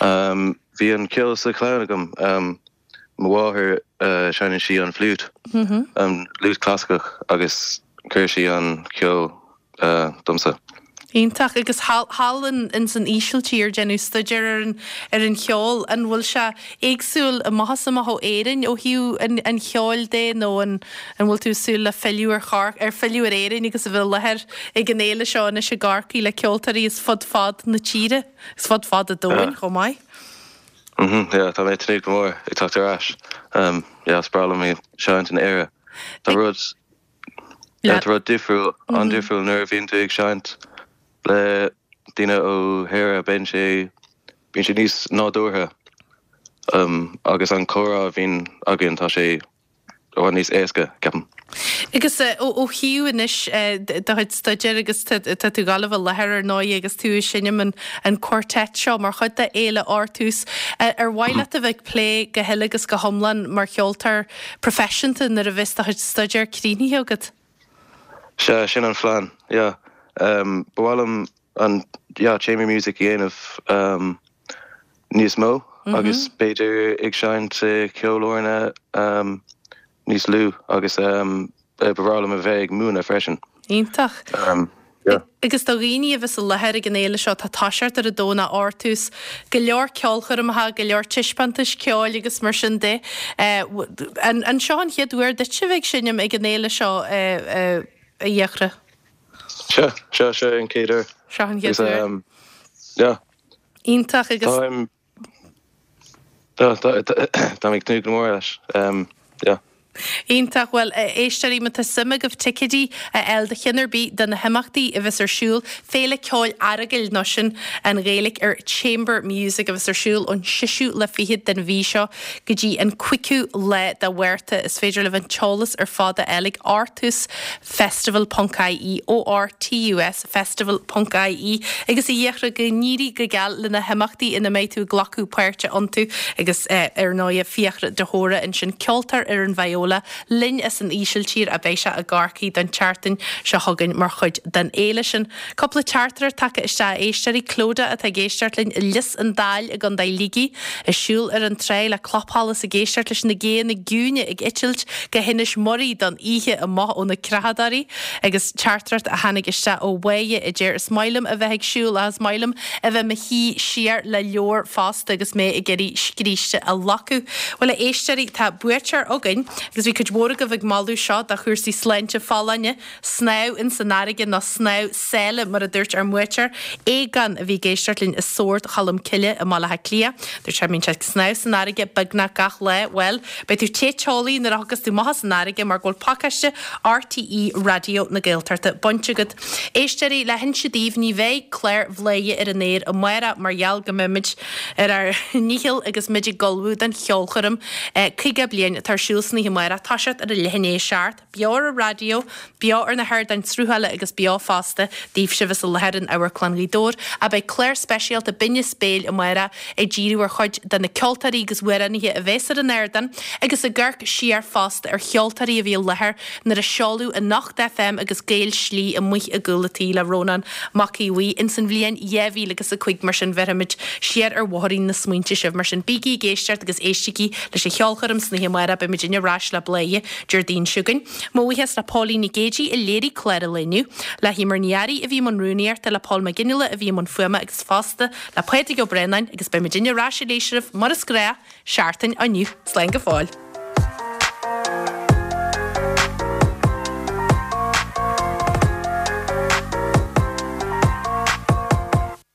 Bhí an ceol sa chlann agam. Mo mháthair, seinneann sí an fliúit, an fhliúit clasaiceach agus chuir sí an ceol domsa. Iontach. Agus thall in san Ísiltír, déanamh staidéar ar an ar an cheol, an bhfuil sé éagsúil amach is amach ó Éirinn ó thaobh an an cheoil de nó an An bhfuil tú ag súil le filleadh ar Chor, ar filleadh ar Éirinn agus a bheith i láthair ag an fhéile seo anois i gCorcaigh le ceoltóirí as fud fad na tíre, as fud fad an domhain chomh maith? Mhm, yeah, tá mé ag tnúth go mór ag teacht ar ais. Yeah, is breá liom ag seinnt in Éire. Tá rud, yeah, tá rud difriúil, an-difriúil nuair a bhíonn tú ag seinnt le daoine ó Éire, bíonn sé, bíonn sé níos nádúrtha agus an comhrá a bhíonn againn, tá sé i bhfad níos éasca, ceapaim. Agus ó thaobh anois do chuid staidéir agus tá tú ag gabháil a bheith i láthair ar ndóigh agus tú ag seinm an quartet seo mar chuid de Fhéile Artús, ar mhaith leat a bheith ag plé go huile agus go hiomlán mar cheoltóir proifisiúnta nuair a bheas do chuid staidéir críochnaithe agat? Sea, sin an phlean, yeah. Ba mhaith liom an, yeah, chamber music a dhéanamh níos mó agus b'fhéidir ag seinnt i ceolfhoirne níos lú agus ba bhreá liom a bheith ag múineadh freisin. Iontach. Yeah. Agus do dhaoine a bheas i láthair ag an fhéile seo, tá toiseacht ar an Domhnach Ortús, go leor ceolchoirmeacha, go leor taispeántais ceoil agus mar sin de. An seo an chéad uair duit a bheith ag seinm ag an fhéile seo, a Fhiachra? Sea, sea, seo an chéad uair. Seo an chéad uair. Yeah. Iontach agus. Táim Táim ag tnúth go mór leis. Yeah. Iontach. Bhuel, a éisteoirí, má tá suim agaibh ticéidí a fháil do cheann ar bith de na himeachtaí a bheas ar siúl, Féile Ceoil Earagail, nó sin an Ghaeilge ar Chamber Music, a bheas ar siúl ón seisiú lá fichead den mhí seo go dtí an cúigiú lá de Mhárta. Is féidir libh an t-eolas ar fad a fháil ag Ortús Festival ponc ie, ORTUS Festival ponc ie, agus a Fhiachra, go n-éirí go geal le na himeachtaí ina mbeidh tú ag glacadh páirte iontu agus ar ndóighe Fiachra de hÓra ansin, ceoltóir ar an viola linn as an Ísiltír a beidh sé i gCorcaigh don tseachtain seo chugainn mar chuid den fhéile sin. Cúpla teachtaireacht tagtha isteach a éisteoirí, Clodagh atá ag éisteacht linn i Lios an Daill i gContae Shligigh, ag siúl ar an tráigh le clapsholas ag éisteacht leis na géanna ciúine ag eitilt go hInis Muirí don oíche amach ó na creachadóirí agus teachtaireacht a tháinig isteach ó Mháire a deir is maith liom a bheith ag siúl ach is maith liom a bheith mo shuí siar le leabhar fosta agus mé ag iarraidh scríste a locadh. Bhuel a éisteoirí tá buaiteoir againn agus bhí cuid mhór agaibh ag moladh seo do chúrsaí sláinte folláine Snámh ins an fharraige nó snámh sáile mar a dúirt ár mbuaiteoir, Aogán, a bhí ag éisteacht linn i Sord Cholm Cille i mBaile Átha Cliath. Dúirt sé, bíonn sé ag snámh san fharraige beagnach gach lá. Bhuel, beidh tú te teolaí nuair a thiocfas tú amach as an fharraige mar go bhfuil pacáiste RTÉ Raidió na Gaeltachta bainte agat. Éisteoirí, le hinse daoibh, ní bheidh clár Bhladhaire ar an aer amárach mar gheall go mbeimid ar ár ndícheall agus muid ag ullmhú don cheolchoirm 50 bliain atá ar siúl san oíche amárach, toiseacht ar a leath i ndiaidh a 7. Beo ar an raidió, beo ar na hardáin sruthála agus beo fosta daoibhse a bheas i láthair in Amharclann Ghaoth Dobhair. Ach beidh clár speisialta Binn is Béil amárach ag díriú ar chuid de na ceoltóirí agus amhránaithe a bheas ar an ardán agus ag amharc siar fosta ar cheoltóirí a bhí i láthair nuair a seoladh Anocht FM agus Gael Slí amuigh i gcúl a' tí le Rónán Mac Aodha Bhuí ins an bhliain 2005 mar sin bhéarfaimid siar ar bhóithrín na smaointe sibh mar sin bígí ag éisteacht agus éistigí leis an cheolchoirm san oíche amárach beidh muidinne ar ais le Bladhaire Déardaoin seo chugainn. Mo bhuíochas le Póilín Nic Géidigh a léirigh clár an lae inniu, le hEmer Ní Fhearraigh a bhí i mbun rúnaíochta, le Pól Mac Fhionnghaile a bhí i mbun fuaime agus fosta le Pádraig Ó Braonáin agus beidh muidinne ar ais arís oraibh mar is gnách, seachtain ó inniu. Slán go fóill.